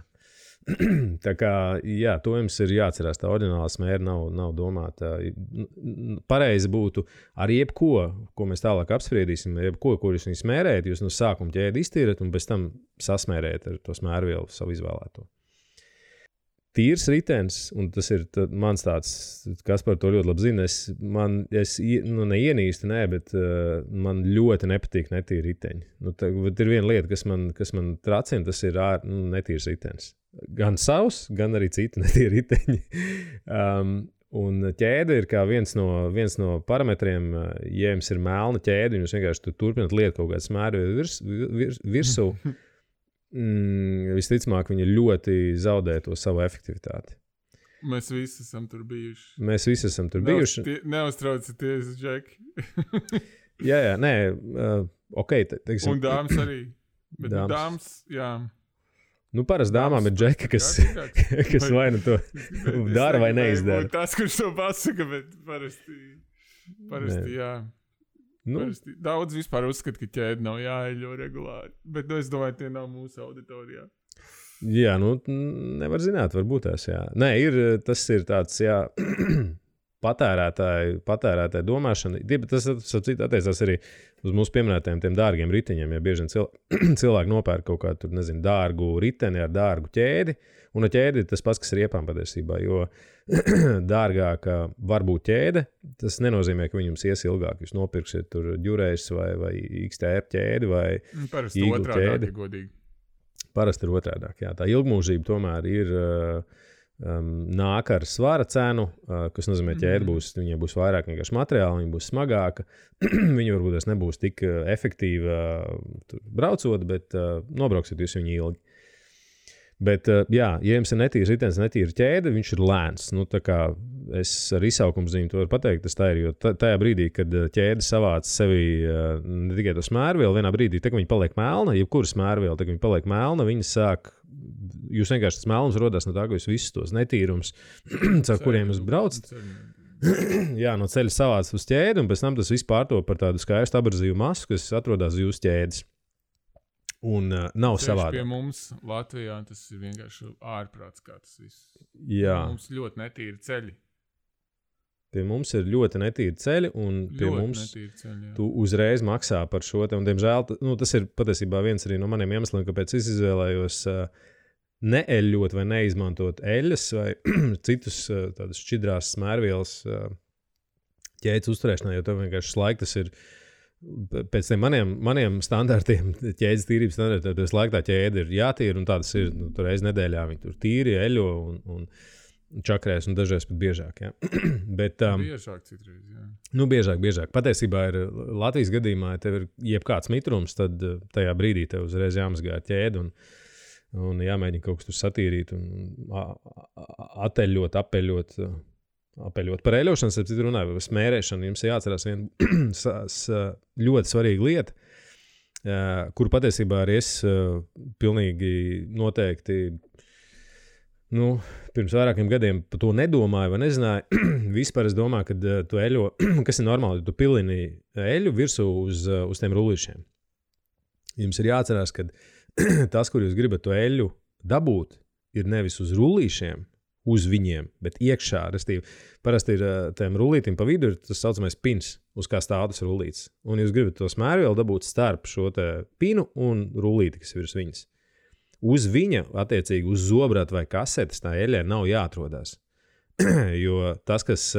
Tā kā, jā, to jums ir jāatcerās, tā oriģinālā smēra nav domāta. Pareizi būtu ar jebko, ko mēs tālāk apspriedīsim, jebko, kur jūs viņu smērējat, jūs no sākuma ķēdi iztīrat un pēc tam sasmērējat ar to smērvielu savu izvēlēto. Tīrs ritenis, un tas ir mans tāds, kas par to ļoti labi zina, es neienīstu, bet man ļoti nepatīk netīri riteņi. Ir viena lieta, kas man tracina, tas ir netīrs ritenis. Gan savs, gan arī citi netīri riteņi. Un ķēde ir kā viens no parametriem, ja jums ir melna ķēde, un jūs vienkārši turpināt lietu kaut kādu smēru virsū, visticamāk, viņi ļoti zaudē to savu efektivitāti. Mēs visi esam tur bijuši. Neuztraucieties, Džeki. jā, nē, ok. Teiksim, un dāmas arī. Bet dāmas, jā. Parasti dāmām ir Džeki, kas vai nu to dara vai neizdara. Tas, kurš to pasaka, bet parasti jā. Daudz vispār uzskata, ka ķēde nav jāeļo regulāri, bet es domāju, tie nav mūsu auditorijā. Jā, nevar zināt, varbūt tās, jā. Nē, tas ir tāds, jā, patērētāju domāšana. Tas attiecās arī uz mūsu pieminētajiem tiem dārgiem riteņiem, ja bieži cilvēki nopērk kaut kādu, nezinu, dārgu riteni ar dārgu ķēdi, un ar ķēdi tas pats, kas ir iepām patiesībā, jo dārgāka var būt ķēde, tas nenozīmē, ka viņi jums ies ilgāk. Jūs nopirksiet tur Ďurejs vai XTR ķēdi vai Eagle ķēdi. Parasti ir otrādāk, jā. Tā ilgmūžība tomēr ir nāk ar svara cenu, kas nozīmē ķēde viņai būs vairāk vienkārši materiāli, viņa būs smagāka, viņa varbūt nebūs tik efektīva braucot, bet nobrauksiet jūs viņu ilgi. Bet, jā, ja jums ir netīrs ritenis, netīra ķēde, viņš ir lēns. Tā kā es ar izsaukumzīmi to varu pateikt, tas tā ir, jo tajā brīdī, kad ķēde savāc sevi ne tikai to smērvielu, vienā brīdī, tā kā viņa paliek melna, jebkura smērviela, tā kā viņa paliek melna, viņa sāk, jūs vienkārši tas melnums rodās no tā, ka jūs visus tos netīrums, caur kuriem jūs braucat, jā, no ceļa savāc uz ķēdi, un pēc tam tas viss pārtop par tādu skaistu abrazīvu masu, kas atrodas uz jūsu ķēdes. Un nav savādāk. Pie mums Latvijā tas ir vienkārši ārprāts, kā tas viss. Jā. Mums ļoti netīri ceļi. Pie mums ir ļoti netīri ceļi, un pie mums tu uzreiz maksā par šo te. Un, diemžēl, tas ir patiesībā viens arī no maniem iemesliem, kāpēc es izvēlējos neeļļot vai neizmantot eļļas vai citus tādus šķidrās smērvielas ķēdes uzturēšanā, jo tev vienkārši laika tas ir pēc tiem maniem standartiem, ķēdes tīrības standartiem, tas laika tā ķēde ir jātīra, un tādas ir, tur reiz nedēļā viņi tur tīri, eļo un čakrēs, un dažreiz pat biežāk, jā. Bet, biežāk citreiz, jā. Biežāk. Patiesībā ir Latvijas gadījumā, ja tev ir jebkāds mitrums, tad tajā brīdī tev uzreiz jāmazgā ķēdi, un jāmēģina kaut kas tur satīrīt, un apeļot par eļošanas, ap citu runāju, par smērēšanu, jums jāatcerās viena ļoti svarīga lieta, kuru patiesībā arī es pilnīgi noteikti, pirms vairākiem gadiem par to nedomāju vai nezināju. Vispār es domāju, ka tu eļo, kas ir normāli, tu pilini eļu virsū uz tiem rullīšiem. Jums ir jāatcerās, ka tas, kur jūs gribat to eļu dabūt, ir nevis uz rullīšiem, uz viņiem, bet iekšā, restīvi, parasti ir tiem rullītim pa vidu ir tas saucamais pins, uz kā stāv tas rullītis. Un jūs gribat to smērvielu dabūt starp šo te pinu un rullīti, kas ir virs viņas. Uz viņa, attiecīgi, uz zobrata vai kasetes tā eļļai nav jāatrodās. Jo tas, kas,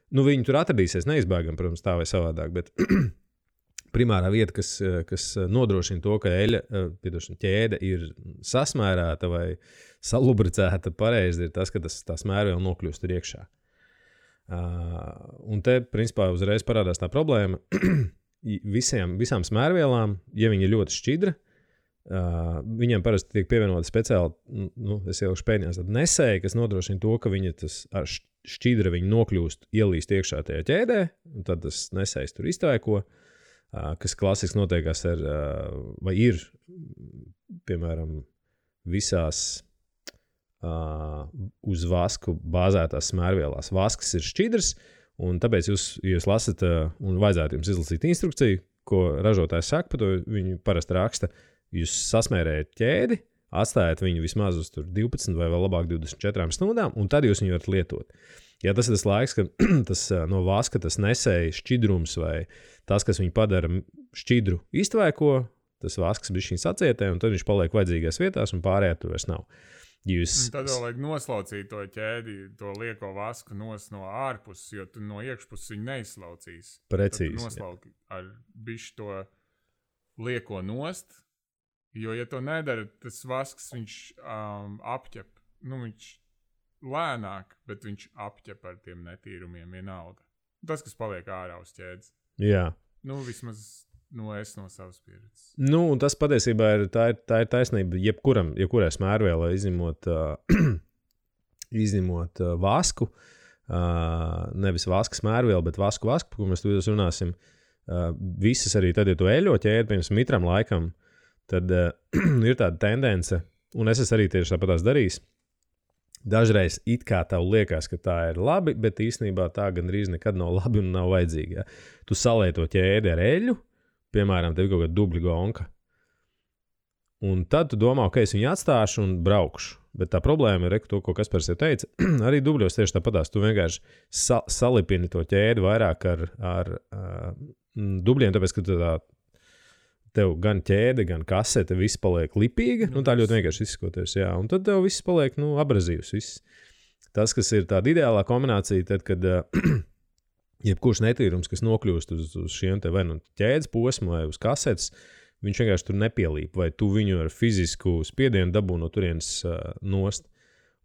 viņi tur atradīsies neizbēgam, protams, tā vai savādāk, bet primārā vieta, kas nodrošina to, ka ķēde ir sasmērēta vai salubricēta pareizi, ir tas, ka tā smērviela nokļūst tur iekšā. Un te, principā, uzreiz parādās tā problēma. Visām smērvielām, ja viņi ir ļoti šķidra, viņiem parasti tiek pievienota speciāli, es ielikšu pēdējās, tad nesēja, kas nodrošina to, ka viņa tas ar šķidra viņi nokļūst, ielīst iekšā tajā ķēdē, un tad tas nesējs tur iztaiko, kas klasiski notiekās vai ir, piemēram, visās uz vasku bāzētās smērvielās. Vasks ir šķidrs, un tāpēc jūs lasat, un vajadzētu jums izlasīt instrukciju, ko ražotājs saka, par to viņi parasti raksta, jūs sasmērējat ķēdi, atstājat viņu vismaz uz 12 vai vēl labāk 24 stundām, un tad jūs viņu varat lietot. Ja tas ir tas laiks, kad tas no vaska tas nesēja šķidrums vai tas, kas viņu padara šķidru iztvaiko, tas vasks bišķiņ sacietē, un tad viņš paliek vajadzīgās vietās, un pārējā tur vairs nav. Tad vēl vajag noslaucīt to ķēdi, to lieko vasku no ārpuses, jo tu no iekšpuses viņu neizslaucīs. Precīzi. Tad tu noslauki ar bišķi to lieko nost, jo, ja to nedara, tas vasks viņš apķep. Viņš lēnāk, bet viņš apķep ar tiem netīrumiem vienalga. Tas, kas paliek ārā uz ķēdes. Jā. Vismaz es no savas pieredzes. Un tas patiesībā ir taisnība jebkurai smērvielai izņemot vasku, nevis vaska smērvielu, bet vasku, par ko mēs tu runāsim. Visas arī tad, ja tu eļo ķēdi, piemēram, mitram laikam, tad ir tāda tendence, un es arī tieši tāpatās darījis. Dažreiz it kā tev liekas, ka tā ir labi, bet īstenībā tā gandrīz nekad nav labi un nav vajadzīga. Ja? Tu salēji to ķēdi ar eļu, piemēram, tev ir kaut kāda dubļa gonka. Un tad tu domā, ka es viņu atstāšu un braukšu. Bet tā problēma ir, to, ko Kaspars jau teica, arī dubļos tieši tāpatās. Tu vienkārši salipini to ķēdi vairāk ar dubļiem, tāpēc, ka tev gan ķēde, gan kasete, viss paliek lipīga. Tā ļoti vienkārši izskoties, jā. Un tad tev viss paliek, abrazīvs. Viss. Tas, kas ir tāda ideālā kombinācija, tad, kad jebkurš netīrums, kas nokļūst uz šiem te vai ķēdes posmu vai uz kasetes, viņš vienkārši tur nepielīp, vai tu viņu ar fizisku spiedienu dabū no turienes nost.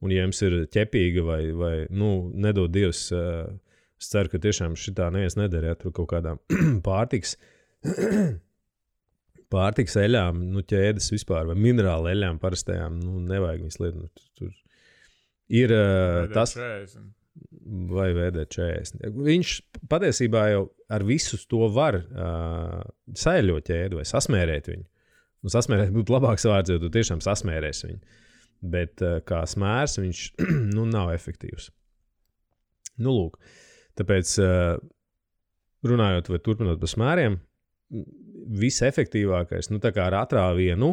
Un ja jums ir ķepīga vai nedod Dievs, es ceru, ka tiešām šitā neviens nedara, ja tur kaut kādām pārtiks eļām, ķēdes vispār, vai minerāla eļām parastajām, nevajag viņas lietot. Tur ir tas... Vai VD40. Viņš patiesībā jau ar visu to var saeļot ķēdi vai sasmērēt viņu. Sasmērēt būtu labāks vārds, jo tu tiešām sasmērēsi viņu. Bet kā smērs viņš nav efektīvs. Lūk. Tāpēc runājot vai turpinot par smēriem, visefektīvākais, tā kā ar atrāvienu,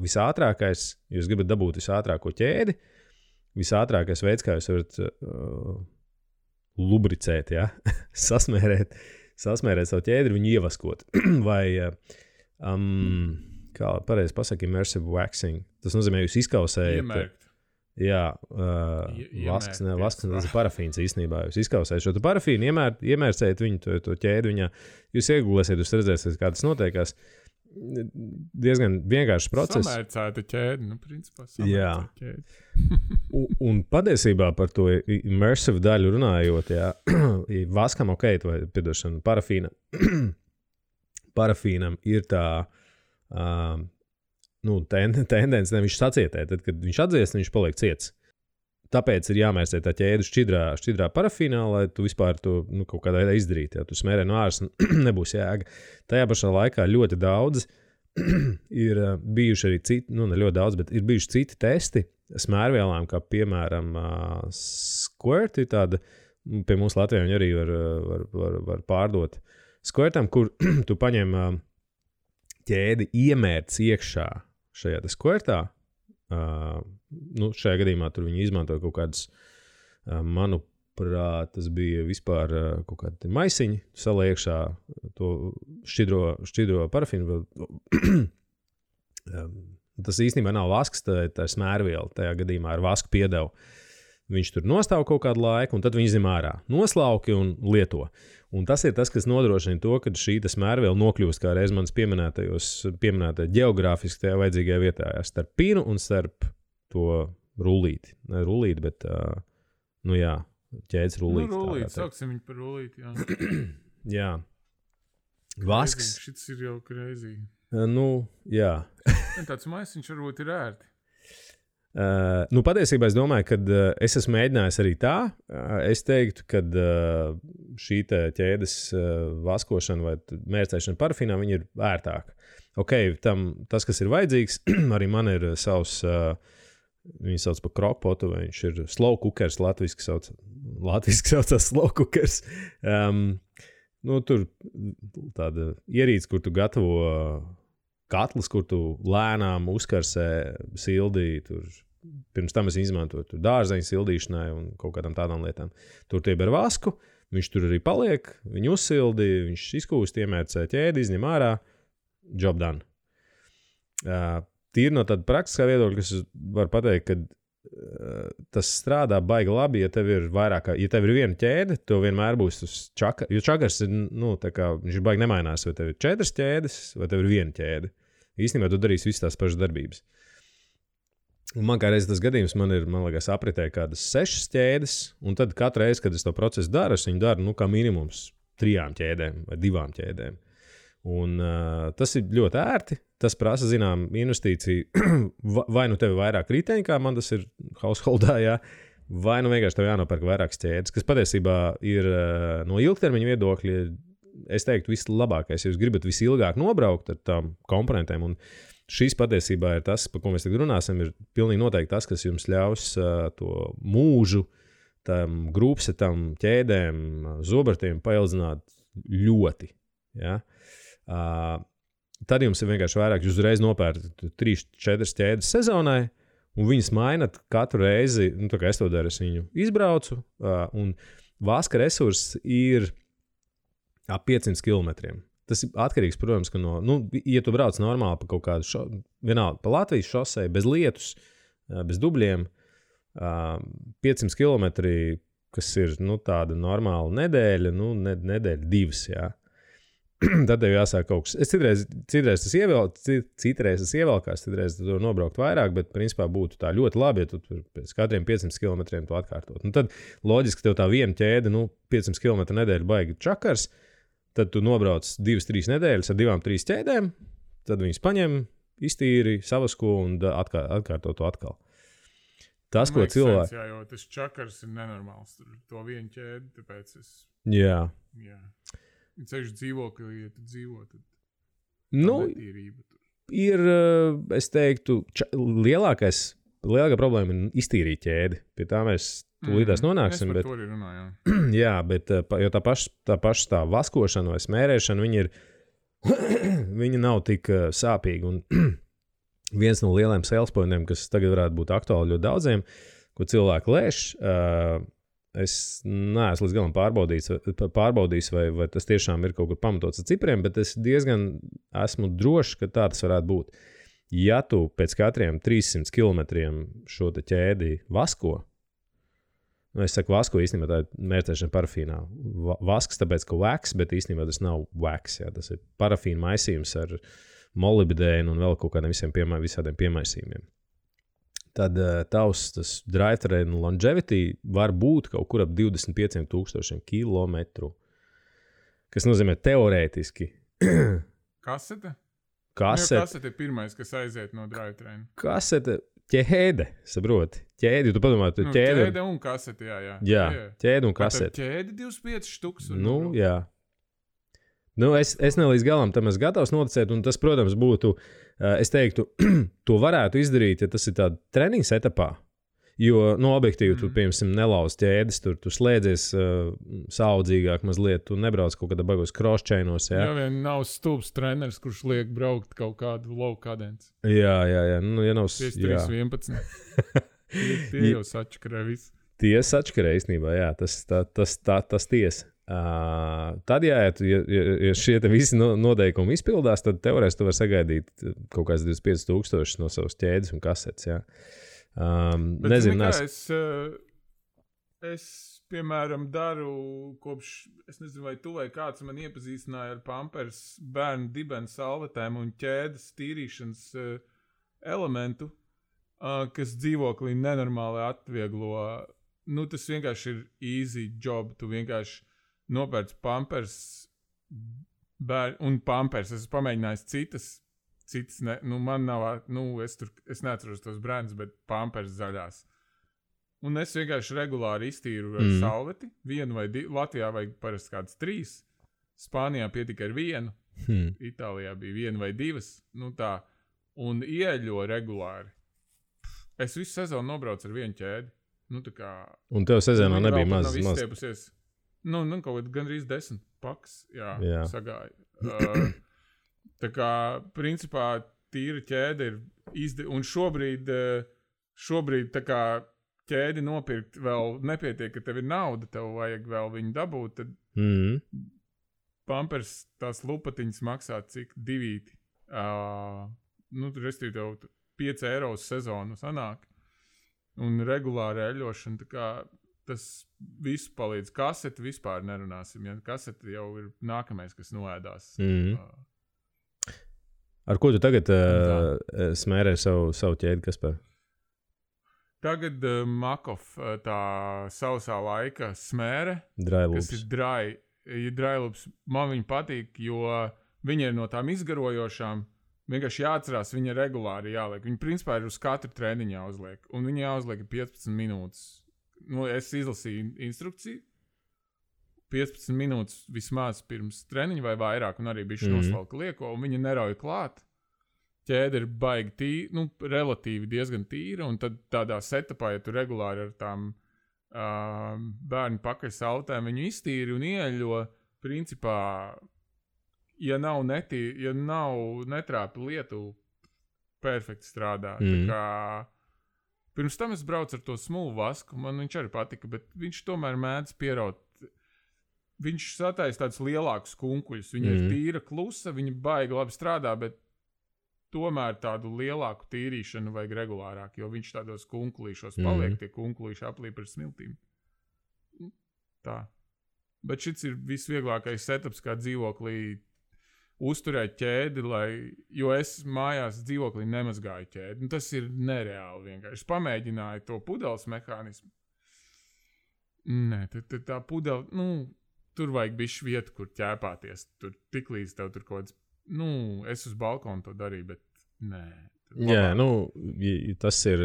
visātrākais, jūs gribat dabūt visātrāko ķēdi, visātrākais veids, kā jūs varat lubricēt, ja? sasmērēt savu ķēdi, viņu ievaskot. Vai, kā pareizi pasaka, immersive waxing. Tas nozīmē, jūs izkausējat. Iemērkt. Jā, vasks, tas ir parafīns īstenībā. Jūs izkausējat šo parafīnu, iemērcējat viņu, to ķēdi viņā. Jūs iegūlēsiet, jūs redzēsiet, kā tas notiekās. Diezgan vienkāršs process. Samērcēta ķēde, principā samērcēta ķēde. un patiesībā par to immersive daļu runājot, jā, vaskam vai, piedošana, parafīnam ir tā tendence, viņš sacietē, tad, kad viņš atdziest, viņš paliek ciets. Tāpēc ir jāmērcē tā ķēde šķidrā parafīnā, lai tu vispār to kaut kādā veidā izdarītu. Ja tu smērē no āras, nebūs jēga. Tajā pašā laikā ļoti daudz ir bijuši arī citi, ne ļoti daudz, bet ir bijuši citi testi smērvielām, kā piemēram Squirt, ir tāda, pie mums Latvijā viņi arī var pārdot. Squirtam, kur tu paņem ķēdi iemērc iekšā šajā Squirtā, Šajā gadījumā tur viņi izmantoja kaut kādas, manuprāt, tas bija vispār kaut kādi maisiņi, saliek iekšā to šķidro parafīnu. Tas īstenībā nav vasks, tā ir smērviela. Tajā gadījumā ar vasku piedevu. Viņš tur nostāv kaut kādu laiku, un tad viņi izņem ārā. Noslauki un lieto. Un tas ir tas, kas nodrošina to, ka šī smērviela nokļūst kā reiz manas pieminētajā geogrāfiski tajā vajadzīgajā vietā. Starp pīnu un starp to rullīti. Ne rullīti, bet, ķēdes rullīti. Rullīti, sauksim viņu par rullīti, jā. Jā. Vasks. Šis ir jau crazy. Jā. Tāds maisiņš varbūt ir ērti. Patiesībā es domāju, ka es esmu mēģinājis arī tā. Es teiktu, ka šī ķēdes vaskošana vai mērcēšana parafīnā viņa ir ērtāka. Tas, kas ir vajadzīgs, arī man ir savs, viņi sauc par krokpotu, vai viņš ir slow cookers, latviski saucās slow cookers. Tur tāda ierīce, kur tu gatavo katls, kur tu lēnām uzkarsē sildī, tur pirms tam es izmantoju dārzeņu sildīšanai un kaut kādām tādām lietām. Tur tieb ar vasku, viņš tur arī paliek, viņu uzsildi, viņš izkūst, iemērcē ķēdi, izņem ārā, job done. Tīri no tāda praktiskā viedokļa, kas var pateikt, ka tas strādā baigi labi, ja tev ir vairāk, ja tev ir viena ķēde, tev vienmēr būs uz čakars, jo čakars ir, viņš ir baigi nemainās, vai tev ir 4 ķēdes, vai tev ir viena ķēde. Īstenībā tu darīsi visas tās pašas darbības. Un man kā reiz tas gadījums, man liekas, apritē kādas 6 ķēdes, un tad katru reizi, kad es to procesu daru, es viņu daru, kā minimums 3 ķēdēm vai 2 ķēdēm. Un tas ir ļoti ērti, tas prasa, zinām, investīciju, vai tev ir vairāk riteņi, kā man tas ir householdā, jā, vai vienkārši tev jānopērk vairākas ķēdes, kas patiesībā ir no ilgtermiņa viedokļa, es teiktu, vislabākais, ja jūs gribat visilgāk nobraukt ar tām komponentēm, un šīs patiesībā ir tas, par ko mēs tagad runāsim, ir pilnīgi noteikti tas, kas jums ļaus to mūžu, tam grūpsetam, ķēdēm, zobartiem paildzināt ļoti. Ja? Tad jums ir vienkārši vairāk, jūs uzreiz nopērkat 3-4 ķēdes sezonai, un viņas mainat katru reizi, tā kā es to daru, es viņu izbraucu, un vaska resurss ir ap 500 kilometriem. Tas ir atkarīgs, protams, ka ja tu brauc normāli pa kaut kādu vienalga, pa Latvijas šosei, bez lietus, bez dubļiem, 500 kilometri, kas ir, tāda normāla nedēļa, nedēļa 2, jā. Tad tev jāsāk kaut kas. Citreiz tas ievelkās, citreiz tu nobraukt vairāk, bet principā būtu tā ļoti labi, ja tu pēc katriem 500 kilometriem to atkārtot. Tad loģiski tev tā viena ķēde, 500 kilometru nedēļa baigi čakars, tad tu nobrauc 2-3 nedēļas ar 2-3 ķēdēm, tad viņas paņem, iztīri, savasko un atkārto to atkal. Tas, ko cilvēki... Jā, jo tas čakars ir nenormāls. Tur to vienu ķēdi, tāpēc es... Jā. Ceļš dzīvoklī, ja tu dzīvo, tad netīrība tur. Ir, es teiktu, lielākā problēma ir iztīrīt ķēdi. Pie tā mēs tūlītās nonāksim. Es par to arī runāju. Jā, bet jo tā paša tā vaskošana vai smērēšana, viņa nav tik sāpīga. Un viens no lieliem sales pointiem, kas tagad varētu būt aktuāli ļoti daudziem, ko cilvēki lēš, es neesmu līdz galam pārbaudījis, vai tas tiešām ir kaut kur pamatots ar cipriem, bet es diezgan esmu drošs, ka tā tas varētu būt. Ja tu pēc katriem 300 kilometriem šo te ķēdi vasko, es saku vasko, īstenībā tā ir mērcēšana parafīnā. Vasks, tāpēc, ka wax, bet īstenībā tas nav wax, jā, tas ir parafīna maisījums ar molibdēnu un vēl kaut kādiem visādiem piemaisījumiem. Tad tas drive train longevity var būt kaut kur ap 25,000 kilometru, kas nozīmē teorētiski. Kasete? Kasete ir pirmais, kas aiziet no drive train. Kasete, ķēde, saproti. Ķēdi, tu padomā, tu ķēde. Ķēde un kasete, jā. Jā, ķēde un kasete. Ķēde 25 štuks. Jā. Es ne līdz galam tam esmu gatavs noticēt, un tas, protams, būtu, es teiktu, to varētu izdarīt, ja tas ir tādā treniņas etapā. Jo, objektīvi, tu, piemēram, nelauz ķēdes, tu slēdzies saudzīgāk mazliet, tu nebrauc kaut kādā bagos cross-chainos, jā? Jā, vien nav stulbs treneris, kurš liek braukt kaut kādu low cadence. Jā, ja nav... 5-3-11. Tie jau sačakarē visu. Tie sačakarē īstenībā, jā, tas tiesa. Tad, ja šie te visi noteikumi izpildās, tad teorētiski tu vari sagaidīt kaut kāds 25,000 no savas ķēdes un kasetes, jā. Nezinu, es, piemēram, daru kopš, es nezinu, vai tu vai kāds man iepazīstināja ar Pampers bērnu dibenu salvetēm un ķēdes tīrīšanas elementu, kas dzīvoklī nenormāli atvieglo. Tas vienkārši ir easy job, tu vienkārši nopērc Pampers un Pampers. Es pamēģināju citas man nav, es neatceros tos brandus, bet Pampers zaļās. Un es vienkārši regulāri iztīru ar salveti, vienu vai divu, Latvijā vajag parasti kāds 3, Spānijā pietika ar 1, Itālijā bija 1 vai 2, tā, un ieļo regulāri. Es visu sezonu nobraucu ar 1 ķēdi. Tā kā... Un tev sezonā nebija maz. Izstiepusies. Kaut kā gandrīz 10 paks, jā. Sagāja. Tā kā, principā, tīra ķēde ir un šobrīd tā kā ķēdi nopirkt vēl nepietiek, ka tev ir nauda, tev vajag vēl viņu dabūt, tad Pampers tās lupatiņas maksā cik 2. Restīvi tev 5 eiro uz sezonu sanāk. Un regulāri eļošana, tā kā tas visu palīdz. Kaseti vispār nerunāsim, ja kaseti jau ir nākamais, kas noēdās. Ar ko tu tagad smērē savu ķēdi, Kaspar? Tagad Makov tā sausā laika smēre, Dryloops. Kas ir Dryloops. Man viņa patīk, jo viņa ir no tām izgarojošām. Vienkārši jāatcerās, viņa regulāri jāliek. Viņa principā ir uz katru treniņu jāuzliek. Un viņa jāuzliek 15 minūtes. Es izlasīju instrukciju. 15 minūtes vismaz pirms treniņa vai vairāk, un arī bišķi nosvalka lieko, un viņa nerauj klāt. Ķēde ir baigi tīra, relatīvi diezgan tīra, un tad tādā setupā, ja tu regulāri ar tām bērnu pakaļsautēm viņu iztīri un ieļo, principā, ja nav netrāpi lietu, perfekti strādā. Tā kā pirms tam es braucu ar to smulu vasku, man viņš arī patika, bet viņš tomēr mēdz pieraut. Viņš sataisa tādus lielākus kunkuļus. Viņa ir tīra, klusa, viņa baigi labi strādā, bet tomēr tādu lielāku tīrīšanu vajag regulārāk, jo viņš tādos kunkulīšos paliek, tie kunkulīši aplīp ar smiltīm. Tā. Bet šis ir visvieglākais setups, kā dzīvoklī uzturēt ķēdi, jo es mājās dzīvoklī nemazgāju ķēdi. Tas ir nereāli vienkārši. Es pamēģināju to pudeles mehānismu. Nē, tā pudele, tur vajag bišķi vietu, kur ķēpāties. Tur tiklīdz tev tur kaut kāds, es uz balkonu to darīju, bet nē. Jā, tas ir,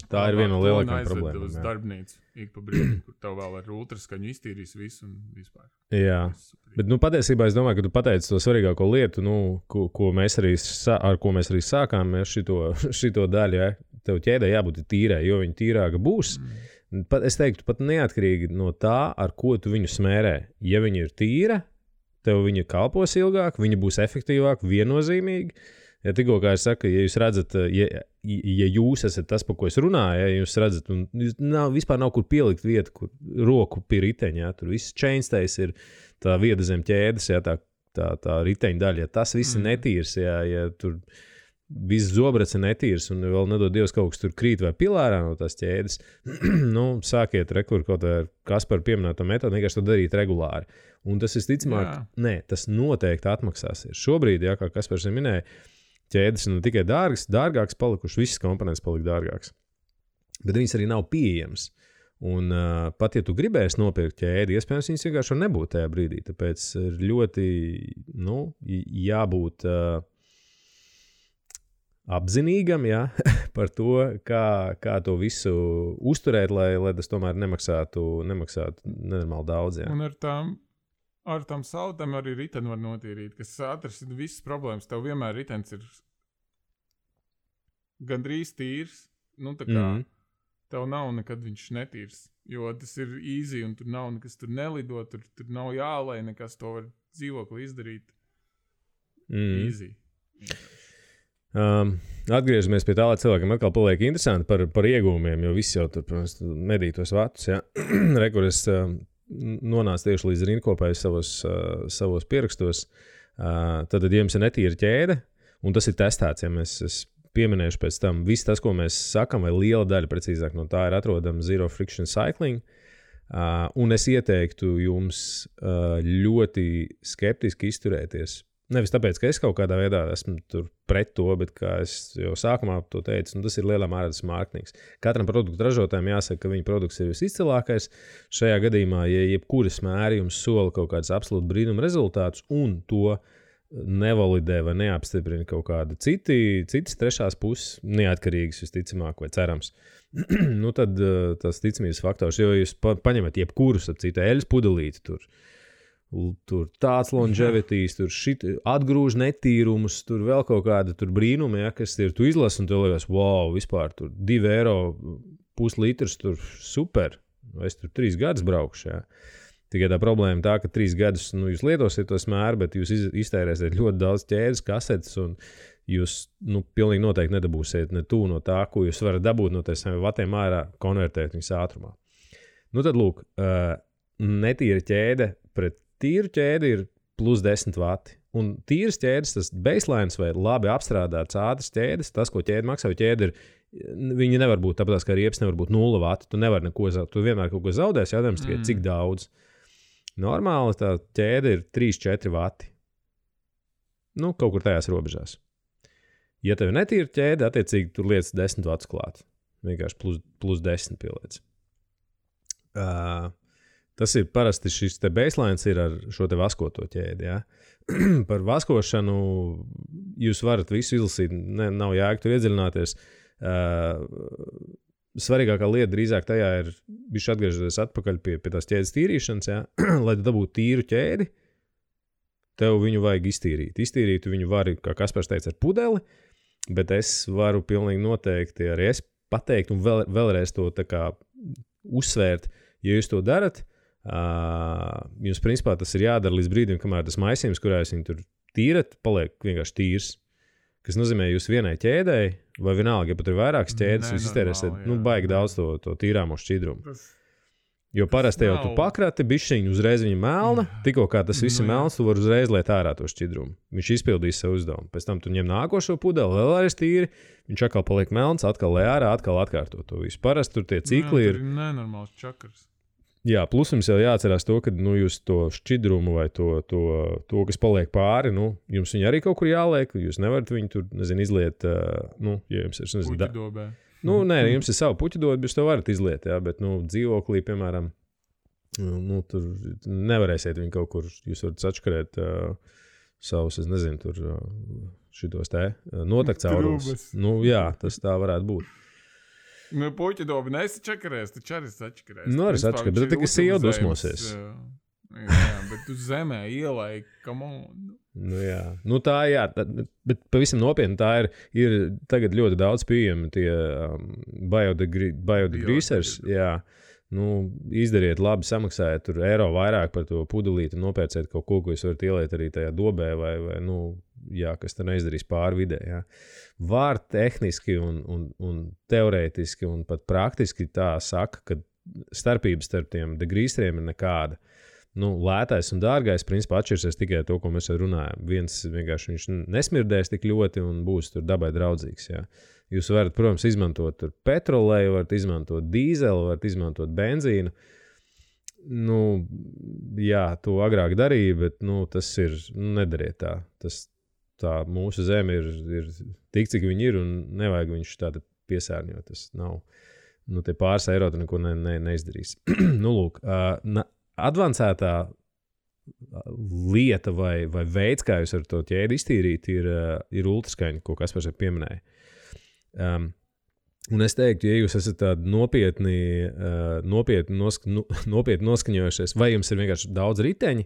tā ir viena no lielākajām problēmām. Uz darbnīcu, ik pa brīdim, kur tev vēl ar ultraskaņu iztīrīs visu un vispār. Jā, bet patiesībā es domāju, ka tu pateici to svarīgāko lietu, ar ko mēs arī sākām šito daļu, ja? Tev ķēdē jābūt tīrai, jo viņa tīrāka būs. Es teiktu, pat neatkarīgi no tā, ar ko tu viņu smērē. Ja viņa ir tīra, tev viņa kalpos ilgāk, viņa būs efektīvāk, viennozīmīgi. Ja tikko, kā es saku, ja jūs redzat, ja jūs esat tas, par ko es runāju, ja jūs redzat, un vispār nav kur pielikt vietu, kur roku pie riteņa, ja, tur viss chainstays ir tā vieda zem ķēdes, ja, tā riteņa daļa, ja tas viss ir netīrs, ja tur viss zobrats ir netīrs, un vēl nedod Dievs kaut kas tur krīt vai pilārā no tās ķēdes, sākiet rekur kaut vai Kaspar pieminēto metodu, vienkārši to darīt regulāri. Un tas visticamāk, tas noteikti atmaksāsies. Šobrīd, ja, kā Kaspars minēja, ķēdes ir ne tikai dārgāks palikuši, visas komponentes palika dārgāks. Bet viņas arī nav pieejamas. Un pat, ja tu gribēsi nopirkt ķēdi, iespējams, viņas vienkārši var nebūt tajā brīdī. Tāpēc ir ļoti, jābūt apzinīgam, ja, par to, kā to visu uzturēt, lai tas tomēr nemaksātu nenormāli daudz. Ja. Un ar tām sautēm arī riteni var notīrīt, kas atrasina visas problēmas. Tev vienmēr ritens ir gandrīz tīrs. Tā kā tev nav nekad viņš netīrs. Jo tas ir easy un tur nav nekas tur nelido, tur nav jālai nekas, to var dzīvokli izdarīt. Easy. Atgriežamies pie tā, lai cilvēkiem atkal paliek interesanti par iegūmiem, jo viss jau tur, protams, medī tos vatus, ja. Rekur es nonācu tieši līdz rindkopai savos pierakstos. Tad, ja jums ir netīra ķēde, un tas ir testēts, ja mēs pieminējuši pēc tam, viss tas, ko mēs sakam, vai liela daļa, precīzāk, no tā ir atrodama Zero Friction Cycling, un es ieteiktu jums ļoti skeptiski izturēties. Nevis tāpēc, ka es kaut kādā veidā esmu tur pret to, bet kā es jau sākumā to teicu, tas ir lielā mērā tas mārketings. Katram produktu ražotājiem jāsaka, ka viņa produkts ir visizcilākais. Šajā gadījumā, ja jebkuras mēri jums sola kaut kādas absolūti brīnuma rezultātus un to nevalidē vai neapstiprina kaut kāda citas trešās puses, neatkarīgas visticamāk vai cerams, tad tas ticamības faktors, jo jūs paņemat jebkurus, citu eļas pudelīti tur tāds longevities, tur atgrūž netīrumus, tur vēl kaut kāda tur brīnumi, ja, kas ir, tu izlasi un tev liekas, wow, vispār tur 2 eiro puslitrs, tur super, es tur 3 gadus braukšu, ja. Tikai tā problēma tā, ka 3 gadus, jūs lietosiet to smēru, bet jūs iztērēsiet ļoti daudz ķēdes, kasetes, un jūs, pilnīgi noteikti nedabūsiet ne tu no tā, ko jūs varat dabūt no saviem vatiem ārā, konvertēt viņas ātrumā. Tad lūk, netīra ķēde pret tīru ķēdi ir plus 10 vati. Un tīras ķēdes, tas baselines vai labi apstrādāts ātras ķēdes, tas, ko ķēde maksā, jo ķēde ir, viņi nevar būt, tāpēc, ka riepas nevar būt 0 vati, tu nevar neko zaudēt, tu vienmēr kaut ko zaudēsi, jādams tikai cik daudz. Normāli tā ķēde ir 3-4 vati. Kaut kur tajās robežās. Ja tev netīra ķēde, attiecīgi tur lietas 10 vatus klāt. Vienkārši plus 10 pieliec. Tas ir parasti šis te baselines ir ar šo te vaskoto ķēdi, ja. Par vaskošanu jūs varat visu izlasīt, nav jēga tur iedziļināties. Svarīgākā lieta drīzāk tajā ir bišķi atgriežoties atpakaļ pie tās ķēdes tīrīšanas, ja. Lai tu dabūtu tīru ķēdi, tev viņu vajag iztīrīt. Iztīrīt viņu var, kā Kaspars teica, ar pudeli, bet es varu pilnīgi noteikti arī es pateikt un vēlreiz to tā kā uzsvērt, ja jūs to darat, jums principā tas ir jādara līdz brīdim, kamēr tas maisījums, kurā jūs viņu tur tīrat, paliek vienkārši tīrs. Kas nozīmē, jūs vienai ķēdēji, vai vienalga, ja pat ir vairākas ķēdes, jūs iztērēsiet baigi daudz to tīrāmo šķidrumu. Jo parasti jau tu pakrati, bišķiņu uzreiz viņa melna, tikko kā tas viss ir melns, tu vari uzreiz liet ārā to šķidrumu. Viņš izpildīs savu uzdevumu. Pēc tam tu ņem nākošo pudeli, vēl arī tīri, viņš atkal paliek melns, atkal lej ārā, atkal atkārto to visu. Parasti tur tie cikli ir. Nenormāls čakars. Jā, plus jums jau jāatcerās to, ka jūs to šķidrumu vai to kas paliek pāri, jums viņu arī kaut kur jāliek, jūs nevarat viņu tur, izliet, ja jums ir, puķidobē. Nē, jums ir savu puķidobi, jūs to varat izliet, jā, bet, dzīvoklī, piemēram, tur nevarēsiet viņu kaut kur, jūs varat sačkarēt savus, es nezinu, tur šitos notakt caurumus. Jā, tas tā varētu būt. Puķidobi nesačakarēs, taču arī sačakarēs. Arī sačakarēs, bet tikai sieva dusmosies. Jā, bet tu zemē ielai, come on. Jā. Tā, jā, bet pavisam nopietni tā ir tagad ļoti daudz pieejami tie biodegreasers, jā. Izdariet labi, samaksājiet tur eiro vairāk par to pudelīti un nopērciet kaut ko, ko jūs varat ieliet arī tajā dobē vai jā, kas te neizdarīs pāri vidē, jā. Var tehniski un teorētiski un pat praktiski tā saka, ka starpības starp tiem degreaseriem ir nekāda. Lētais un dārgais principā atšķirsies tikai to, ko mēs runājam. Viens vienkārši viņš nesmirdēs tik ļoti un būs tur dabai draudzīgs, jā. Jūs varat, protams, izmantot tur petroleju, varat izmantot dīzeli, varat izmantot benzīnu. Jā, to agrāk darīja, bet, tas ir, nedariet tā. Tā mūsu zeme ir tik, cik viņi ir, un nevajag viņš tāda piesārņot. Tas nav, tie pāris eiro tu neko neizdarīs. Lūk, advancētā lieta vai veids, kā jūs ar to ķēdi iztīrīt, ir ultraskaņa, ko Kaspars arī pieminēja. Un es teiktu, ja jūs esat tādi nopietni noskaņojušies, vai jums ir vienkārši daudz riteņi,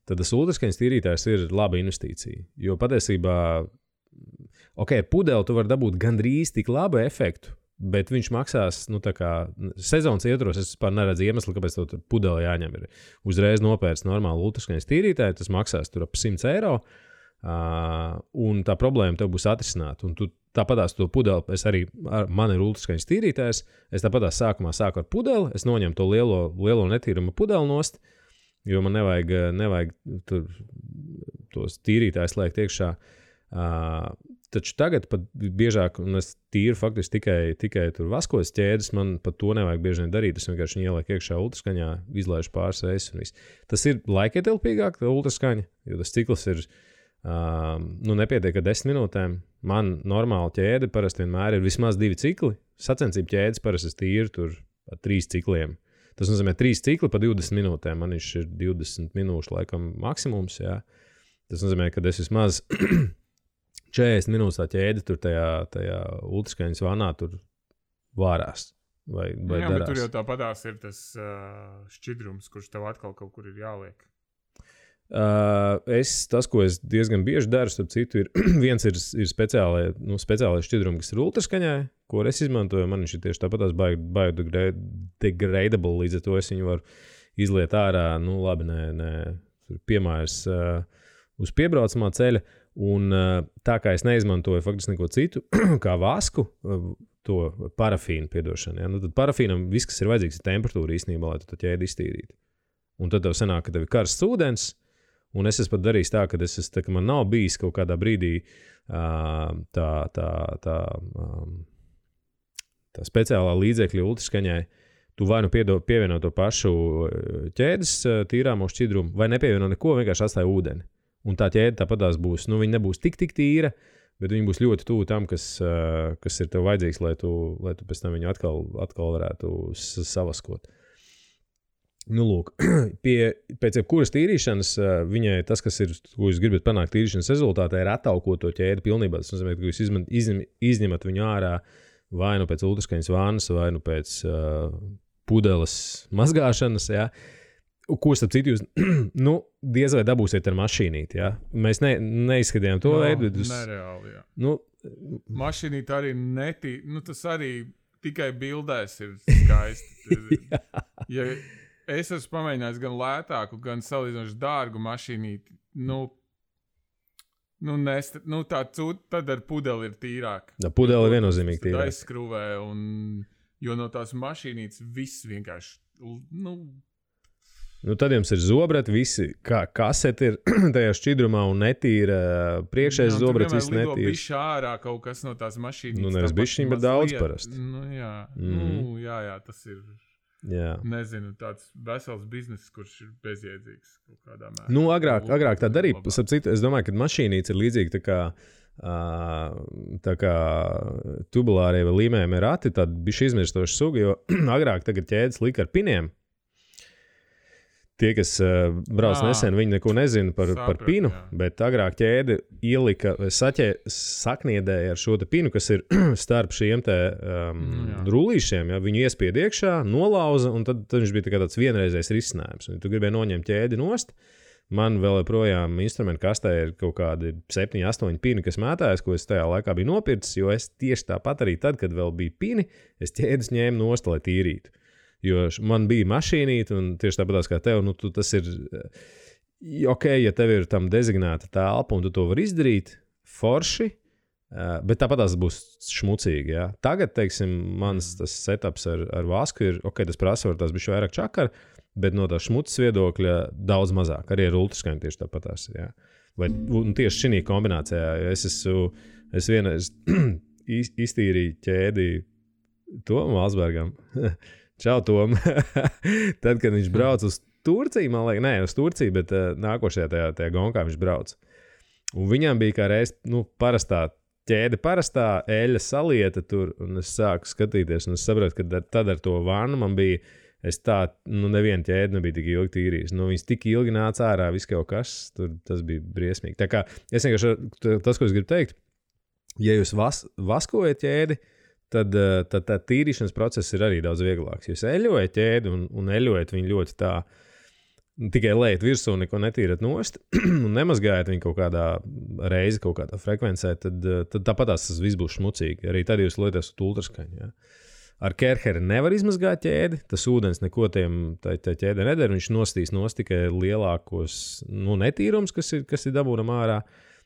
tad tas ultraskaņas tīrītājs ir laba investīcija. Jo patiesībā, pudeli tu vari dabūt gandrīz tik labu efektu, Bet viņš maksās, tā kā sezonas ietvaros, es vispār neredzu iemeslu, kāpēc tev tur pudeli jāņem. Ir uzreiz nopērts normāli ultraskaņas tīrītāji, tas maksās tur ap 100 eiro, un tā problēma tev būs atrisināta. Un tu tāpatās to pudeli, man ir ultraskaņas tīrītājs, es tāpatās sākumā sāku ar pudeli, es noņemu to lielo netīrumu pudeli nost, jo man nevajag tur tos tīrītājus liekt iekšā. Taču tagad pat biežāk, un es tīru faktiski tikai tur vaskojas ķēdes, man pat to nevajag bieži vien darīt. Es vienkārši viņu ielieku iekšā ultraskaņā, izlaižu pāris reizes un viss. Tas ir laikietilpīgāk, tā ultraskaņa, jo tas cikls ir, nepietiek ar 10 minūtēm. Man normāla ķēde parasti vienmēr ir vismaz 2 cikli. Sacensību ķēdes parasti es tīru tur ar 3 cikliem. Tas nozīmē 3 cikli pa 20 minūtēm. Man viņš ir 20 minūšu laikam maksimums, jā. Tas nozīmē, ka es vismaz 40 minūtes tā ķēde tur tajā ultraskaņas vanā tur vārās. Vai jā, darās. Bet tur jau tāpatās ir tas šķidrums, kurš tev atkal kaut kur ir jāliek. Tas, ko es diezgan bieži daru, starp citu, viens ir speciālais šķidrumi, kas ir ultraskaņai, ko es izmantoju. Man viņš ir tieši tāpatās biodegradable, līdz ar to es viņu varu izliet ārā, labi, piemērs uz piebraucamā ceļa. Un tā kā es neizmantoju faktiski neko citu, kā vasku, to parafīnu piedošanu. Ja? Tad parafīnam viss, kas ir vajadzīgs, ir temperatūra īstenībā, lai tu to ķēdi iztīrītu. Un tad tev sanāk, ka tev ir karsts ūdens, un es esmu pat darījis tā, ka man nav bijis kaut kādā brīdī tā speciālā līdzekļa ultraskaņai. Tu vai pievieno to pašu ķēdes tīrāmo šķidrumu, vai nepievieno neko, vienkārši atstāja ūdeni. Un tā ķēde tāpatās būs, viņa nebūs tik tīra, bet viņa būs ļoti tuvu tam, kas ir tev vajadzīgs, lai tu pēc tam viņu atkal varētu savaskot. Lūk, pēc jebkuras tīrīšanas, viņai tas, kas ir, ko jūs gribat panākt tīrīšanas rezultātā, ir attaukot to ķēdi pilnībā. Tas nozīmē, ka jūs izņemat viņu ārā vai nu pēc ultraskaņas vannas, vai nu pēc pudeles mazgāšanas, jā. Ko starp citu jūs, diez vai dabūsiet ar mašīnīti, jā? Mēs neizskatījām to veidu. Nereāli, jā. Mašīnīti arī tas arī tikai bildēs ir skaisti. Ja es esmu pamēģinājis gan lētāku, gan salīdzinoši dārgu mašīnīti, tad ar pudeli ir tīrāk. Pudeli ir viennozīmīgi tīrāk. Tad aizskrūvē, jo no tās mašīnītes viss vienkārši, tad jums ir zobrati, visi, kā kaseti ir tajā šķidrumā un netīra priekšējais zobrats, viss netīrs. Lido bišķi ārā kaut kas no tās mašīnītes. Nevis bišķiņ, bet daudz parasti. Jā, tas ir, nezinu, tāds vesels biznes, kurš ir bezjēdzīgs kaut kādā mērā. Agrāk tā darīja. Es domāju, ka mašīnītes ir līdzīgi tā kā tubulārie vai līmējumie rati, tāda bišķi izmirstoša suga, jo agrāk tagad ķēdes lika ar piniem. Tie, kas brauc nesen, viņi neko nezina par pinu, bet agrāk ķēde ielika, sakniedēja ar šo te pinu, kas ir starp šiem te rullīšiem. Ja? Viņu iespied iekšā, nolauza, un tad viņš bija tāds vienreizējs risinājums. Un tu gribēji noņemt ķēdi nost. Man vēl joprojām instrumentu kastē ir kaut kādi 7, 8 pini, kas mētājas, ko es tajā laikā biju nopircis, jo es tieši tāpat arī tad, kad vēl bija pini, es ķēdes ņēmu nost, lai tīrītu. Jo man bija mašīnīte, un tieši tāpatās kā tev, tas ir ok, ja tev ir tam dezignēta telpa, un tu to vari izdarīt forši, bet tāpatās būs šmucīgi, jā. Tagad, teiksim, mans tas setups ar vasku ir, ok, tas prasa var tās bišķi vairāk čakar, bet no tā šmucas viedokļa daudz mazāk, arī ar ultraskaņu tieši tāpatās, jā. Un tieši šī kombinācijā, es vienreiz iztīrīju ķēdi Tomu Alsbergam. Čau, Tom. Tad, kad viņš brauc uz Turciju, man liekas, uz Turciju, bet nākošajā tajā gonkā viņš brauc. Un viņam bija kā reiz, parastā ķēde, parastā eļļa salieta tur, un es sāku skatīties, un es sapratu, ka tad ar to vannu man bija, neviena ķēde nebija tik ilgi tīrījis. Viņas tik ilgi nāca ārā, viss kaut kas, tas bija briesmīgi. Tā kā, es vienkārši, tas, ko es gribu teikt, ja jūs vaskojat ķēdi, tad tā tīrīšanas process ir arī daudz vieglāks. Jūs eļojat ķēdi un eļojat viņu ļoti tā tikai lejat virsū, neko netīrat nost un nemazgājat viņu kaut kādā reizi, kaut kādā frekvencē, tad tāpatās tas viss būs šmucīgi. Arī tad jūs lietot ultraskaņu. Ja? Ar Kerheri nevar izmazgāt ķēdi, tas ūdens neko tā ķēde nedara, viņš nostīs tikai lielākos netīrums, kas ir dabūnam ārā.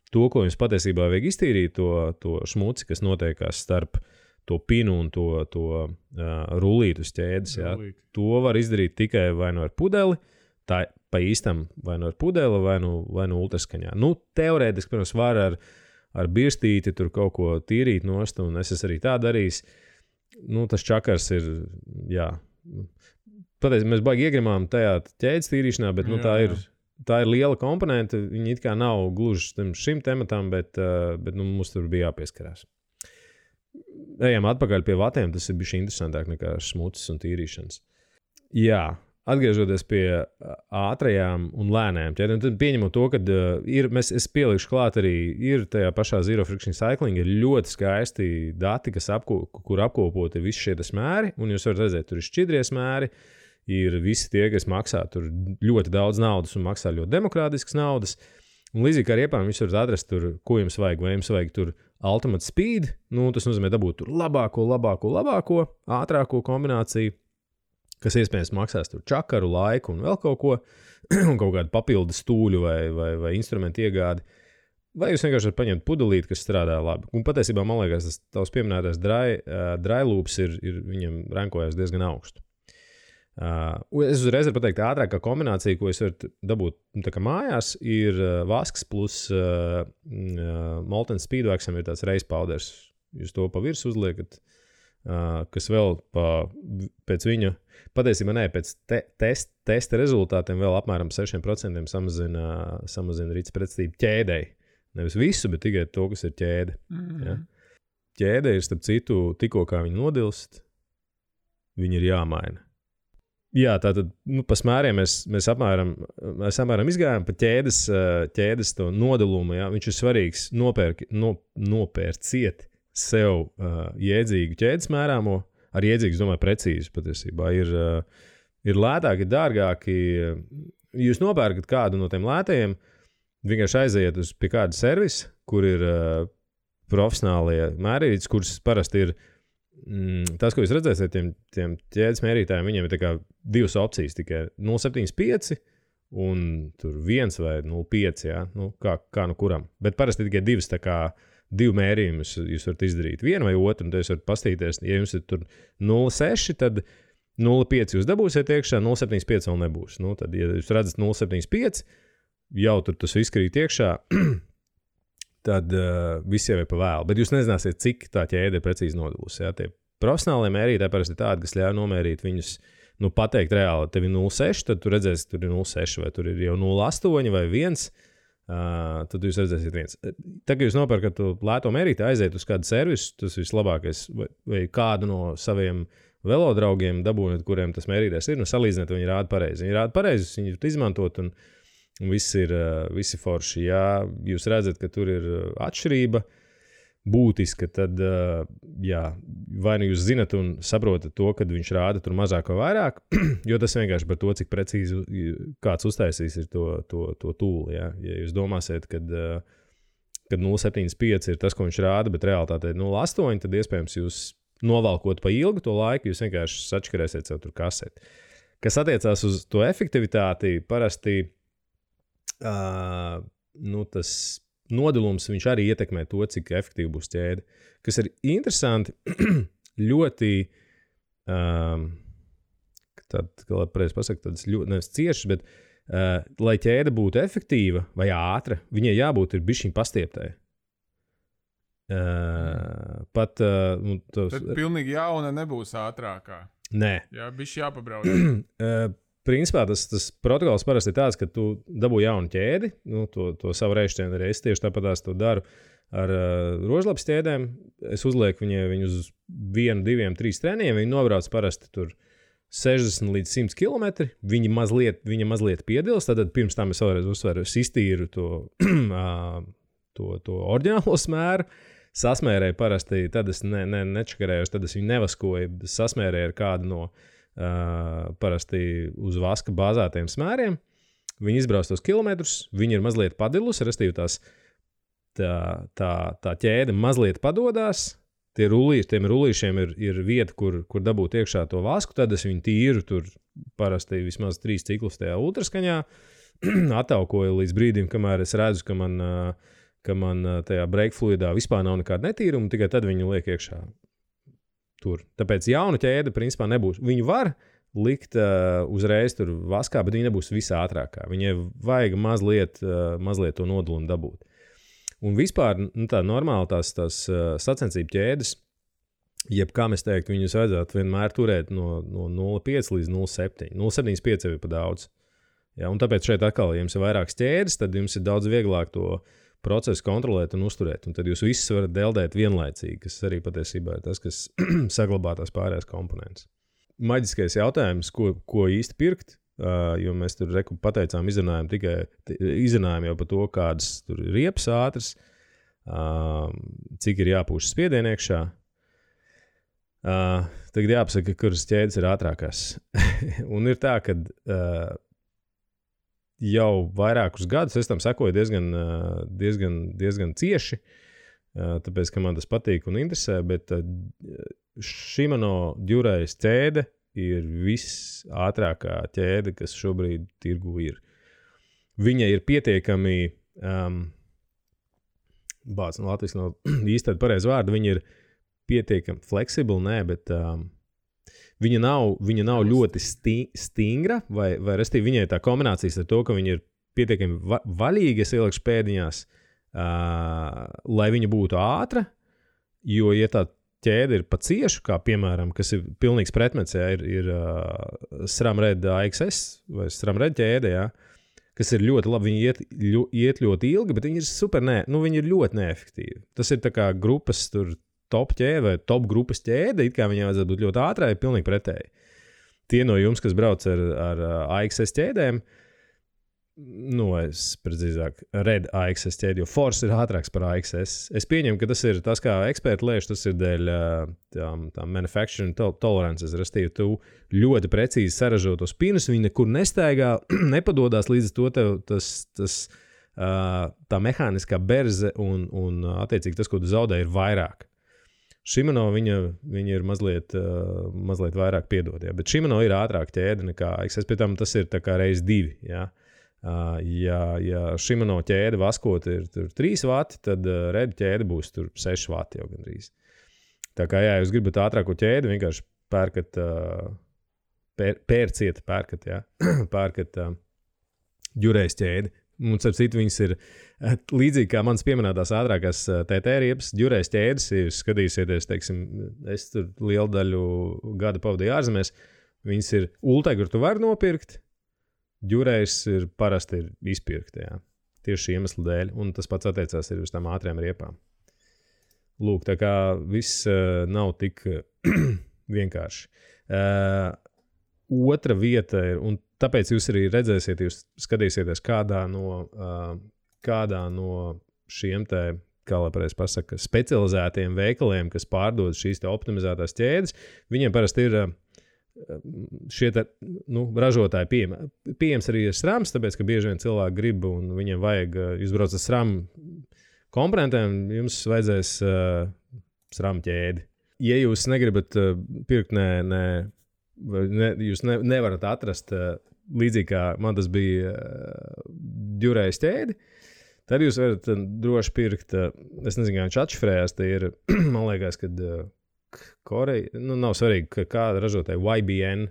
To, ko jums patiesībā vajag iztīrīt, to šmuci, kas notiekās starp to pinu un to rullītu uz ķēdes. Ja? To var izdarīt tikai vai nu ar pudeli, tā pa īstam vai nu ar pudeli, vai nu ultraskaņā. Teorētiski, protams, var ar birstīti tur kaut ko tīrīt nost, un es arī tā darījis. Tas čakars ir, jā. Patiesībā mēs baigi iegrimām tajā ķēdes tīrīšanā, bet tā ir liela komponente. Viņi it kā nav gluži šim tematam, bet mums tur bija jāpieskarās. Ejam atpakaļ pie vatiem, tas ir bijis interesantāk nekā smucis un tīrīšanas. Jā. Atgriežoties pie ātrajām un lēnējām ķēdēm, tad pieņemot to, ka es pielikšu klāt arī ir tajā pašā Zero Friction Cycling, ir ļoti skaisti dati, kur apkopot ir visi šie smēri, un jūs varat redzēt, tur ir šķidrie smēri, ir visi tie, kas maksā tur ļoti daudz naudas un maksā ļoti demokrātiskas naudas, un līdzīgi kā ar iepām jūs varat atrast tur, ko jums vajag, vai jums vajag tur Ultimate Speed, tas nozīmē dabūt tur labāko, ātrāko kombināciju, kas iespējams maksās tur čakaru, laiku un vēl kaut ko, un kaut kādu papildu stūļu vai instrumentu iegādi. Vai jūs vienkārši varat paņemt pudelīti, kas strādā labi. Un patiesībā, man liekas, tas tavs pieminētais dry loops ir viņam rankojas diezgan augstu. Es uzreiz varu pateikt, ātrākā kombinācija, ko es varu dabūt tā kā mājās, ir vasks plus Molten Speedwaxam ir tāds race powders. Jūs to pa virs uzliekat, kas vēl pēc viņa, patiesībā pēc testa rezultātiem vēl apmēram 6% samazina rīts pretstību ķēdei. Nevis visu, bet tikai to, kas ir ķēde. Ja? Ķēde ir, starp citu, tikko kā viņa nodilst, viņa ir jāmaina. Jā, tātad pa smēriem mēs apmēram izgājām pa ķēdes to nodalumu. Ja? Viņš ir svarīgs nopērciet sev jēdzīgu ķēdes mērāmo, ar jēdzīgu, es domāju, precīzi patiesībā. Ir lētāki, dārgāki. Jūs nopērkat kādu no tiem lētajiem, vienkārši aiziet pie kāda servisa, kur ir profesionālie mērītas, kuras parasti ir tas, ko jūs redzēsiet, tiem ķēdes mērītājiem, viņiem ir tā kā divas opcijas, tikai 0,75 un tur 1 vai 0,5, jā, kā no kuram. Bet parasti tikai divas tā kā divu mērījumus jūs varat izdarīt. Vienu vai otru, un tad jūs varat pastīties, ja jums ir tur 0,6, tad 0,5 jūs dabūsiet iekšā, 0,75 vēl nebūs. Tad, ja jūs redzat 0,75, jau tur tas viss krīt iekšā, tad viss jau ir pa vēlu. Bet jūs nezināsiet, cik tā ķēde ir precīzi nodalusi. Ja? Tie profesionālie mērītāji parasti ir tādi, kas ļauj nomērīt viņus, pateikt reāli, tev ir 0,6, tad tu redzēsi, tur ir 0,6, vai tur ir jau 0,8 vai 1. Tad jūs redzēsiet viens. Tagad jūs nopērkat lēto mērīti, aiziet uz kādu servisu, tas vislabākais, vai kādu no saviem velodraugiem dabūjot, kuriem tas mērītājs ir, salīdzināt, viņi rāda pareizi. Viņi rāda pareizi, viņi var izmantot, un visi forši. Ja jūs redzat, ka tur ir atšķirība būtiska, tad vai nu jūs zinat un saprotat to, kad viņš rāda tur mazāk vai vairāk, jo tas vienkārši par to, cik precīzi kāds uztaisīs ir to tūli. Ja jūs domāsiet, kad 0,75 ir tas, ko viņš rāda, bet realitātē ir 0,8, tad iespējams jūs novalkot pa ilgu to laiku, jūs vienkārši sačkarēsiet sev tur kaseti. Kas attiecās uz to efektivitāti, parasti tas nodalums viņš arī ietekmē to, cik efektīvi būs ķēde. Kas ir interesanti, ļoti, kā pareizi pasaka, tādas ļoti nevis ciešas, bet lai ķēde būtu efektīva vai ātra, viņai jābūt ir bišķiņ pastieptai. Tad pilnīgi jauna nebūs ātrākā. Nē. Jā, bišķi jāpabrauc. Principā tas protokols parasti ir tāds, ka tu dabū jaunu ķēdi, to savu reišķienu arī es tieši tāpatās to daru ar rožlapas ķēdēm. Es uzlieku viņu uz 1, 2, 3 treniņiem, viņi nobrauc parasti tur 60 līdz 100 km, viņa mazliet piedils, tad pirms tam es vēlreiz uzsveru, es iztīru to oriģinālo smēru, sasmērēju parasti, tad es nečakarēju, tad es viņu nevaskoju, sasmērēju ar kādu no parasti uz vaska bāzētiem smēriem, Viņi izbrauc tos kilometrus, viņi ir mazliet padilusi, restīvi tā ķēde mazliet padodās. Tiem rullīšiem ir vieta, kur dabūt iekšā to vasku, tad es viņu tīru tur parasti vismaz 3 ciklus tajā ultraskaņā, attaukoju līdz brīdim, kamēr es redzu, ka man tajā brake fluidā vispār nav nekāda netīruma, tikai tad viņu liek iekšā tur. Tāpēc jauna ķēde principā nebūs. Viņu var likt uzreiz tur vaskā, bet viņa nebūs visā ātrākā. Viņai vajag mazliet to nodulumu dabūt. Un vispār tā normāli tās sacensību ķēdes, jeb kā mēs teiktu, viņus vajadzētu vienmēr turēt no 0,5 līdz 0,7. 0,75 jau ir pa daudz. Ja, un tāpēc šeit atkal, ja jums ir vairākas ķēdes, tad jums ir daudz vieglāk to procesu kontrolēt un uzturēt. Un tad jūs visus varat deldēt vienlaicīgi, kas arī patiesībā ir tas, kas saglabā tās pārējās komponentes. Maģiskais jautājums, ko īsti pirkt? Jo mēs tur pateicām, izrunājām jau par to, kādas tur ir riepas ātras, cik ir jāpūš spiedienu iekšā. Tagad jāpasaka, kuras ķēdes ir ātrākās. Un ir tā, ka jau vairākus gadus es tam sekoju diezgan cieši, tāpēc, ka man tas patīk un interesē, bet Shimano Durais ķēde ir visātrākā ķēde, kas šobrīd tirgu ir. Viņa ir pietiekami, Latvijas nav īsti tāda pareiza vārda, viņa ir pietiekami fleksibla, bet viņa nav ļoti stingra, vai restīvi viņai tā kombinācijas ar to, ka viņa ir pietiekami vaļīga, es ielikšu pēdiņās, lai viņa būtu ātra, jo, ja tā ķēde ir pa ciešu, kā piemēram, kas ir pilnīgs pretmets, ir SRAM Red AXS vai SRAM Red ķēde, kas ir ļoti labi, viņi iet ļoti ilgi, bet viņi ir viņi ir ļoti neefektīvi. Tas ir tā kā grupas tur top ķēde vai top grupas ķēde, it kā viņai vajadzētu būt ļoti ātrai, ir pilnīgi pretēji. Tie no jums, kas brauc ar AXS ķēdēm, es precīzāk Red AXS ķēdi, jo Force ir ātrāks par AXS. Es pieņemu, ka tas ir tas, kā eksperti lēš, tas ir dēļ tā manufacturing tolerances, restīvi tu ļoti precīzi saražo tos pinus, viņi nekur nestaigā, nepadodās līdz to tev tā mehāniskā berze un attiecīgi tas, ko tu zaudē, ir vairāk. Shimano viņa ir mazliet vairāk piedod, bet Shimano ir ātrāk ķēde nekā AXS, pie tam tas ir tā kā reiz 2, Ja Shimano ķēde vaskot ir 3 vati, tad Red ķēde būs tur 6 vati jau gandrīz. Tā kā, jūs gribat ātrāko ķēdi, vienkārši pērkat pērkat Durais ķēdi. Un, starp citu, viņas ir līdzīgi kā manas pieminētās ātrākās TT riepas, Durais ķēdes, ja jūs skatīsieties, teiksim, es tur lielu daļu gada pavadīju ārzemēs, viņas ir Ultegra, tu vari nopirkt, Durais ir parasti izpirkti, tieši šī iemesla dēļ, un tas pats attiecās ir uz tām ātriem riepām. Lūk, tā kā viss nav tik vienkārši. Otra vieta ir, un tāpēc jūs arī redzēsiet, jūs skatīsieties kādā no šiem te, kā lai pareizi pasaka, specializētiem veikaliem, kas pārdod šīs te optimizētās ķēdes, viņiem parasti ir šie te, ražotāji pieejams arī ir SRAMs, tāpēc, ka bieži vien cilvēki grib un viņiem vajag, jūs brauc ar SRAM komponentiem, jums vajadzēs SRAM ķēdi. Ja jūs negribat pirkt, jūs nevarat atrast līdzīgi kā man tas bija Durais ķēdi, tad jūs varat droši pirkt, es nezinu, kā viņš atšifrējās, te ir, man liekas, kad Koreja, nav svarīgi, kāda ražotāja YBN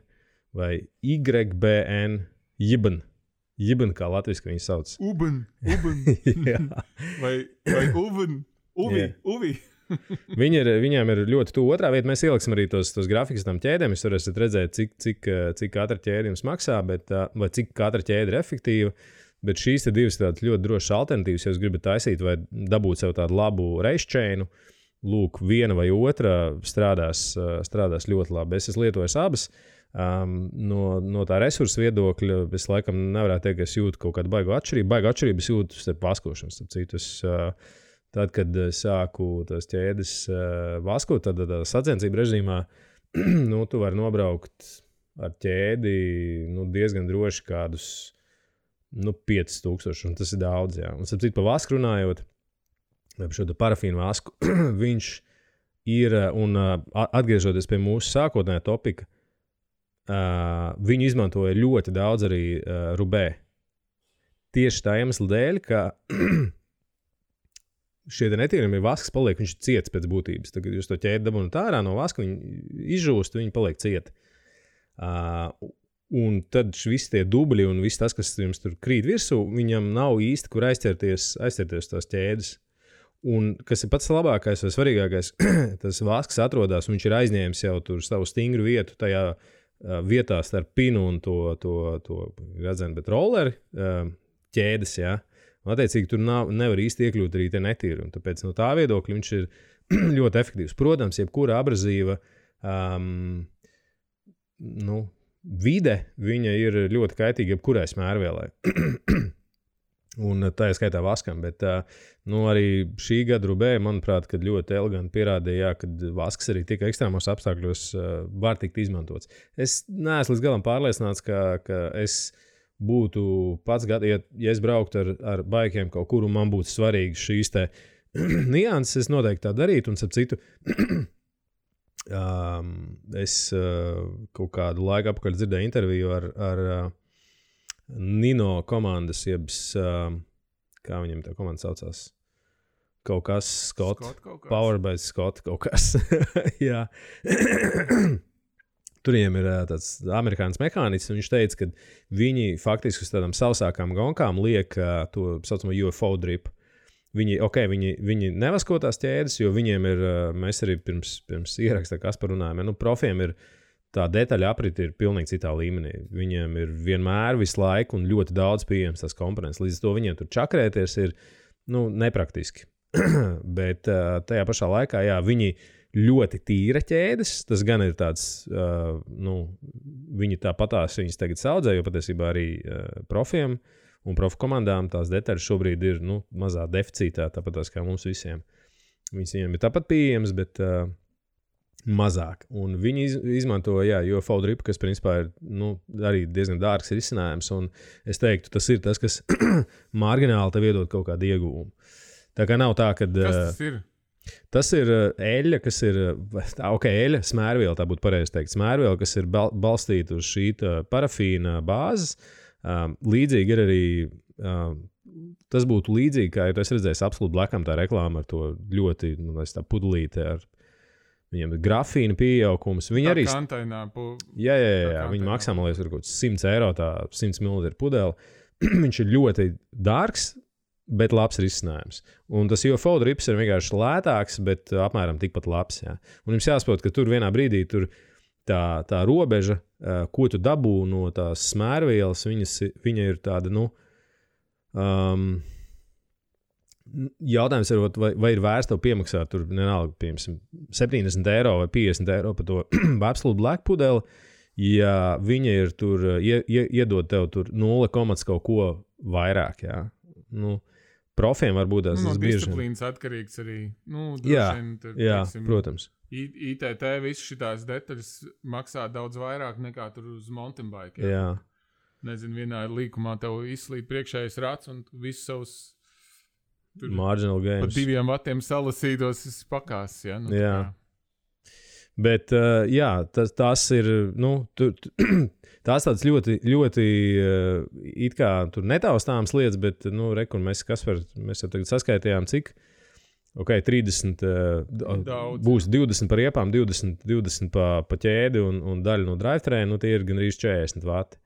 vai YBN, Jibn, kā latviski viņi sauc. Uben. vai Uvi. Viņām ir ļoti tuvu otrā vieta. Mēs ieliksim arī tos grafikus tam ķēdēm. Jūs varēsiet redzēt, cik katra ķēde jums maksā, vai cik katra ķēde ir efektīva. Bet šīs te divas tādas ļoti drošas alternatīvas, ja jūs gribat taisīt vai dabūt sev tādu labu race chainu, lūk, viena vai otra strādās ļoti labi. Es esmu lietojis abas. No tā resursu viedokļa es laikam nevarētu teikt, ka es jūtu kaut kādu baigu atšķirību. Baigu atšķirību es jūtu starp vaskošanas. Tad, kad sāku tās ķēdes vaskot, tad sacensību režīmā tu vari nobraukt ar ķēdi diezgan droši kādus 5000, un tas ir daudz, jā. Un, sapcīt, pa vasku runājot, par šo parafīnu vasku, viņš ir, un atgriežoties pie mūsu sākotnējā topika, viņu izmantoja ļoti daudz arī Rubē. Tieši tā iemesla dēļ, ka šie netīrumi vasks paliek, viņš ir ciets pēc būtības. Tagad jūs to ķēdi dabūnat ārā no vaska, viņi izžūst, viņi paliek cieti. Un tad visi tie dubļi un viss tas, kas jums tur krīt virsū, viņam nav īsti, kur aizķerties tās ķēdes. Un kas ir pats labākais vai svarīgākais, tas vasks atrodas, un viņš ir aizņēmis jau tur savu stingru vietu tajā vietā starp pinu un to redzēnu, bet rolleri ķēdes, jā. Un, attiecīgi, tur nevar īsti iekļūt arī tie netīri. Un tāpēc no tā viedokļa viņš ir ļoti efektīvs. Protams, jebkura abrazīva vide, viņa ir ļoti kaitīga jebkurai smērvielai. Un tā ir skaitā vaskam, bet arī šī gada Rubē, manuprāt, kad ļoti eleganti pierādīja, ka vasks arī tik ekstrēmos apstākļos var tikt izmantots. Es neesmu līdz galam pārliecināts, ka es būtu pats ja es brauktu ar baikiem kaut kur un man būtu svarīgi šīs te nianses, es noteikti tā darītu, un starp citu, es kaut kādu laiku apakaļ dzirdēju interviju ar Nino komandas, kā viņam tā komanda saucās? Kaut kas, Scott Power by Scott, kaut kas. Jā. Tur viņiem ir tāds amerikānis mehānisms, un viņš teica, ka viņi faktiski uz tādām sausākām gonkām liek to saucamo UFO drip. Viņi nevasko tās ķēdes, jo viņiem ir, mēs arī pirms ierakstā Kaspar runājam, profiem ir tā detaļa apriti ir pilnīgi citā līmenī. Viņiem ir vienmēr visu laiku un ļoti daudz pieejams tās komponents. Līdz to viņiem tur čakrēties ir nepraktiski. Bet tajā pašā laikā, jā, viņi ļoti tīra ķēdes. Tas gan ir tāds, viņi tāpatās viņas tagad saudzē, jo patiesībā arī profiem un profu komandām tās detaļas šobrīd ir mazā deficītā, tāpatās kā mums visiem. Viņiem ir tāpat pieejams, bet mazāk. Un viņi izmanto, UFO drip, kas principā ir arī diezgan dārgs risinājums, un es teiktu, tas ir tas, kas margināli tev iedod kaut kādu ieguvumu. Tā kā nav tā, ka... Kas tas ir? Tas ir eļļa, kas ir... eļļa, smērviela, tā būtu pareizi teikt. Smērviela, kas ir balstīta uz šī parafīna bāzes. Līdzīgi ir arī... tas būtu līdzīgi, kā es redzēju Absolute Blackam tā reklāma ar to ļoti, tā pudelīte ar viņiem ir grafīna pieaugums. Viņi arī... Kantainā. Jā, viņi maksā, man liekas, kaut 100 eiro, tā 100 ml pudeli. Viņš ir ļoti dārgs, bet labs risinājums. Un tas UFO drips ir vienkārši lētāks, bet apmēram tikpat labs. Jā. Un jums jāsaprot, ka tur vienā brīdī tur tā robeža, ko tu dabū no tās smērvielas, viņa ir tāda, jautājums ir, vai ir vērts tev piemaksāt tur, nenāga, piemēram, 70 eiro vai 50 eiro par to Absolute Black pudeli, ja viņa ir tur, iedod tev tur 0, kaut ko vairāk, jā. Profiem varbūt tas bieži. Disciplīnas atkarīgs arī. Jā, protams. ITT visu šitās detaļas maksā daudz vairāk nekā tur uz mountain bike. Jā. Nezinu, vienā līkumā tev izslīd priekšējais rats un visus savus marginal games. Pa 2 vatiem salasītos pakās, ja? Jā. Bet, tas ir, tās tāds ļoti, ļoti it kā tur netaustāms lietas, bet, rekur mēs jau tagad saskaitījām, cik, 30, būs 20 par iepām, 20 pa ķēdi un daļa no drivetrain, tie ir gandrīz 40 vati.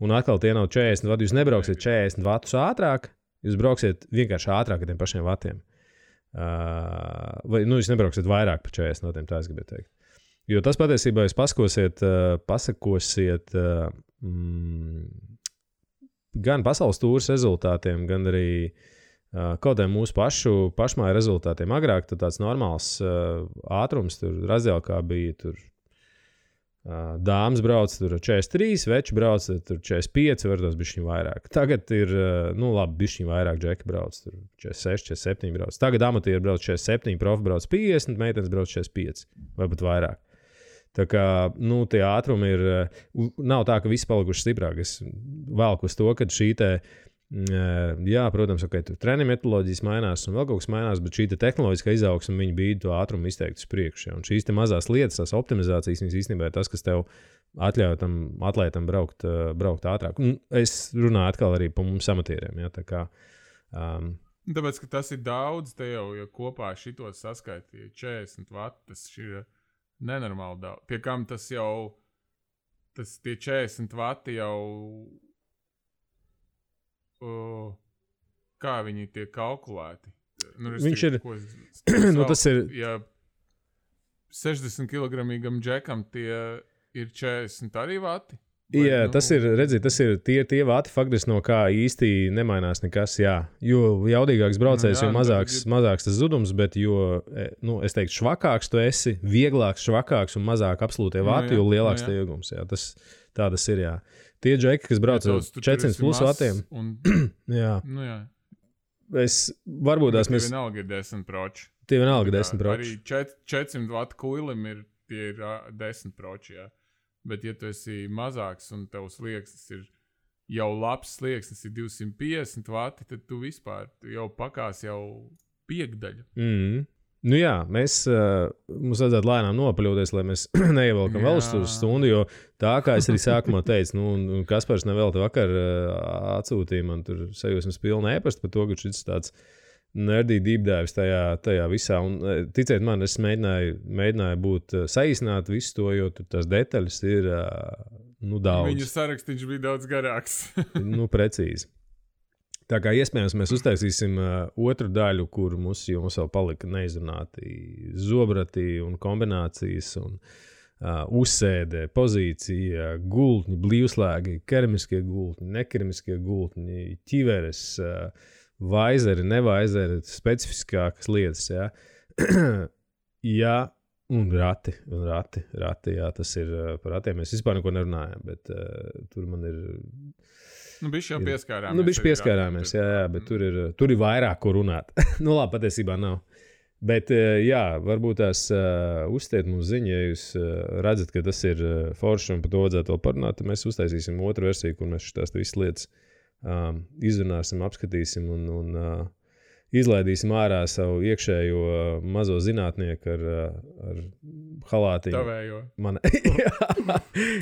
Un atkal tie nav 40 vati, jūs nebrauksiet 40 vatus ātrāk, jūs brauksiet vienkārši ātrāk ar tiem pašiem vatiem. Vai, jūs nebrauksiet vairāk par 40 vatiem, tā es gribēju teikt. Jo tas patiesībā jūs pasakosiet gan pasaules tūras rezultātiem, gan arī kaut kādiem mūsu pašmāju rezultātiem. Agrāk tāds normāls ātrums, tur Razēlkā bija tur dāmas brauc tur 43, veči brauc tur 45, varbūt bišķiņ vairāk. Tagad ir, bišķiņ vairāk džeki brauc, tur 46, 47 brauc. Tagad amatieri brauc 47, profi brauc 50, meitenes brauc 45, vai pat vairāk. Tā kā, nu, tie ātrumi ir, nav tā, ka visi palikuši stiprāk. Es velku uz to, ka šī te, jā, protams, okay, treniņu metodoloģijas mainās un vēl kaut kas mainās, bet šī te tehnoloģiskā izaugsme, viņi bīda to ātrumu izteikt uz priekšu. Ja? Un šīs te mazās lietas, tās optimizācijas, viņas īstenībā ir tas, kas tev atļauj tam atlētam braukt ātrāk. Un es runāju atkal arī par mums amatieriem. Ja? Tā kā, tāpēc, ka tas ir daudz, te jau, ja kopā šito saskaitīja 40 vati, tas ir nenormāli daudz. Pie kam tas jau, tie 40 vati jau, kā viņi tiek kalkulēti? Nu, viņš ir, tas ir... Ja 60 kilogramīgam džekam tie ir 40 arī vati? Vai, jā, tas ir, redziet, tas ir tie vati faktiski, no kā īsti nemainās nekas, jā. Jo jaudīgāks braucējs, jo mazāks tas zudums, bet jo, nu, es teiktu, švakāks tu esi, vieglāks, švakāks un mazāk absolūtie vati, jo lielāks tie iegums, jā. Tā tas ir, jā. Tie džeki, kas brauc ar 400 plus vatiem, jā. Nu, jā. Varbūt tās mēs... Tie vienalga ir 10 proči. Tie vienalga 10 proči. Arī 400 vatu kuilim tie ir 10 proči, jā. Bet, ja tu esi mazāks un tavs slieksnis ir jau labs slieksnis, ir 250 vati, tad tu vispār jau pakās jau piekdaļu. Nu jā, mums vajadzētu lēnām nopaļoties, lai mēs neievelkam vēl uz stundu, jo tā, kā es arī sākumā teicu, nu, Kaspars nevēlti vakar atsūtīja man tur sajūsmas pilnu ēpastu par to, ka šis tāds nerdy deep dives tajā visā. Un, ticiet man, es mēģināju būt saīsināt visu to, jo tur tās detaļas ir daudz. Viņa sarakstīns bija daudz garāks. Nu, precīzi. Tā kā iespējams mēs uztaisīsim otru daļu, kur mums vēl palika neizrunāti zobrati un kombinācijas un uzsēde, pozīcija, gultņi, blīvslēgi, keramiskie gultņi, nekeramiskie gultņi, ķiveres, vaizeri, nevaizeri, specifiskākas lietas, jā. Jā, un rati, jā, tas ir par ratiem. Mēs vispār neko nerunājam, bet tur man ir... Nu, bišķi jau pieskārāmies. Nu, bišķi pieskārāmies, jā, bet tur ir vairāk, ko runāt. Nu, labi, patiesībā nav. Bet, jā, varbūt tās uzstiet mums ziņu, ja jūs redzat, ka tas ir forši un par to vajadzētu vēl parunāt, tad mēs uztaisīsim otru versiju, kur mēs šitās visas lietas izrunāsim, apskatīsim un izlaidīsim ārā savu iekšējo mazo zinātnieku ar halātiņu. Tavējo.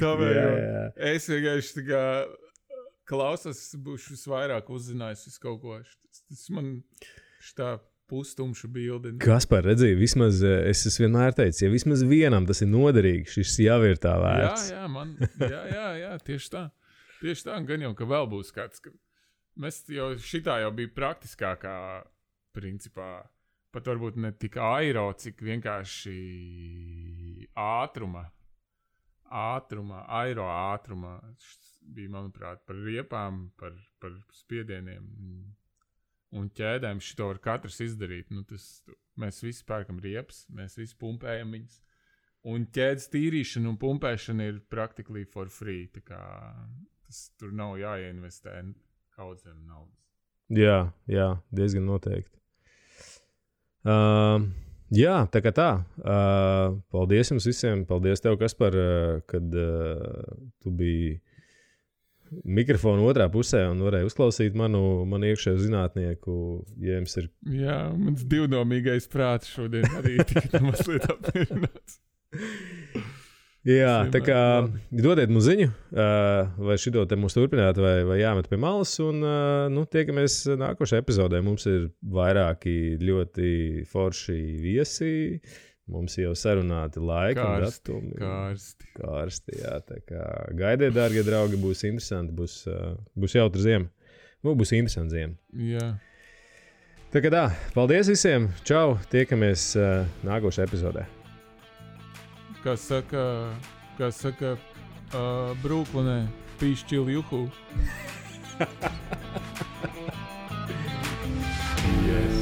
Tavējo. Jā. Es vienkārši tā kā klausos, būšu visvairāk uzzinājis visu kaut ko. Tas man šitā pustumša bildi. Kaspar, redzīju, vismaz es vienmēr teicu, ja vismaz vienam tas ir noderīgi, šis jau ir tā vērts. Jā, tieši tā. Tieši tā, gan jau, ka vēl būs kāds, ka mēs jau šitā jau bija praktiskākā principā, pat varbūt ne tik aero, cik vienkārši aero ātruma bija, manuprāt, par riepām, par spiedieniem un ķēdēm. Šito var katrs izdarīt. Nu, mēs visi pērkam riepas, mēs visi pumpējam viņas. Un ķēdes tīrīšana un pumpēšana ir practically for free. Tā kā tur nav jāieinvestē kaudzēm naudas. Jā, diezgan noteikti. Jā, tā kā tā. Paldies jums visiem. Paldies tev, Kaspar, kad tu biji mikrofonu otrā pusē un varēja uzklausīt manu iekšējo zinātnieku, ja jums ir... Jā, mans divdomīgais prāts šodien arī tika mazliet apmierināts. Jā, tā kā dodiet mums ziņu, vai šito te mums turpināt, vai jāmet pie malas, un tiekamies nākošajā epizodē. Mums ir vairāki ļoti forši viesi, mums jau sarunāti laiki un datumi. Karsti, jā, tā kā gaidiet, dārgie draugi, būs interesanti, būs jautra ziema. Nu, būs interesanti ziema. Jā. Tā kā tā, paldies visiem, čau, tiekamies nākošajā epizodē. Kā saka Brooklynē, pīšķil juhu. Yes.